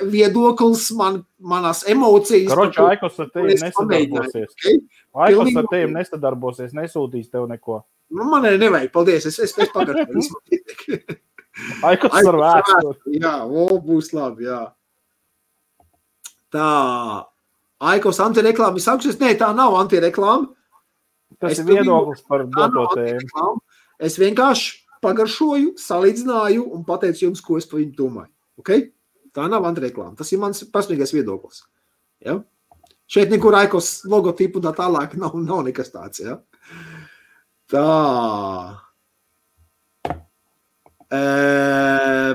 viedoklis, manas emocijas. Karoči, Aikos ar tevi nesadarbosies. Okay? Aikos ar tevi nesadarbosies, nesūtīs tev neko. Nu, man nevajag, paldies, es pagaršu. Aikos ar vēsturi. Jā, būs labi, jā. Tā, Aikos antireklāma ir sākušies? Nē, tā nav antireklāma. Tas ir viedoklis par doto tēmu. Es vienkārši pagaršoju, salīdzināju un pateicu jums, ko es par viņu domāju. Okay? Tā nav antireklāma. Tas ir mans personīgais viedoklis. Ja? Šeit nekur Aikos logotipu un tā tālāk nav nekas tāds. Ja? Tā.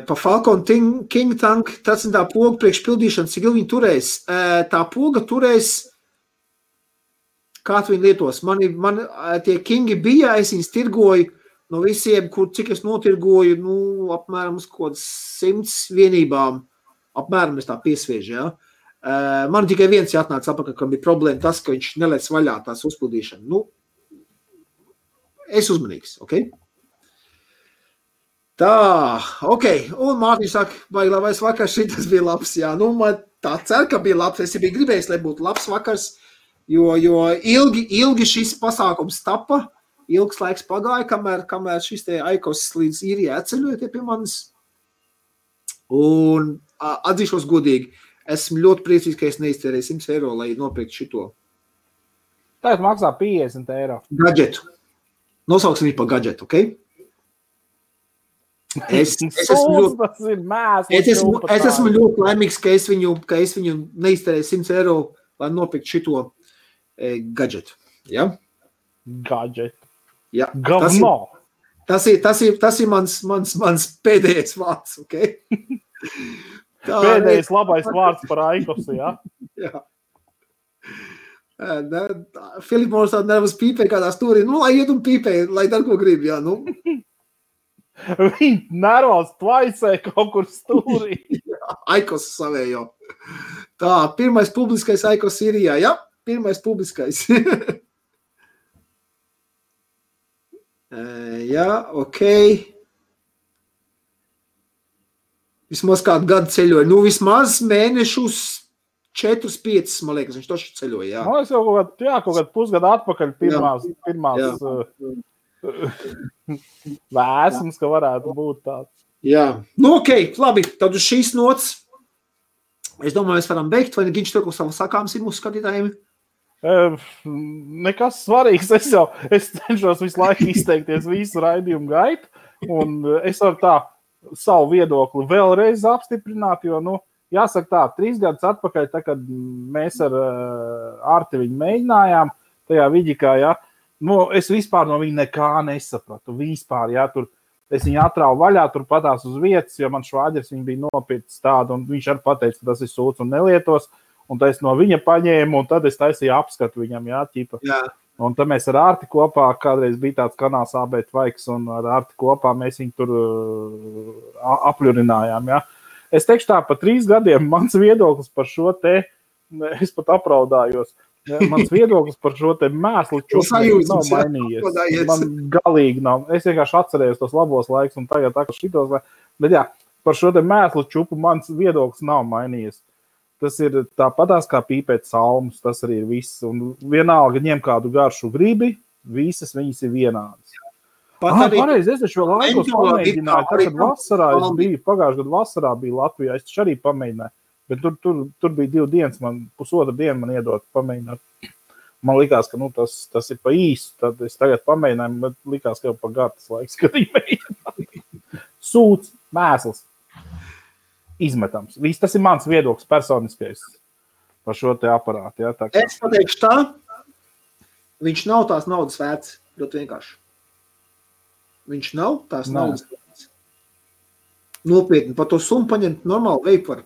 Pa Falcon King Tank, tas ir tā poga priekš pildīšanas, cik ilgi viņi turēs. Tā poga turēs, kā tu viņi lietos. Man tie Kingi bija, es viņus tirgoju no visiem, cik es notirgoju, apmēram uz kaut 100 vienībām. Apmēram es tā piesviežu, ja. Man tikai viens jāatnāca apakaļ, kam bija problēma tas, ka viņš nelēc vaļā tās uzpildīšana. Es uzmanīgs, ok? Tā, ok. Un Mārtiņš saka, baigi labais vakars, šitas bija labs, jā. Man tā cer, ka bija labs. Es biju gribējis, lai būtu labs vakars, jo ilgi šis pasākums tapa, ilgs laiks pagāja, kamēr šis te Aikos līdz īrijā atceļoja pie manis. Un atzīšos godīgi, esmu ļoti priecīgs, ka es neiztērēju 100 eiro, lai nopirktu šito. Tagad maksā 50 eiro. Gadžetu. Nosauksim viņu par gadžetu, ok? Es esmu ļoti laimīgs, ka es viņu neiztērēju 100 eiro, lai nopirktu šito gadžetu. Ja? Gadžetu. Ja. Gavno. Tas ir mans pēdējais vārds, ok? Pēdējais labais vārds par Aikosu, ja? Jā. Filips mums tāda nervas pīpē kādā stūrī. Lai iet un pīpē, lai dar ko grib, jā, Viņi nervos tvaicē kaut kur stūrī. Aikos savējo. Tā, pirmais publiskais Aikos Sīrijā, jā? Pirmais publiskais. Jā, ok. Vismaz kādu gadu ceļoja. Vismaz mēnešus 4-5, man liekas, viņš toši ceļoja, jā. Man liekas, kaut kādu pusgadu atpakaļ pirmās vēsums, ka varētu būt tāds. Jā, ok, labi, tad uz šīs nots, es domāju, mēs varam beigt, vai Giņš to, ko savu sakāms ir mūsu skatītājiem? Nekas svarīgs, es cenšos visu laiku izteikties visu raidījumu gaitu, un es varu tā savu viedokli vēlreiz apstiprināt, jo, jāsaka tā, 3 gadus atpakaļ, tā, kad mēs ar Arti viņu mēģinājām, tajā Viģikā, jā, es vispār no viņa nekā nesapratu. Vispār, jā, tur es viņu atrauju vaļā, tur patās uz vietas, jo man švāģers viņa bija nopircis tādu, un viņš arī pateica, ka tas ir sūds un nelietos, un tad es no viņa paņēmu, un tad es taisīju apskatu viņam, jā, ķipa. Jā. Un tad mēs ar Arti kopā, kādreiz bija tāds kanāls AB Tvaiks, un ar Arti kopā mēs viņu tur apļurinājām, jā. Es teikšu tā, pa 3 gadiem mans viedoklis par šo te, es pat apraudājos, mans viedoklis par šo te mēslu čupu nav mainījies. Man galīgi nav. Es vienkārši atcerējos tos labos laikus un tagad tā, ka šitos, bet jā, par šo te mēslu čupu mans viedoklis nav mainījies. Tas ir tāpatās kā pīpēt salmus, tas arī ir viss. Un vienalga ņem kādu garšu gribi, visas viņas ir vienādas. Pareizi, es taču vēl Aikos pamēģināju, tad, kad vasarā es biju, pagājušajā gadu vasarā biju Latvijā, es taču arī pamēģināju. Bet tur bija 2 dienas, man pusotra diena man iedot pamēģināt. Man likās, ka tas ir pa īsu, tad es tagad pamēģināju, bet likās, ka jau pa gartas laiks, kad viņi mēģināja. Sūds, mēsls, izmetams. Viss, tas ir mans viedoklis personiskais par šo te aparātu. Ja, es pateikšu tā, viņš nav tās naudas vērts, ļoti vienkārši. Viņš nav tās naudas vērts. Nopietni, par to summu paņemt normāli veipu var.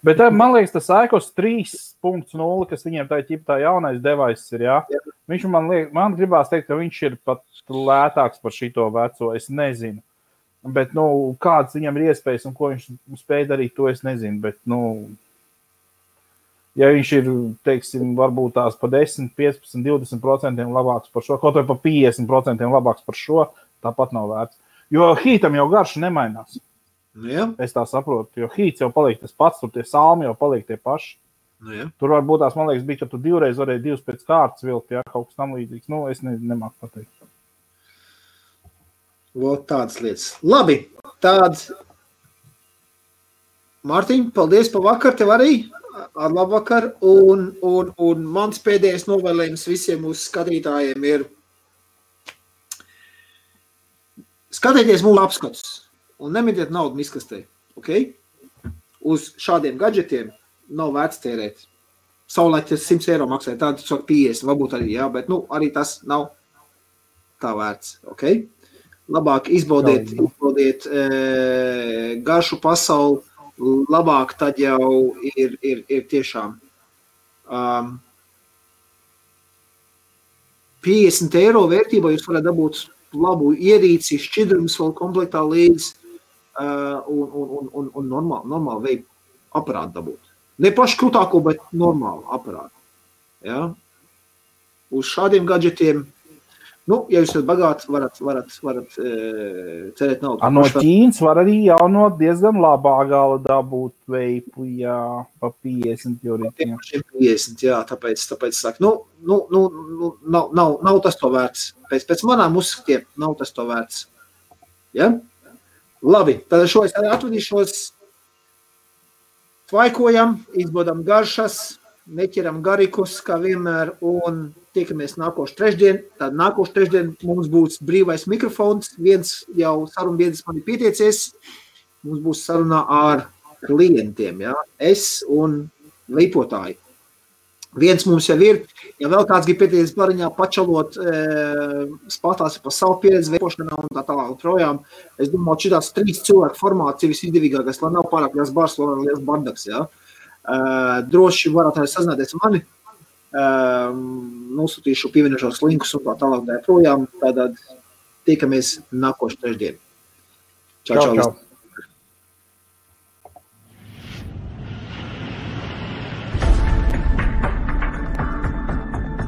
Bet man liekas, tas Aikos 3.0, kas viņiem tā jaunais devaiss ir, jā. Viņš man gribās teikt, ka viņš ir pat lētāks par šito veco, es nezinu. Bet, kāds viņam ir iespējas un ko viņš spēj darīt, to es nezinu. Bet, ja viņš ir, teiksim, varbūt tās pa 10, 15, 20% labāks par šo, kaut vai pa 50% labāks par šo, tāpat nav vērts. Jo Heatam jau garša nemainās. Jā. Es tā saprotu, jo Heats jau paliek tas pats, tur tie salmi jau paliek tie paši. Jā. Tur varbūt tās, man liekas, bija, ka tu divreiz varēji divas pēc kārtas vilkt, jā, kaut kas tam līdzīgs. Es nemāku pateikt. Vot tādas lietas. Labi, tāds. Mārtiņ, paldies par vakar, tev arī. Ar labvakar. Un mans pēdējais novēlējums visiem mūsu skatītājiem ir skatieties mūsu apskatus. Un nemetiet naudu miskastē, ok? Uz šādiem gadžetiem nav vērts tērēt. Savulaik tas 100 eiro maksāja, tāda 50, varbūt arī, jā, bet arī tas nav tā vērts, ok? Labāk izbaudiet garšu pasauli, labāk tad jau ir tiešām 50 eiro vērtībā jūs varat dabūt labu ierīci, šķidrums vēl komplektā līdz un normāli veidu aparātu dabūt. Ne pašu krūtāko, bet normālu aparātu. Ja? Uz šādiem gadžetiem, ja jūs esat bagāti, varat cerēt naudu. No Ķīnas var arī jau no diezgan labā gala dabūt veipu, jā, pa 50 jūrītiem. 50, jā, tāpēc saka, nav tas to vērts. Pēc manām uzskatiem nav tas to vērts. Ja? Labi, tad šo es arī atvadīšos. Tvaikojam, izbaudām garšas, neķeram garikus, kā vienmēr, un tiekamies nākošu trešdien. Tad nākošu trešdien mums būs brīvais mikrofons. Viens jau sarunbiedrs man ir pieteicies. Mums būs sarunā ar klientiem, ja? Es un leipotāji. Viens mums jau ir, ja vēl kāds grib pieteicies bariņā pačalot, spātās par savu pieredzi veipošanā un tā tālāk projām. Es domāju, šitās 3 cilvēku formācija visizdevīgākais, lai nav pārāk liels bars, lai nav liels bardaks, ja? Droši varat arī sazināties ar mani. Nosūtīšu pievienošos linkus un tā tālāk projām. Tātad tiekamies nākošu trešdien. Čau.